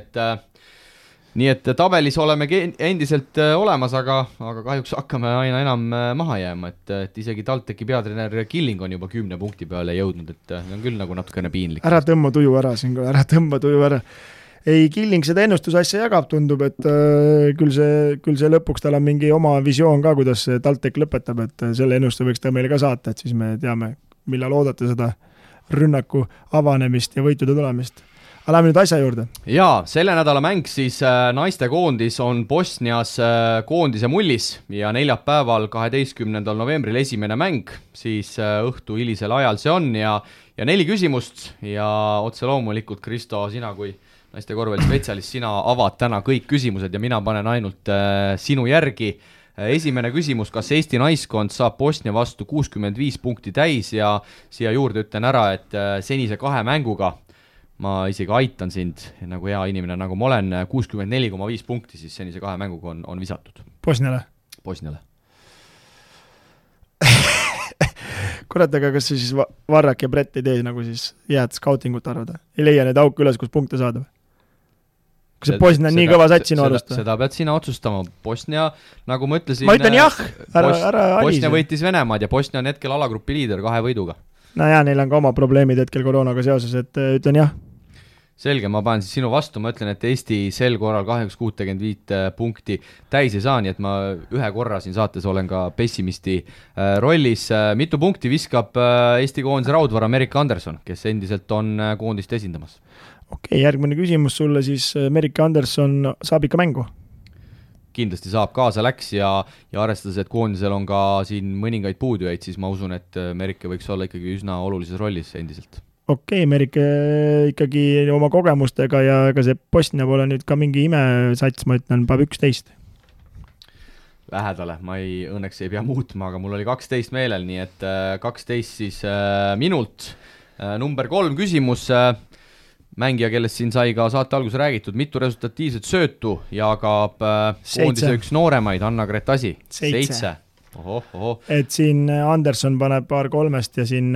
et tabelis oleme endiselt olemas, aga kahjuks hakkame aina enam maha jääma, et isegi TalTechi peatreener Killing on juba 10 punkti peale jõudnud, et on küll nagu natukene piinlik. Ära tõmba tuju ära. Ei, Killing seda ennustusasja jagab, tundub, et küll see lõpuks tal on mingi oma visioon ka, kuidas TalTech lõpetab, et selle ennustuse võiks ta meile ka saata, et siis me teame, millal oodata seda rünnaku avanemist ja võitude tulemist. Aga lähme nüüd asja juurde. Jaa, selle nädala mäng siis naiste koondis on Bosnias koondise mullis ja neljapäeval 12. novembril esimene mäng, siis õhtu hilisel ajal see on ja 4 küsimust ja otse loomulikult, Kristo, sina kui naiste korvpallispetsialist, sina avad täna kõik küsimused ja mina panen ainult sinu järgi. Esimene küsimus, kas Eesti naiskond saab Bosnia vastu 65 punkti täis ja siia juurde ütlen ära, et senise 2 mänguga ma isegi aitan sind, nagu hea inimene, nagu ma olen, 64,5 punkti siis senise 2 mänguga on visatud. Bosniale? Bosniale. Kurat, aga kas siis Varrak ja Brett ei tee nagu siis jääd scoutingut arvada? Ei leia need auke üles, kus punkte saada? Kas see Bosnia on nii kõva sats sinu arust? Seda pead sina otsustama. Bosnia, nagu ma ütlesin... Ma ütlen jah! Bosnia võitis Venemaad ja Bosnia on hetkel alagrupi liider 2 võiduga. No jaa, neil on ka oma probleemid hetkel koroonaga seoses, et ütlen jah. Selge, ma panen siis sinu vastu, ma ütlen, et Eesti sel korral 65 punkti täis ei saa, nii et ma 1 korra siin saates olen ka pessimisti rollis. Mitu punkti viskab Eesti koondise raudvara Merike Anderson, kes endiselt on koondist esindamas? Okei, järgmine küsimus sulle siis, Merike Anderson saab ikka mängu? Kindlasti saab, kaasa läks ja arvestades, et koondisel on ka siin mõningaid puudujaid, siis ma usun, et Merike võiks olla ikkagi üsna olulises rollis endiselt. Okei, Merike ikkagi oma kogemustega ja ega see Bosnia pole nüüd ka mingi imesats, ma ütlen, päev 11. Lähedale, ma õnneks ei pea muutma, aga mul oli 12 meelel, nii et 12 siis minult. Number 3 küsimus, mängija, kellest siin sai ka saate alguses räägitud, mitu resultatiivset söötu jagab koondise üks nooremaid, Anna-Grett Asi? 7. Oho. Et siin Anderson paneb paar 3 ja siin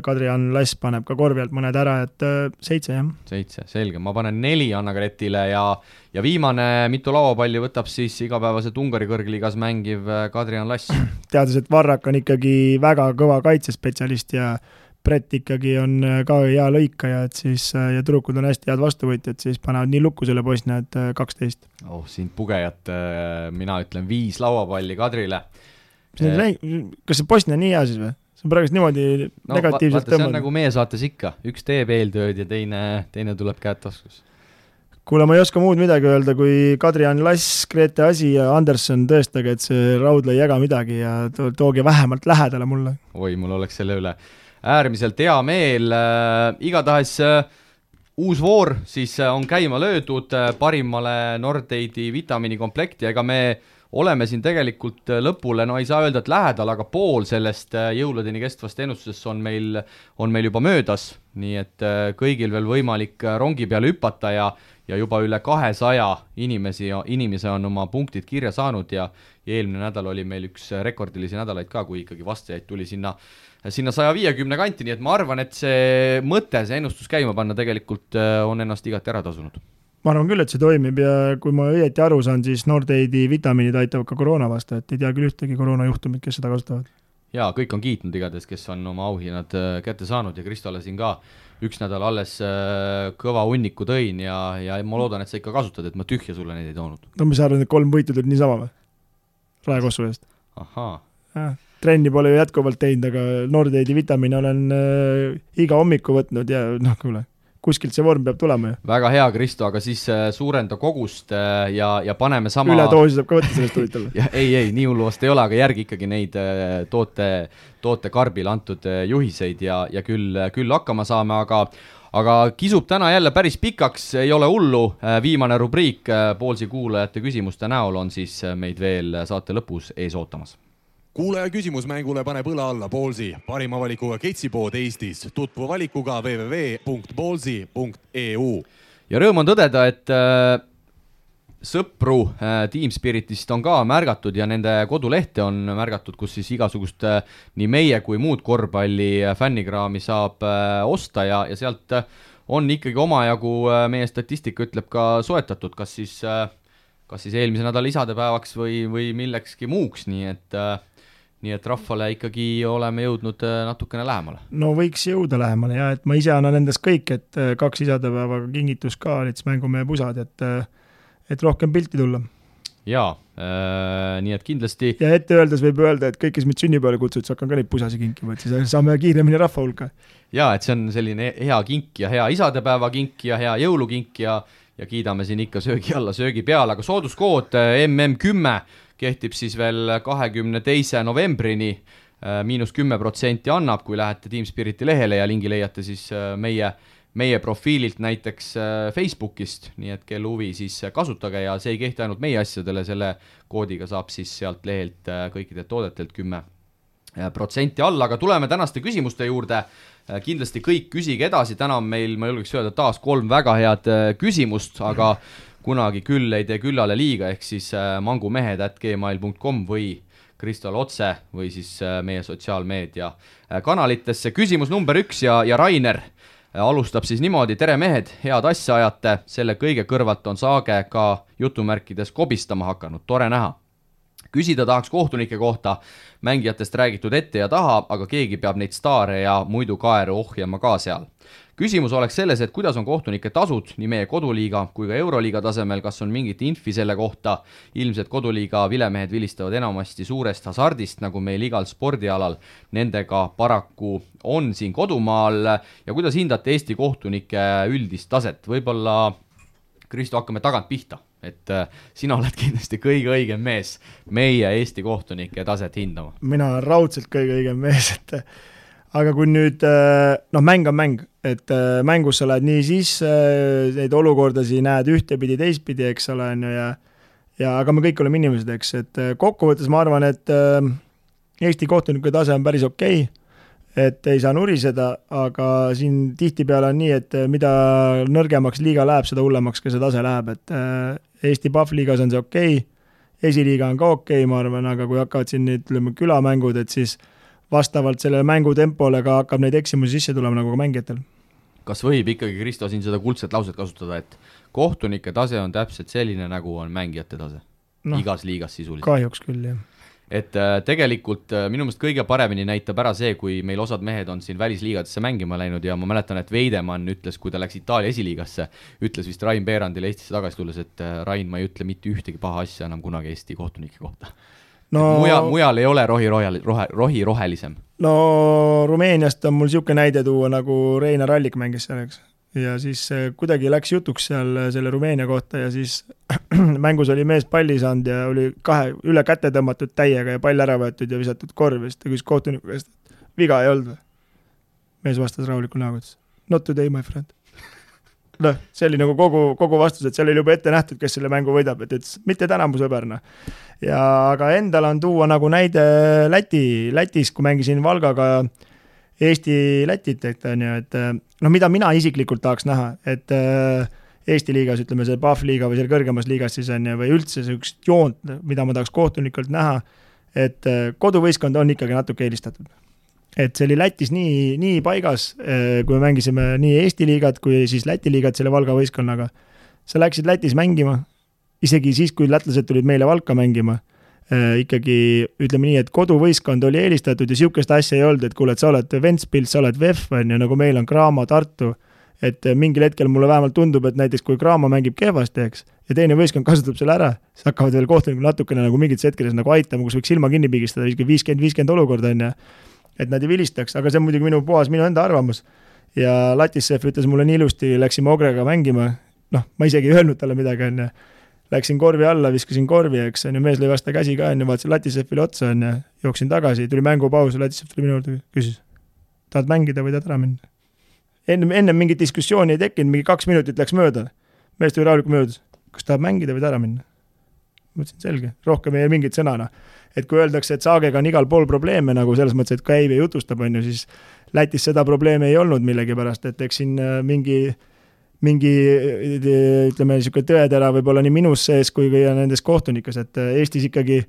Kadri-Ann Lass paneb ka korvi alt mõned ära, et 7 jah. 7, selge, ma panen 4 Anna-Gretile ja viimane mitu lauapalli võtab siis igapäevaselt Ungari kõrgliigas mängiv Kadri-Ann Lass. Teades, et Varrak on ikkagi väga kõva kaitsespetsialist ja Brett ikkagi on ka hea lõikaja, et siis ja tüdrukud on hästi head vastuvõtjad, siis panevad nii lukku selle Bosnia, et 12. Siin pugejat, mina ütlen 5 lauapalli Kadrile. Kas see Bosnia nii hea siis või? See on praegust niimoodi negatiivselt tõmmanud. See on nagu meie saates ikka, üks teeb eeltööd ja teine tuleb käed taskus. Kuule, ma ei oska muud midagi öelda, kui Kadri-Jan Lass, Grete Asi ja Anderson tõestage, et see raudle ei jaga midagi ja tooge vähemalt lähedale mulle. Oi, mul oleks selle üle äärmiselt hea meel. Igatahes uus voor siis on käima löödud parimale Nordeidi vitamiinikomplekti, ega me oleme siin tegelikult lõpule, no ei saa öelda, et lähedal, aga pool sellest jõuludeni kestvast ennustusest on meil juba möödas, nii et kõigil veel võimalik rongi peale hüpata ja juba üle 200 inimese on oma punktid kirja saanud ja eelmine nädal oli meil üks rekordilisi nädalaid ka, kui ikkagi vastajaid tuli sinna 150 kanti, nii et ma arvan, et see mõte, see ennustus käima panna tegelikult on ennast igati ära tasunud. Ma arvan küll, et see toimib ja kui ma õieti aru saan, siis Nordeidi vitamiinid aitavad ka koroona vastu, et ei tea küll ühtegi koroonajuhtumit, kes seda kasutavad. Jaa, kõik on kiitnud igatahes, kes on oma auhinnad kätte saanud ja Kristole siin ka üks nädal alles kõva hunniku tõin ja ma loodan, et sa ikka kasutad, et ma tühja sulle neid ei toonud. No mis arvan, et 3 võitu tulid niisama või? Raekossu eest. Ahaa. Trenni pole ju jätkuvalt teinud, aga Nordeidi vitamiine olen iga hommiku võtnud ja kuule, kuskilt see vorm peab tulema ju. Väga hea, Kristo, aga siis suurenda kogust ja paneme sama... Üledoosi saab ka võtta sellest huvitavalt. ei, nii hullu vast ei ole, aga järgi ikkagi neid toote karbile antud juhiseid ja küll hakkama saame, aga kisub täna jälle päris pikaks, ei ole hullu. Viimane rubriik Poolsi kuulajate küsimuste näol on siis meid veel saate lõpus ees ootamas. Kuulaja küsimus mängule paneb õla alla Poolsi, parima valikuga ketsipood Eestis, tutvu valikuga www.poolsi.eu. Ja rõõm on tõdeda, et sõpru Team Spiritist on ka märgatud ja nende kodulehte on märgatud, kus siis igasugust nii meie kui muud korvpalli fännikraami saab osta ja sealt on ikkagi omajagu, meie statistika ütleb ka soetatud, kas siis eelmise nädala isadepäevaks või millekski muuks, nii et rahvale ikkagi oleme jõudnud natukene lähemale. No võiks jõuda lähemale ja et ma ise annan endast kõik, et 2 isadepäevaga kingitus ka olid mängumehe pusad, et rohkem pilti tulla. Jaa, nii et kindlasti... Ja ette öeldes võib öelda, et kõik, kes meid sünnipäevale kutsud, siis hakkan ka neid pusasi kinkima, et siis saame kiiremini rahva hulka. Jaa, et see on selline hea kink ja hea isadepäeva kink ja hea jõulukink ja kiidame siin ikka söögi alla, söögi peale, aga sooduskood MM10 kehtib siis veel 22. novembrini, -10% annab, kui lähete Team Spiriti lehele ja lingi leiate siis meie profiililt näiteks Facebookist, nii et kel huvi siis kasutage ja see ei kehti ainult meie asjadele, selle koodiga saab siis sealt lehelt kõikidelt toodetelt 10% alla, aga tuleme tänaste küsimuste juurde. Kindlasti kõik küsige edasi, täna on meil, ma julgeks öelda, taas 3 väga head küsimust, aga kunagi küll ei tee küllale liiga, ehk siis mangumehed@gmail.com või Kristol otse või siis meie sotsiaalmeedia kanalitesse. Küsimus number 1 ja Rainer alustab siis niimoodi, tere mehed, head asja ajate, selle kõige kõrvalt on Saage ka jutumärkides kobistama hakanud, tore näha. Küsida tahaks kohtunike kohta, mängijatest räägitud ette ja taha, aga keegi peab neid staare ja muidu kaeru ohjama ka seal. Küsimus oleks selles, et kuidas on kohtunike tasud nii meie koduliiga kui ka Euroliiga tasemel, kas on mingit infi selle kohta, ilmselt koduliiga vilemehed vilistavad enamasti suurest hasardist, nagu meil igal spordialal, nendega paraku on siin kodumaal ja kuidas hindate Eesti kohtunike üldist taset, võib-olla Kristo hakkame tagant pihta, et sina oled kindlasti kõige õigem mees meie Eesti kohtunike taset hindama. Mina olen raudselt kõige õigem mees, aga kui nüüd, mäng on mäng, et mängus sa lähed nii sisse, neid olukordasid näed ühtepidi, teistpidi, eks ole, ja aga me kõik oleme inimesed, eks, et kokkuvõttes ma arvan, et Eesti kohtuniku tase on päris okei, et ei saa nuriseda, aga siin tihtipeale on nii, et mida nõrgemaks liiga läheb, seda hullemaks ka see tase läheb, et Eesti PAF-liigas on see okei, esiliiga on ka okei, ma arvan, aga kui hakkavad siin ütleme külamängud, et siis vastavalt sellele mängutempole ka hakkab neid eksimusi sisse tulema nagu ka mängijatel. Kas võib ikkagi, Kristo, siin seda kuldset lauset kasutada, et kohtunike tase on täpselt selline, nagu on mängijate tase? Igas liigas sisuliselt. Kahjuks küll, jah. et tegelikult minu meelest kõige paremini näitab ära see, kui meil osad mehed on siin välisliigadesse mängima läinud ja ma mäletan, et Veidemann ütles, kui ta läks Itaalia esiliigasse, ütles vist Rain Beerandile Eestisse tagasi tulles, et Rain, ma ei ütle mitte ühtegi paha asja enam kunagi Eesti kohtunike kohta. No, mujal ei ole rohi rohelisem. No Rumeeniast on mul siuke näide tuua, nagu Reinar Allik mängis selleks. Ja siis kuidagi läks jutuks seal selle Rumeenia kohta ja siis mängus oli mees palli saanud ja oli üle käte tõmmatud täiega ja pall ära võetud ja visatud korvist ja küsis kohtuniku käest, viga ei olnud või? Mees vastas rahuliku näoga, not today, my friend. No, see oli nagu kogu vastus, et seal oli juba ette nähtud, kes selle mängu võidab, et mitte täna mu sõberna. Ja aga endal on tuua nagu näide Lätis, kui mängisin Valgaga Eesti-Lätit, et mida mina isiklikult tahaks näha, et Eesti liigas, ütleme see PAF liiga või selle kõrgemas liigas siis on või üldse sellist joont, mida ma tahaks kohtunikult näha, et koduvõistkond on ikkagi natuke eelistatud. Et see oli Lätis nii paigas, kui me mängisime nii Eesti liigat kui siis Läti liigat selle Valga võistkonnaga. Sa läksid Lätis mängima, isegi siis, kui lätlased tulid meile Valka mängima, ikkagi ütleme nii, et koduvõistkond oli eelistatud ja siukest asja ei olnud, et kuule, et sa oled Ventspils, sa oled VEF, nagu meil on Graamo, Tartu, et mingil hetkel mulle vähemalt tundub, et näiteks kui Graamo mängib kehvasti, eks, ja teine võistkond kasutab selle ära, siis hakkavad veel kohtunikud natukene nagu mingites hetkedes nagu aitama, kus võiks silma kinni pigistada, 50-50 olukord on ja et nad ei vilistaks, aga see on muidugi minu enda arvamus. Ja Latissev ütles mulle nii ilusti, läksime Ogrega mängima, ma isegi ei öelnud talle midagi, on ja läksin korvi alla, viskasin korvi, eks, on ja mees lõi vasta käsi ka, on ja vaatasin Latisevile otsa, on ja jooksin tagasi, tuli mängupaus, Latisev tuli minu juurde, küsis, tahad mängida või tahad ära minna? Enne mingit diskussiooni ei tekkinud, mingi 2 minutit läks mööda, mees tuli rahulikult möödas, kas tahab mängida või ära minna? Mõtlesin, selge, rohkem ei mingit sõnana. Et kui öeldakse, et Saagega on igal pool probleeme, nagu selles mõttes, et käib ja jutustab, on ju, siis Lätis seda probleemi ei olnud millegi pärast, et eks siin mingi ütleme, niisugune tõetera võib-olla nii minus sees kui nendes kohtunikes, et Eestis ikkagi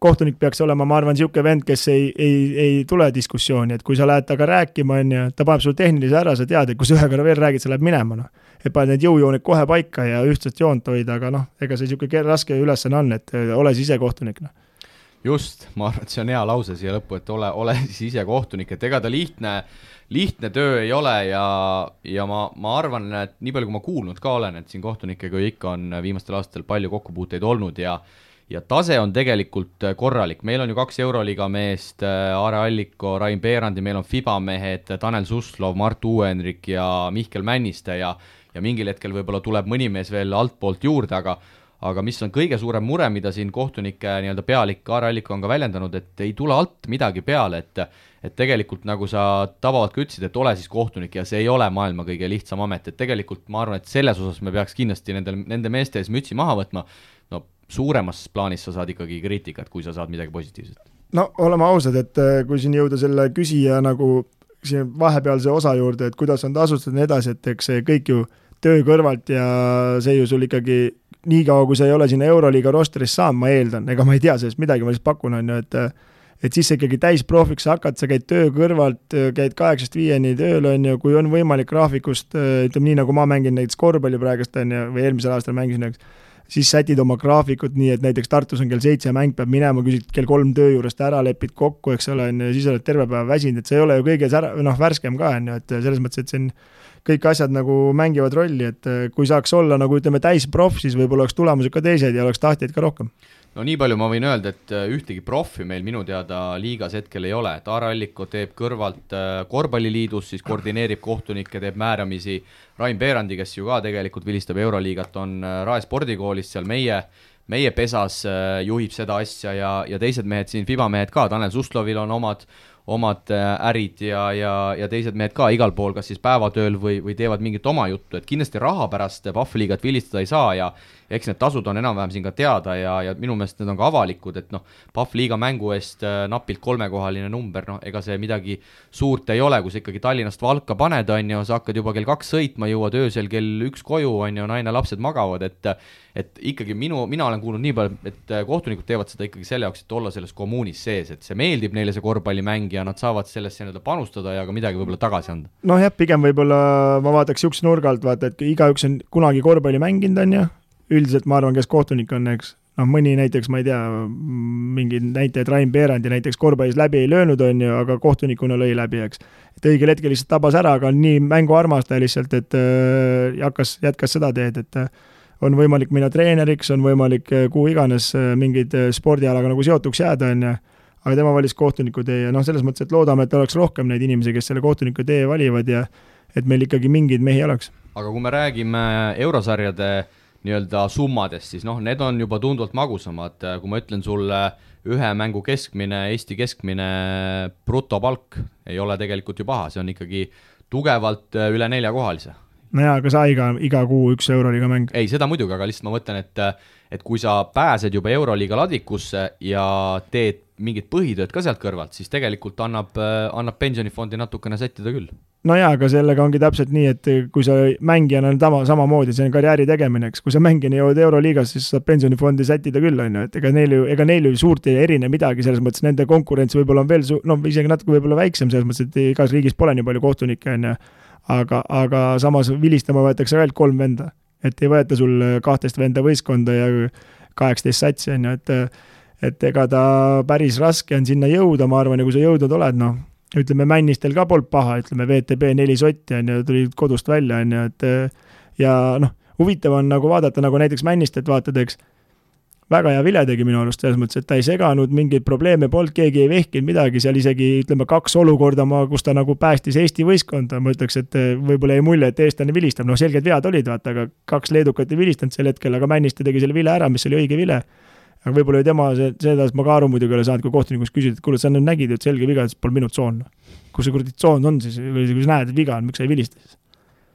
kohtunik peaks olema, ma arvan, niisugune vend, kes ei tule diskussiooni, et kui sa lähed taga rääkima, on ju, ta paneb sul tehnilise ära, sa tead, et kui sa ühe korra veel räägid, sa läheb minema, et paned need jõujooned kohe paika ja ühtsest joont hoida, aga ega see niisugune raske ülesanne on, et ole siis ise kohtunik. Just, ma arvan, et see on hea lause siia lõppu, et ole siis ise kohtunik, et ega ta lihtne töö ei ole ja ma arvan, et nii palju kui ma kuulnud ka olen, et siin kohtunikega ikka on viimastel aastatel palju kokkupuuteid olnud ja tase on tegelikult korralik. Meil on ju 2 Euroliiga meest, Aare Alliko, Rain Beerandi, meil on FIBA mehed, Tanel Suslov, Mart Uuenrik ja Mihkel Männiste ja mingil hetkel võib-olla tuleb mõni mees veel altpoolt juurde, aga mis on kõige suurem mure, mida siin kohtunike nii-öelda pealik Aare Alliko on ka väljendanud, et ei tule alt midagi peale, et tegelikult nagu sa tabavalt ka ütlesid, et ole siis kohtunik ja see ei ole maailma kõige lihtsam amet, et tegelikult ma arvan, et selles osas me peaks kindlasti nende meeste ees mütsi maha võtma, no suuremas plaanis sa saad ikkagi kriitikat, kui sa saad midagi positiivset. No oleme ausad, et kui siin jõuda selle küsija nagu siin vahepealse osa juurde, et kuidas on tasustatud nii edasi, et eks see kõik ju töö kõrvalt ja see ju sul ikkagi nii kaua, kui sa ei ole sinna Euroliiga rosteris saanud, ma eeldan, ega ma ei tea sellest midagi, ma lihtsalt pakun, on ju, et siis ikkagi täisprofiks hakkad, sa käid töö kõrvalt, käid 8-5 tööl, on ju, kui on võimalik graafikust, ütleme nii, nagu ma mängin näiteks korvpalli praegust, on ju, või eelmisel aastal mängisin, siis sätid oma graafikut nii, et näiteks Tartus on kell 7 mäng peab minema, küsid kell 3 töö juurest ära, lepid kokku, eks ole, ja siis oled terve päeva väsinud, et see ei ole ju kõige värskem ka, on ju, et selles mõttes, et see on kõik asjad nagu mängivad rolli, et kui saaks olla nagu ütleme täisprof, siis võib-olla oleks tulemused ka teised ja oleks tahtjaid ka rohkem. No nii palju ma võin öelda, et ühtegi profi meil minu teada liigas hetkel ei ole, et Aare Alliko teeb kõrvalt korvpalliliidus, siis koordineerib kohtunikke, teeb määramisi, Rain Beerandi, kes ju ka tegelikult vilistab Euroliigat, on Rae spordikoolis seal meie pesas juhib seda asja ja teised mehed siin, FIBA mehed ka, Tanel Suslovil on omad ärid ja teised mehed ka igal pool, kas siis päevatööl või teevad mingit oma juttu, et kindlasti raha pärast PAF-liigat vilistada ei saa ja eks need tasud on enam-vähem siin ka teada ja minu meelest need on ka avalikud, et PAF-liiga mängu eest napilt 3-kohaline number, ega see midagi suurt ei ole, kui sa ikkagi Tallinnast Valka paned, on ju, sa hakkad juba kell 2 sõitma, jõuad öösel kell 1 koju, on ju, naine, lapsed magavad, et ikkagi mina olen kuulnud nii palju, et kohtunikud teevad seda ikkagi selle jaoks, et olla selles kommuunis sees, et see meeldib neile see korvpallimäng ja nad saavad sellesse panustada ja ka midagi võib-olla tagasi anda. No jah, pigem võib-olla ma vaataks üks nurga alt, vaata, et igaüks on kunagi korvpalli mänginud, on ju, üldiselt ma arvan, kes kohtunik on, eks, noh, mõni näiteks, ma ei tea, mingid näitajad Rain Peerandi näiteks korvpallis läbi ei löönud, on ju, aga kohtunikuna lõi läbi, eks. Et õigel hetkel lihtsalt tabas ära, aga on nii mänguarmastaja lihtsalt, et jätkas seda teed, et on võimalik minna treeneriks, on võimalik kuhu iganes mingeid spordialaga nagu seotuks jääda, on ju, aga tema valis kohtuniku tee ja noh, selles mõttes, et loodame, et oleks rohkem neid inimesi, kes selle kohtuniku tee valivad ja et meil ikkagi mingeid mehi oleks. Aga kui me räägime eurosarjade nii-öelda summadest, siis noh, need on juba tunduvalt magusamad, kui ma ütlen sulle ühe mängu keskmine, Eesti keskmine brutopalk ei ole tegelikult ju paha, see on ikkagi tugevalt üle 4-kohalise. No jaa, aga sa iga kuu 1 euroliiga mäng. Ei, seda muidugi, aga lihtsalt ma mõtlen, et kui sa pääsed juba euroliiga ladvikusse ja teed mingid põhitööd ka sealt kõrvalt, siis tegelikult annab pensionifondi natukene sättida küll. No jaa, aga sellega ongi täpselt nii, et kui sa mängijana on samamoodi, see on karjääri tegemine, eks. Kui sa mängijana jõuad euroliigas, siis saab pensionifondi sättida küll, on ju, et ega neil ju suurt ei erine midagi, selles mõttes nende konkurents võib-olla on veel isegi natuke võib-olla väiksem, selles mõttes, et igas riigis pole nii palju kohtunikke, on ju. Aga samas vilistama võetakse veel 3 venda, et ei võeta sul 12 venda võistkonda ja 18 satsi, on ju, et ega ta päris raske on sinna jõuda, ma arvan, ja kui sa jõudnud oled, noh, ütleme Männistel ka polnud paha, ütleme VTB 4 sotti, on ju, tuli kodust välja, on ju, et ja noh, huvitav on nagu vaadata, nagu näiteks Männistelt vaatad, eks, väga hea vile tegi minu arust, selles mõttes, et ta ei seganud, mingeid probleeme polnud, keegi ei vehkinud midagi, seal isegi, ütleme, 2 olukorda, kus ta nagu päästis Eesti võistkonda, ma ütleks, et võib-olla ei mulje, et eestlane vilistab, noh, selged vead olid, vaata, aga 2 leedukat ei vilistanud sel hetkel, aga Männiste tegi selle vile ära, mis oli õige vile. Aga võib-olla tema, seda ma ka aru muidugi ole saanud, kui kohtunikuks küsida, et kuule, sa nüüd nägid, et selge viga, et pole minu tsoon. Kus see kuradi tsoon on siis, kui sa näed, et viga on, miks sa ei vilista siis?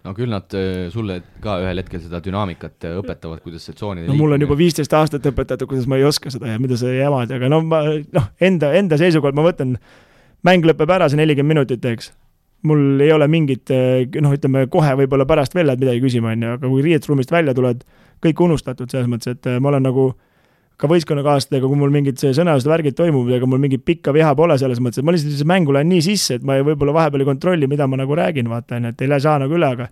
No küll nad sulle ka ühel hetkel seda dünaamikat õpetavad, kuidas see tsoonide mul on juba 15 aastat õpetatud, kuidas ma ei oska seda ja mida sa jamad, aga enda seisukohalt ma võtan, mäng lõpeb ära see 40 minutit, eks. Mul ei ole mingit, ütleme kohe võib-olla pärast veel lähed midagi küsima, aga kui riietusruumist välja tuled, kõik unustatud selles mõttes, et ma olen nagu ka võistkonnakaaslastega, kui mul mingid sõnalised värgid toimub, ega mul mingit pikka viha pole selles mõttes, et ma lihtsalt mängu lähen nii sisse, et ma võib-olla vahepeal ei kontrolli, mida ma nagu räägin, vaata, et ei saa nagu üle, aga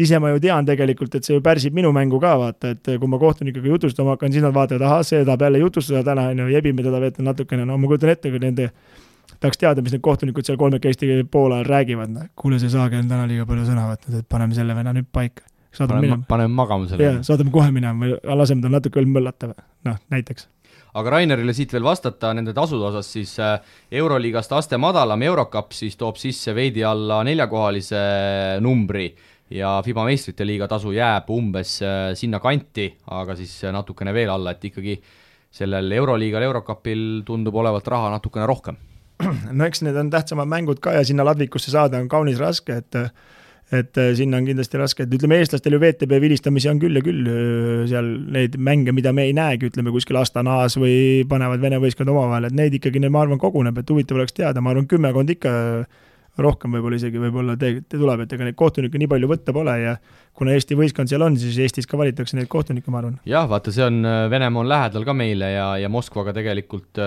ise ma ju tean tegelikult, et see ju pärsib minu mängu ka, vaata, et kui ma kohtunikuga jutustama hakkan, siis nad vaatavad, ahah, see tahab jälle jutustada täna, jebime teda veetan natukene, no ma kujutan ette, kui nende tahaks teada, mis need kohtunikud seal 3 Eesti poole räägivad, kuule, see Saage on täna liiga palju sõna võtnud, et paneme selle venna nüüd paika. Paneme magama selle. Jah, saadame kohe minema või laseme tal natuke veel möllata, näiteks. Aga Rainerile siit veel vastata nende tasude osas, siis Euroliigast aste madalam Eurocup siis toob sisse veidi alla 4-kohalise numbri ja FIBA meistrite liiga tasu jääb umbes sinna kanti, aga siis natukene veel alla, et ikkagi sellel Euroliigal, Eurocupil tundub olevat raha natukene rohkem. No eks need on tähtsamad mängud ka ja sinna ladvikusse saada on kaunis raske, et sinna on kindlasti raske, et ütleme eestlastel ju VTB vilistamisi on küll ja küll seal neid mänge, mida me ei näegi, ütleme kuskil Astanaas või panevad Vene võistkond omavahel, et neid ikkagi, ma arvan, koguneb, et huvitav oleks teada, ma arvan, 10 ikka rohkem võib-olla isegi võib-olla te tuleb, et ega neid kohtunikke nii palju võtta pole ja kuna Eesti võistkond seal on, siis Eestis ka valitakse neid kohtunikke, ma arvan. Jah, vaata, see on, Venemaa on lähedal ka meile ja Moskvaga tegelikult,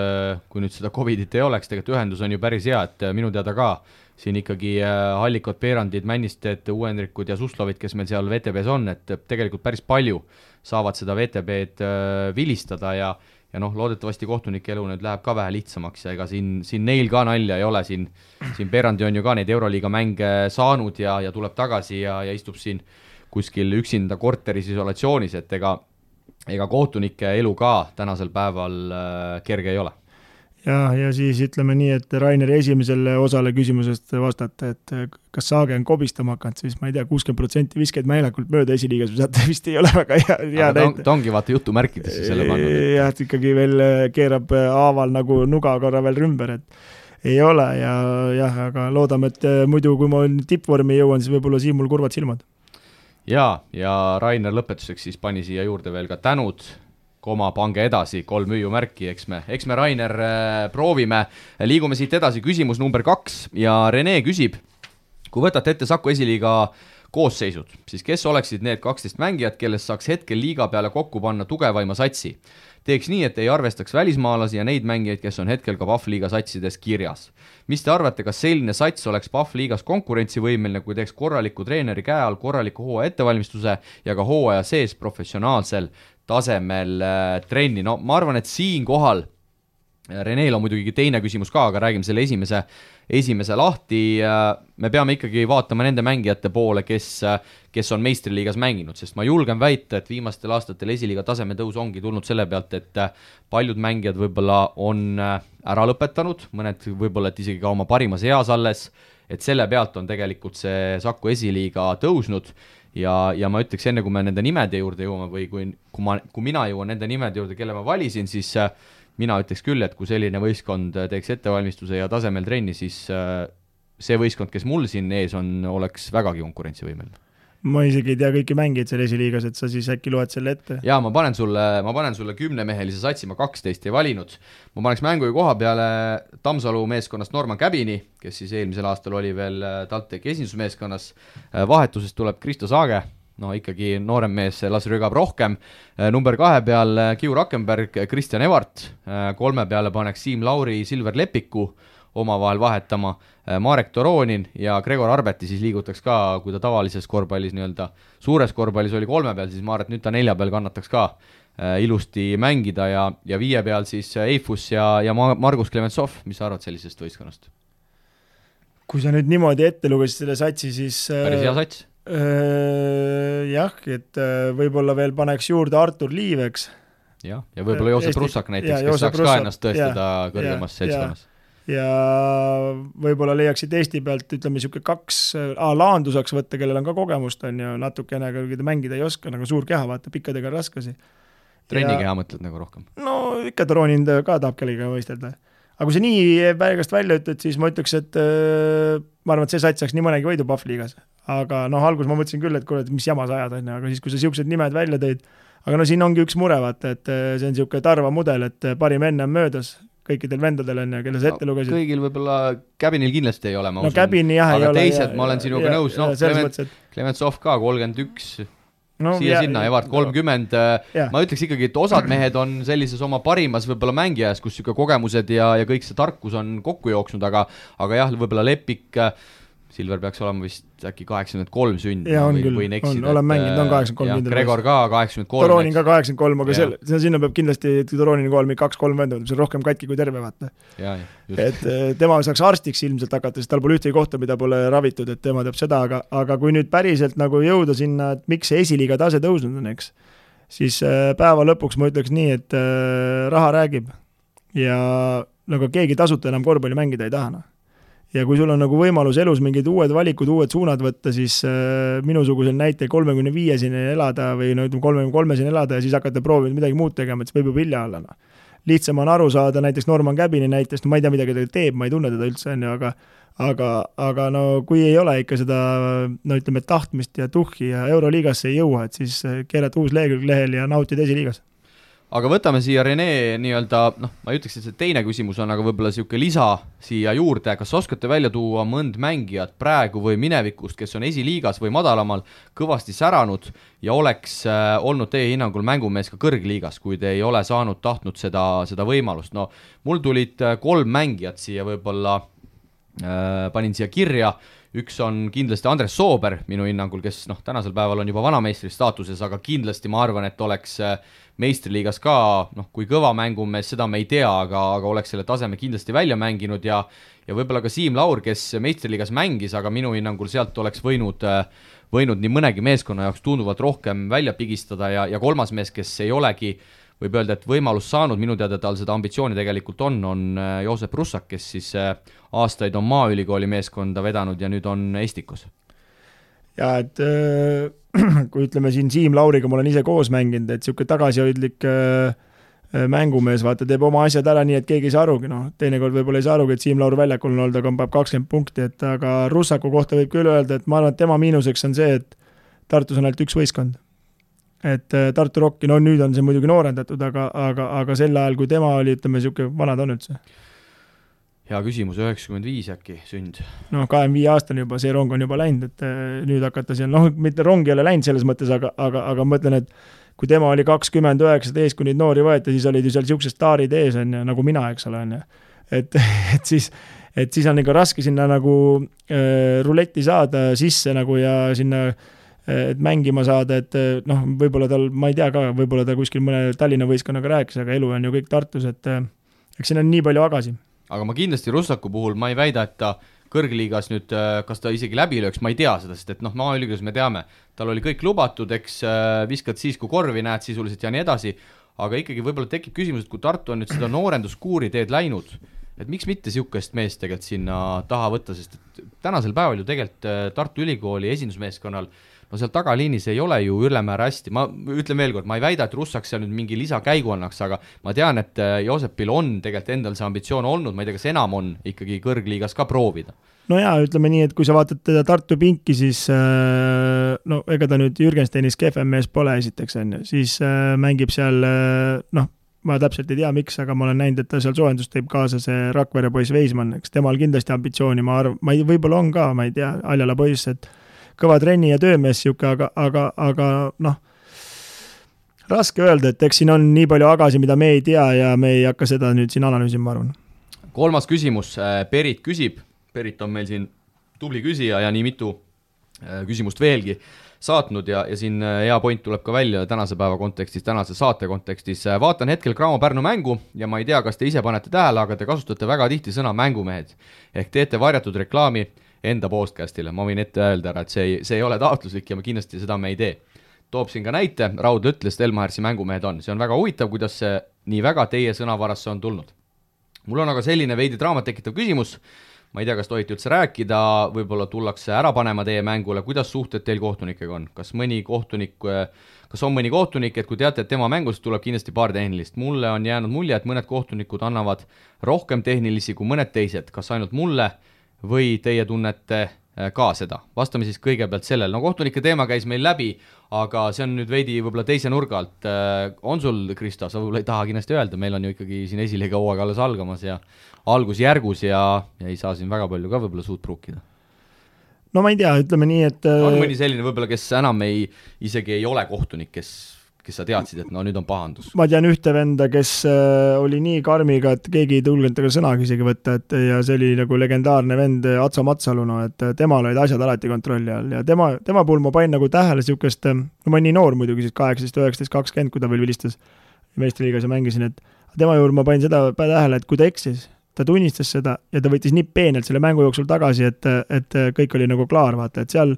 kui nüüd seda Covidit ei oleks, tegelikult ühendus on ju päris hea, et minu teada ka siin ikkagi Hallikod, Peerandid, Männisted, Uuendrikud ja Suslovid, kes meil seal VTB-s on, et tegelikult päris palju saavad seda VTB-d vilistada ja noh, loodetavasti kohtunike elu nüüd läheb ka vähe lihtsamaks ja ega siin neil ka nalja ei ole, siin Peerandi on ju ka neid Euroliiga mänge saanud ja tuleb tagasi ja istub siin kuskil üksinda korteris isolatsioonis, et ega kohtunike elu ka tänasel päeval kerge ei ole. Ja siis ütleme nii, et Raineri esimesele osale küsimusest vastata, et kas Saage on kobistama hakanud, siis ma ei tea, 60% viskeid meelekult mööda esiliigas, saate vist ei ole väga hea näite. Ta ongi vaata jutumärkidesse selle pannud. Jah, et ikkagi veel keerab haaval nagu nuga korra veel rümber, et ei ole ja aga loodame, et muidu kui ma tippvormi jõuan, siis võib-olla siin mul kurvad silmad. Ja Rainer lõpetuseks siis pani siia juurde veel ka tänud, pange edasi, 3 hüüumärki, eks me Rainer proovime. Liigume siit edasi, küsimus number 2 ja Rene küsib, kui võtate ette Saku esiliiga koosseisud, siis kes oleksid need 12 mängijat, kellest saaks hetkel liiga peale kokku panna tugevaima satsi? teeks nii, et ei arvestaks välismaalasi ja neid mängijaid, kes on hetkel ka PAF liiga satsides kirjas. Mis te arvate, kas selline sats oleks PAF liigas konkurentsivõimeline, kui teeks korraliku treeneri käe all korraliku hooaja ettevalmistuse ja ka hooaja sees professionaalsel tasemel trenni? No ma arvan, et siinkohal Reneel on muidugi teine küsimus ka, aga räägime selle esimese lahti. Me peame ikkagi vaatama nende mängijate poole, kes on meistriliigas mänginud, sest ma julgen väita, et viimastel aastatel esiliiga taseme tõus ongi tulnud selle pealt, et paljud mängijad võib-olla on ära lõpetanud, mõned võib-olla et isegi ka oma parimas eas alles, et selle pealt on tegelikult see Saku esiliiga tõusnud ja ma ütleks enne, kui me nende nimede juurde jõuame või kui mina jõuan nende nimede juurde, kelle ma valisin, siis mina ütleks küll, et kui selline võistkond teeks ettevalmistuse ja tasemel trenni, siis see võistkond, kes mul siin ees on, oleks vägagi konkurentsivõimeline. Ma isegi ei tea kõiki mängijaid seal esiliigas, et sa siis äkki loed selle ette. Jaa, ma panen sulle 10-mehelise satsi, ma 12 ei valinud. Ma paneks mängu koha peale Tammsalu meeskonnast Norman Käbini, kes siis eelmisel aastal oli veel TalTechi esindusmeeskonnas. Vahetusest tuleb Kristo Saage, no ikkagi noorem mees las rügab rohkem. Number 2 peal Kiu Rakkenberg, Kristjan Evart, 3 peale paneks Siim Lauri, Silver Lepiku omavahel vahetama, Marek Toronin ja Gregor Arbeti siis liigutaks ka, kui ta tavalises korvpallis nii-öelda suures korvpallis oli 3 peal, siis ma arvan, et nüüd ta 4 peal kannataks ka ilusti mängida ja 5 peal siis Eifus ja Margus Klementsov. Mis sa arvad sellisest võistkonnast? Kui sa nüüd niimoodi ette lugesid selle satsi, siis päris hea sats. Jah, et võib-olla veel paneks juurde Artur Liiveks. Ja võib-olla Joosep Russak näiteks, kes saaks ka ennast tõestada kõrgemas seltskonnas. Ja võib-olla leiaksid Eesti pealt, ütleme, niisugune 2 Laandu saaks võtta, kellel on ka kogemust, on ju natukene, kui ta mängida ei oska, nagu suur keha, vaata, pikkadega raskasi. Trennikeha mõtled nagu rohkem? No ikka Toronin ka tahab kellega võistelda. Aga kui see nii päegast välja ütled, siis ma ütleks, et ma arvan, et see sats saaks nii mõnegi võidu PAF liigas. Aga alguses ma mõtlesin küll, et kuule, mis jama sa ajad, aga siis, kui sa siuksed nimed välja tõid, aga siin ongi üks mure, vaata, et see on niisugune Tarva mudel, et parim enne on möödas kõikidel vendadel on ja kelle sa ette lugesid. Kõigil võib-olla Käbinil kindlasti ei ole, ma usun. Käbini jah aga ei ole. Aga teised, ma olen sinuga nõus, Klementsov ka 31, sinna, Evart 30. Ma ütleks ikkagi, et osad mehed on sellises oma parimas võib-olla mängijas, kus kogemused ja kõik see tarkus on kokku jooksnud, aga jah, võib-olla Lepik, Silver peaks olema vist äkki 83 sünd või neksida. Olen mänginud, on 83. Gregor ka 83. Toronin ka 83, aga sinna peab kindlasti Toronin kool 2-3 venda, see on rohkem katki kui terve, vaata. Et tema saaks arstiks ilmselt hakata, sest tal pole ühtegi kohta, mida pole ravitud, et tema teab seda, aga kui nüüd päriselt nagu jõuda sinna, et miks see esiliiga tase tõusnud on, eks, siis päeva lõpuks ma ütleks nii, et raha räägib ja nagu keegi tasuta enam korvpalli mängida ei taha. Ja kui sul on nagu võimalus elus mingid uued valikud, uued suunad võtta, siis minusugusel näite 35-sine elada või 33-sine elada ja siis hakata proovima midagi muud tegema, et see võib juba hilja olla. Lihtsam on aru saada näiteks Norman Käbini näitest, ma ei tea, midagi ta teeb, ma ei tunne teda üldse, aga no kui ei ole ikka seda ütleme, tahtmist ja tuhhi ja Euroliigasse ei jõua, et siis keerata uus lehekülg lehel ja nautida esiliigas. Aga võtame siia Rene nii-öelda, ma ei ütleks, et see teine küsimus on, aga võib-olla siuke lisa siia juurde, kas oskate välja tuua mõnd mängijat praegu või minevikust, kes on esiliigas või madalamal kõvasti säranud ja oleks olnud teie hinnangul mängumees ka kõrgliigas, kui te ei ole tahtnud seda võimalust? No mul tulid 3 mängijat siia võib-olla, panin siia kirja, üks on kindlasti Andres Soober minu hinnangul, kes tänasel päeval on juba vanameistri staatuses, aga kindlasti ma arvan, et oleks meistriliigas ka, kui kõva mängumees, seda me ei tea, aga oleks selle taseme kindlasti välja mänginud ja võib-olla ka Siim Laur, kes meistriliigas mängis, aga minu hinnangul sealt oleks võinud nii mõnegi meeskonna jaoks tunduvalt rohkem välja pigistada ja 3. mees, kes ei olegi, võib öelda, et võimalus saanud, minu teada tal seda ambitsiooni tegelikult on Joosep Russak, kes siis aastaid on Maaülikooli meeskonda vedanud ja nüüd on Estikos. Ja et kui ütleme siin Siim Lauriga ma olen ise koos mänginud, et niisugune tagasihoidlik mängumees, vaata, teeb oma asjad ära nii, et keegi ei saa arugi, teinekord võib-olla ei saa arugi, et Siim Laur väljakul on olnud, aga peab 20 punkti, et aga Russaku kohta võib küll öelda, et ma arvan, et tema miinuseks on see, et Tartus on ainult üks võistkond. Et Tartu Rocki, nüüd on see muidugi noorendatud, aga sel ajal, kui tema oli, ütleme, niisugune vanad on üldse. Hea küsimus, 95 äkki sünd. 25 aastane juba, see rong on juba läinud, et nüüd hakata seal, mitte rong ei ole läinud selles mõttes, aga mõtlen, et kui tema oli 20-19, kui neid noori võeti, siis olid ju seal siuksed staarid ees, on ju, nagu mina, eks ole, on ju. Et siis on ikka raske sinna nagu ruletti saada sisse nagu ja sinna et mängima saada, et noh, võib-olla tal, ma ei tea ka, võib-olla ta kuskil mõne Tallinna võistkonnaga rääkis, aga elu on ju kõik Tartus, et eks siin on nii palju agasi. Aga ma kindlasti Russaku puhul, ma ei väida, et ta kõrgliigas nüüd, kas ta isegi läbi lööks, ma ei tea seda, sest et noh, maaülikoolis me teame, tal oli kõik lubatud, eks viskad siis, kui korvi näed sisuliselt ja nii edasi, aga ikkagi võib-olla tekib küsimus, et kui Tartu on nüüd seda noorenduskuuri teed läinud, et miks mitte sihukest meest tegelikult sinna taha võtta, sest et tänasel päeval ju tegelikult Tartu Ülikooli esindusmeeskonnal, no seal tagaliinis ei ole ju ülemäär hästi, ma ütlen veel kord, ma ei väida, et Russak seal nüüd mingi lisakäigu annaks, aga ma tean, et Joosepil on tegelikult endal see ambitsioon olnud, ma ei tea, kas enam on ikkagi kõrgliigas ka proovida. No jaa, ütleme nii, et kui sa vaatad teda Tartu pinki, siis no ega ta nüüd Jürgensteinis kehvem mees pole esiteks, siis mängib seal, noh, ma täpselt ei tea, miks, aga ma olen näinud, et ta seal soojendust teeb kaasa see Rakvere poiss Veismann, eks temal kindlasti ambitsiooni, ma võib-olla on ka, ma ei tea, Aljala poiss, et kõva trenni ja töömees siuke, aga noh, raske öelda, et eks siin on nii palju agasi, mida me ei tea ja me ei hakka seda nüüd siin analüüsima, ma arvan. Kolmas küsimus, Perit küsib, Perit on meil siin tubli küsija ja nii mitu küsimust veelgi saatnud ja siin hea point tuleb ka välja tänase päeva kontekstis, tänase saate kontekstis. Vaatan hetkel Graamo Pärnu mängu ja ma ei tea, kas te ise panete tähele, aga te kasutate väga tihti sõna mängumehed ehk teete varjatud reklaami enda podcastile. Ma võin ette öelda ära, et see ei ole taotluslik ja kindlasti seda me ei tee. Toob siin ka näite, Raudla ütles, et Elmahersi mängumehed on. See on väga huvitav, kuidas see nii väga teie sõnavarasse on tulnud. Mul on aga selline veidi draamat tekitav küsimus. Ma ei tea, kas tohite üldse rääkida, võib-olla tullakse ära panema teie mängule, kuidas suhted teil kohtunikega on? Kas on mõni kohtunik, et kui teate, et tema mängust tuleb kindlasti paar tehnilist. Mulle on jäänud mulje, et mõned kohtunikud annavad rohkem tehnilisi kui mõned teised. Kas ainult mulle või teie tunnete ka seda? Vastame siis kõigepealt sellel. No kohtunike teema käis meil läbi, aga see on nüüd veidi võib-olla teise nurga alt. On sul, Kristo, sa võib-olla ei taha kindlasti öelda, meil on ju ikkagi siin esiliiga hooaeg alles algamas ja algusjärgus ja ei saa siin väga palju ka võib-olla suut pruukida. No ma ei tea, ütleme nii, et on mõni selline võib-olla, kes enam isegi ei ole kohtunik, kes sa teadsid, et no nüüd on pahandus? Ma tean ühte venda, kes oli nii karmiga, et keegi ei tulnud taga sõnagi isegi võtta, ja see oli nagu legendaarne vend Atso Matsalu, et temal olid asjad alati kontrolli all ja tema puhul ma panin nagu tähele siukest, no ma olin nii noor muidugi siis 18, 19, 20, kui ta veel vilistas meistriliigas ja mängisin, et tema juurde ma panin seda tähele, et kui ta eksis, ta tunnistas seda ja ta võttis nii peenelt selle mängu jooksul tagasi, et kõik oli nagu klaar, vaata, et seal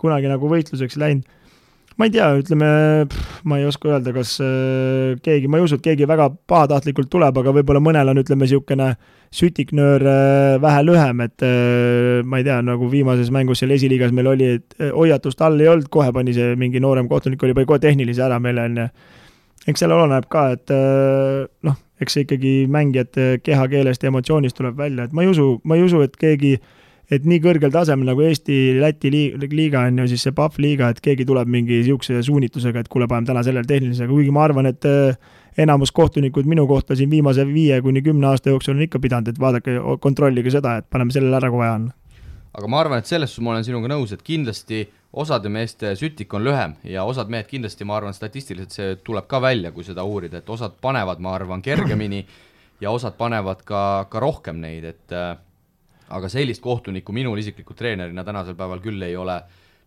kunagi nagu võitluseks läinud. Ma ei tea, ütleme, ma ei oska öelda, kas keegi, ma ei usu, et keegi väga pahatahtlikult tuleb, aga võib-olla mõnel on, ütleme, siukene sütiknöör vähe lühem, et ma ei tea, nagu viimases mängus seal esiliigas meil oli, et hoiatust all ei olnud, kohe pani see mingi noorem kohtunik, oli kohe tehnilise ära meile, eks seal oleneb ka, et noh, eks see ikkagi mängijate kehakeelest ja emotsioonist tuleb välja, et ma ei usu, et keegi, et nii kõrgel tasemel nagu Eesti-Läti liiga on ju siis see PAF liiga, et keegi tuleb mingi siukse suunitusega, et kuule, paneme täna sellele tehnilisega, kuigi ma arvan, et enamus kohtunikud minu kohta siin viimase 5-10 aasta jooksul on ikka pidanud, et vaadake, kontrollige seda, et paneme sellele ära, kui vaja on. Aga ma arvan, et selles ma olen sinuga nõus, et kindlasti osade meeste sütik on lühem ja osad mehed kindlasti, ma arvan, statistiliselt see tuleb ka välja, kui seda uurida, et osad panevad, ma arvan, kergemini ja osad panevad ka rohkem neid, et aga sellist kohtunikku minul isiklikult treenerina tänasel päeval küll ei ole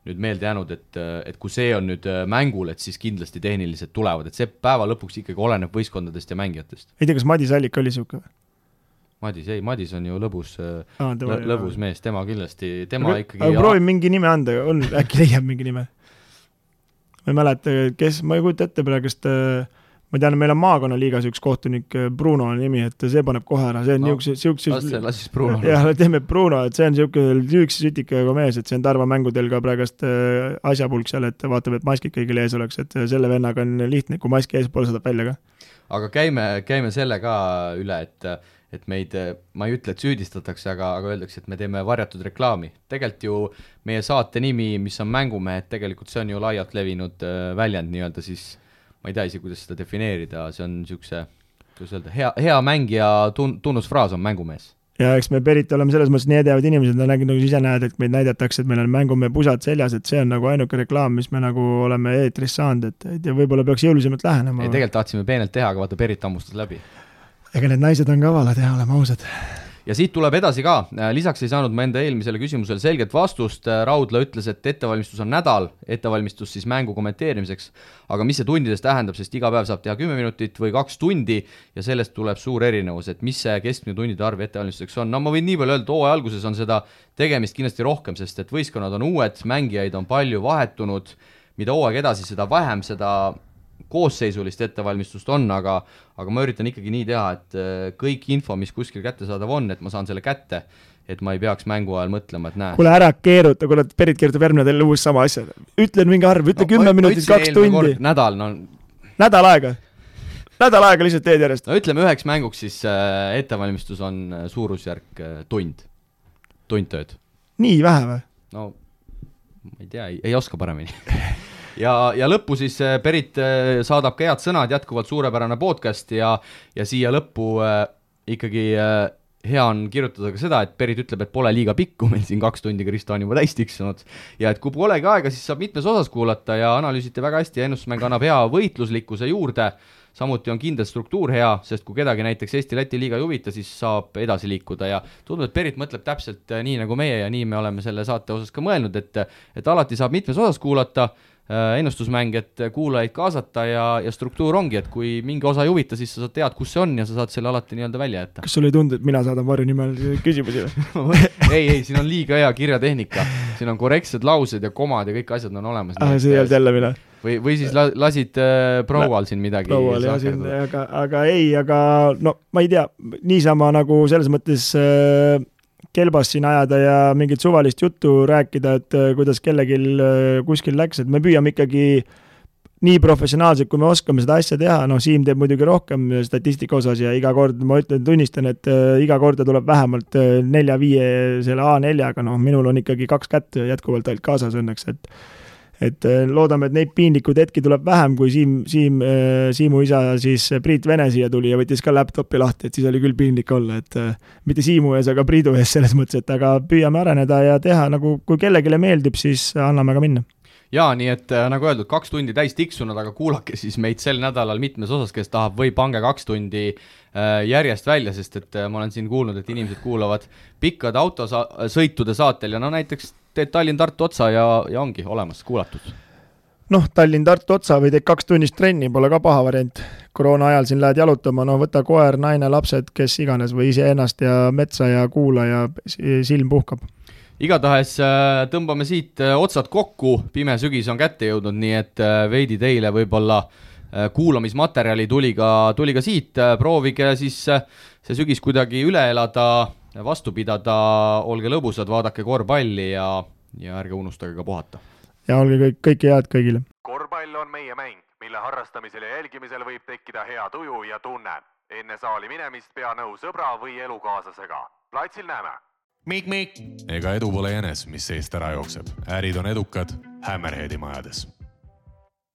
nüüd meelde jäänud, et kui see on nüüd mängul, et siis kindlasti tehnilised tulevad, et see päeva lõpuks ikkagi oleneb võistkondadest ja mängijatest. Ei tea, kas Madis Allik oli siuke? Madis on ju lõbus mees, tema kindlasti, aga proovin mingi nime anda, äkki leiab mingi nime. Ma ei mäleta, ma ei kujuta ette praegust, ma tean, meil on maakonnaliigas üks kohtunik, Bruno on nimi, et see paneb kohe ära, see on Lasis Bruno. Jah, teeme Bruno, et see on üks sütikaga mees, et see on Tarva mängudel ka praegust asjapulk seal, et vaatab, et maskid kõigil ees oleks, et selle vennaga on lihtne, kui maski ees poole saadab välja ka. Aga käime selle ka üle, et meid, ma ei ütle, et süüdistatakse, aga öeldakse, et me teeme varjatud reklaami. Tegelikult ju meie saate nimi, mis on mängumehed, tegelikult see on ju laialt levinud väljend nii-öelda siis, ma ei tea isi, kuidas seda defineerida, see on niisuguse, kuidas öelda, hea mängija tunnusfraas on mängumees. ja eks me Perit oleme selles mõttes nii edevad inimesed, nagu ise näed, et meid näidatakse, et meil on mängumehe pusad seljas, et see on nagu ainuke reklaam, mis me nagu oleme eetris saanud, et ja võib-olla peaks jõulisemalt lähenema. Ei, tegelikult tahtsime peenelt teha, aga vaata Perit ammustas läbi. Ega need naised on kavalad ja oleme ausad. Ja siit tuleb edasi ka, lisaks ei saanud ma enda eelmisele küsimusele selget vastust, Raudla ütles, et ettevalmistus on nädal, ettevalmistus siis mängu kommenteerimiseks, aga mis see tundides tähendab, sest iga päev saab teha 10 minutit või 2 tundi ja sellest tuleb suur erinevus, et mis see keskmine tundide arv ettevalmistuseks on. No ma võin nii palju öelda, hooaja alguses on seda tegemist kindlasti rohkem, sest et võistkonnad on uued, mängijaid on palju vahetunud, mida hooaeg edasi, seda vähem seda koosseisulist ettevalmistust on, aga ma üritan ikkagi nii teha, et kõik info, mis kuskil kättesaadav on, et ma saan selle kätte, et ma ei peaks mängu ajal mõtlema, et näe. Kuule ära keeruta, kuule Perit keerutab järgmine teile uus sama asja. Ütlen mingi arv, ütle 10 minutit, 2 tundi. Nädal, no. Nädal aega lihtsalt teed järjest. No ütleme üheks mänguks siis ettevalmistus on suurusjärk tund tööd. Nii vähe või? No ma ei tea, ei oska paremini. Ja lõppu siis Perit saadab ka head sõnad, jätkuvalt suurepärane podcast ja siia lõppu ikkagi hea on kirjutada ka seda, et Perit ütleb, et pole liiga pikku, meil siin 2 tundi Kristo on juba täis tiksunud ja et kui polegi aega, siis saab mitmes osas kuulata ja analüüsite väga hästi ja ennustusmäng annab hea võitluslikkuse juurde, samuti on kindel struktuur hea, sest kui kedagi näiteks Eesti-Läti liiga ei huvita, siis saab edasi liikuda ja tundub, et Perit mõtleb täpselt nii nagu meie ja nii me oleme selle saate osas ka mõelnud, et alati saab mitmes osas kuulata, ennustusmäng, et kuulajaid kaasata ja struktuur ongi, et kui mingi osa ei huvita, siis sa tead, kus see on ja sa saad selle alati nii-öelda välja jätta. Kas sul ei tundu, et mina saadan varju nimel küsimusi? ei, siin on liiga hea kirjatehnika, siin on korrektsed laused ja komad ja kõik asjad on olemas. See ei olnud jälle mina. Või siis lasid proual siin midagi. Proual jah, aga no ma ei tea, niisama nagu selles mõttes kelbas siin ajada ja mingit suvalist juttu rääkida, et kuidas kellegi kuskil läks, et me püüame ikkagi nii professionaalselt, kui me oskame seda asja teha, Siim teeb muidugi rohkem statistika osas ja iga kord, ma tunnistan, et iga korda tuleb vähemalt 4-5 selle A4-ga, minul on ikkagi 2 kätt jätkuvalt ainult kaasas õnneks, et loodame, et neid piinlikud hetki tuleb vähem, kui Siimu isa siis Priit Vene siia tuli ja võttis ka laptopi lahti, et siis oli küll piinlik olla, et mitte Siimu ees, aga Priidu ees selles mõttes, et aga püüame areneda ja teha, nagu kui kellegile meeldib, siis anname ka minna. Jaa, nii et nagu öeldud, 2 tundi täis tiksunud, aga kuulake siis meid sel nädalal mitmes osas, kes tahab või pange 2 tundi järjest välja, sest et ma olen siin kuulnud, et inimesed kuulavad pikkade autosõitude saatel ja näiteks teed Tallinn-Tartu otsa ja ongi olemas kuulatud. Tallinn-Tartu otsa või teed 2 tunnist trenni, pole ka paha variant. Koroona ajal siin lähed jalutama, võta koer, naine, lapsed, kes iganes või ise ennast ja metsa ja kuula ja silm puhkab. Igatahes tõmbame siit otsad kokku, pime sügis on kätte jõudnud, nii et veidi teile võib-olla kuulamismaterjali tuli ka siit, proovige siis see sügis kuidagi üle elada, vastu pidada, olge lõbusad, vaadake korvpalli ja ärge unustage ka puhata. Ja olge kõike head kõigile. Korvpall on meie mäng, mille harrastamisel ja jälgimisel võib tekkida hea tuju ja tunne. Enne saali minemist pea nõu sõbra või elukaaslasega. Platsil näeme. Mik. Ega edu pole jänes, mis seest ära jookseb. Ärid on edukad Hammerheadi majades.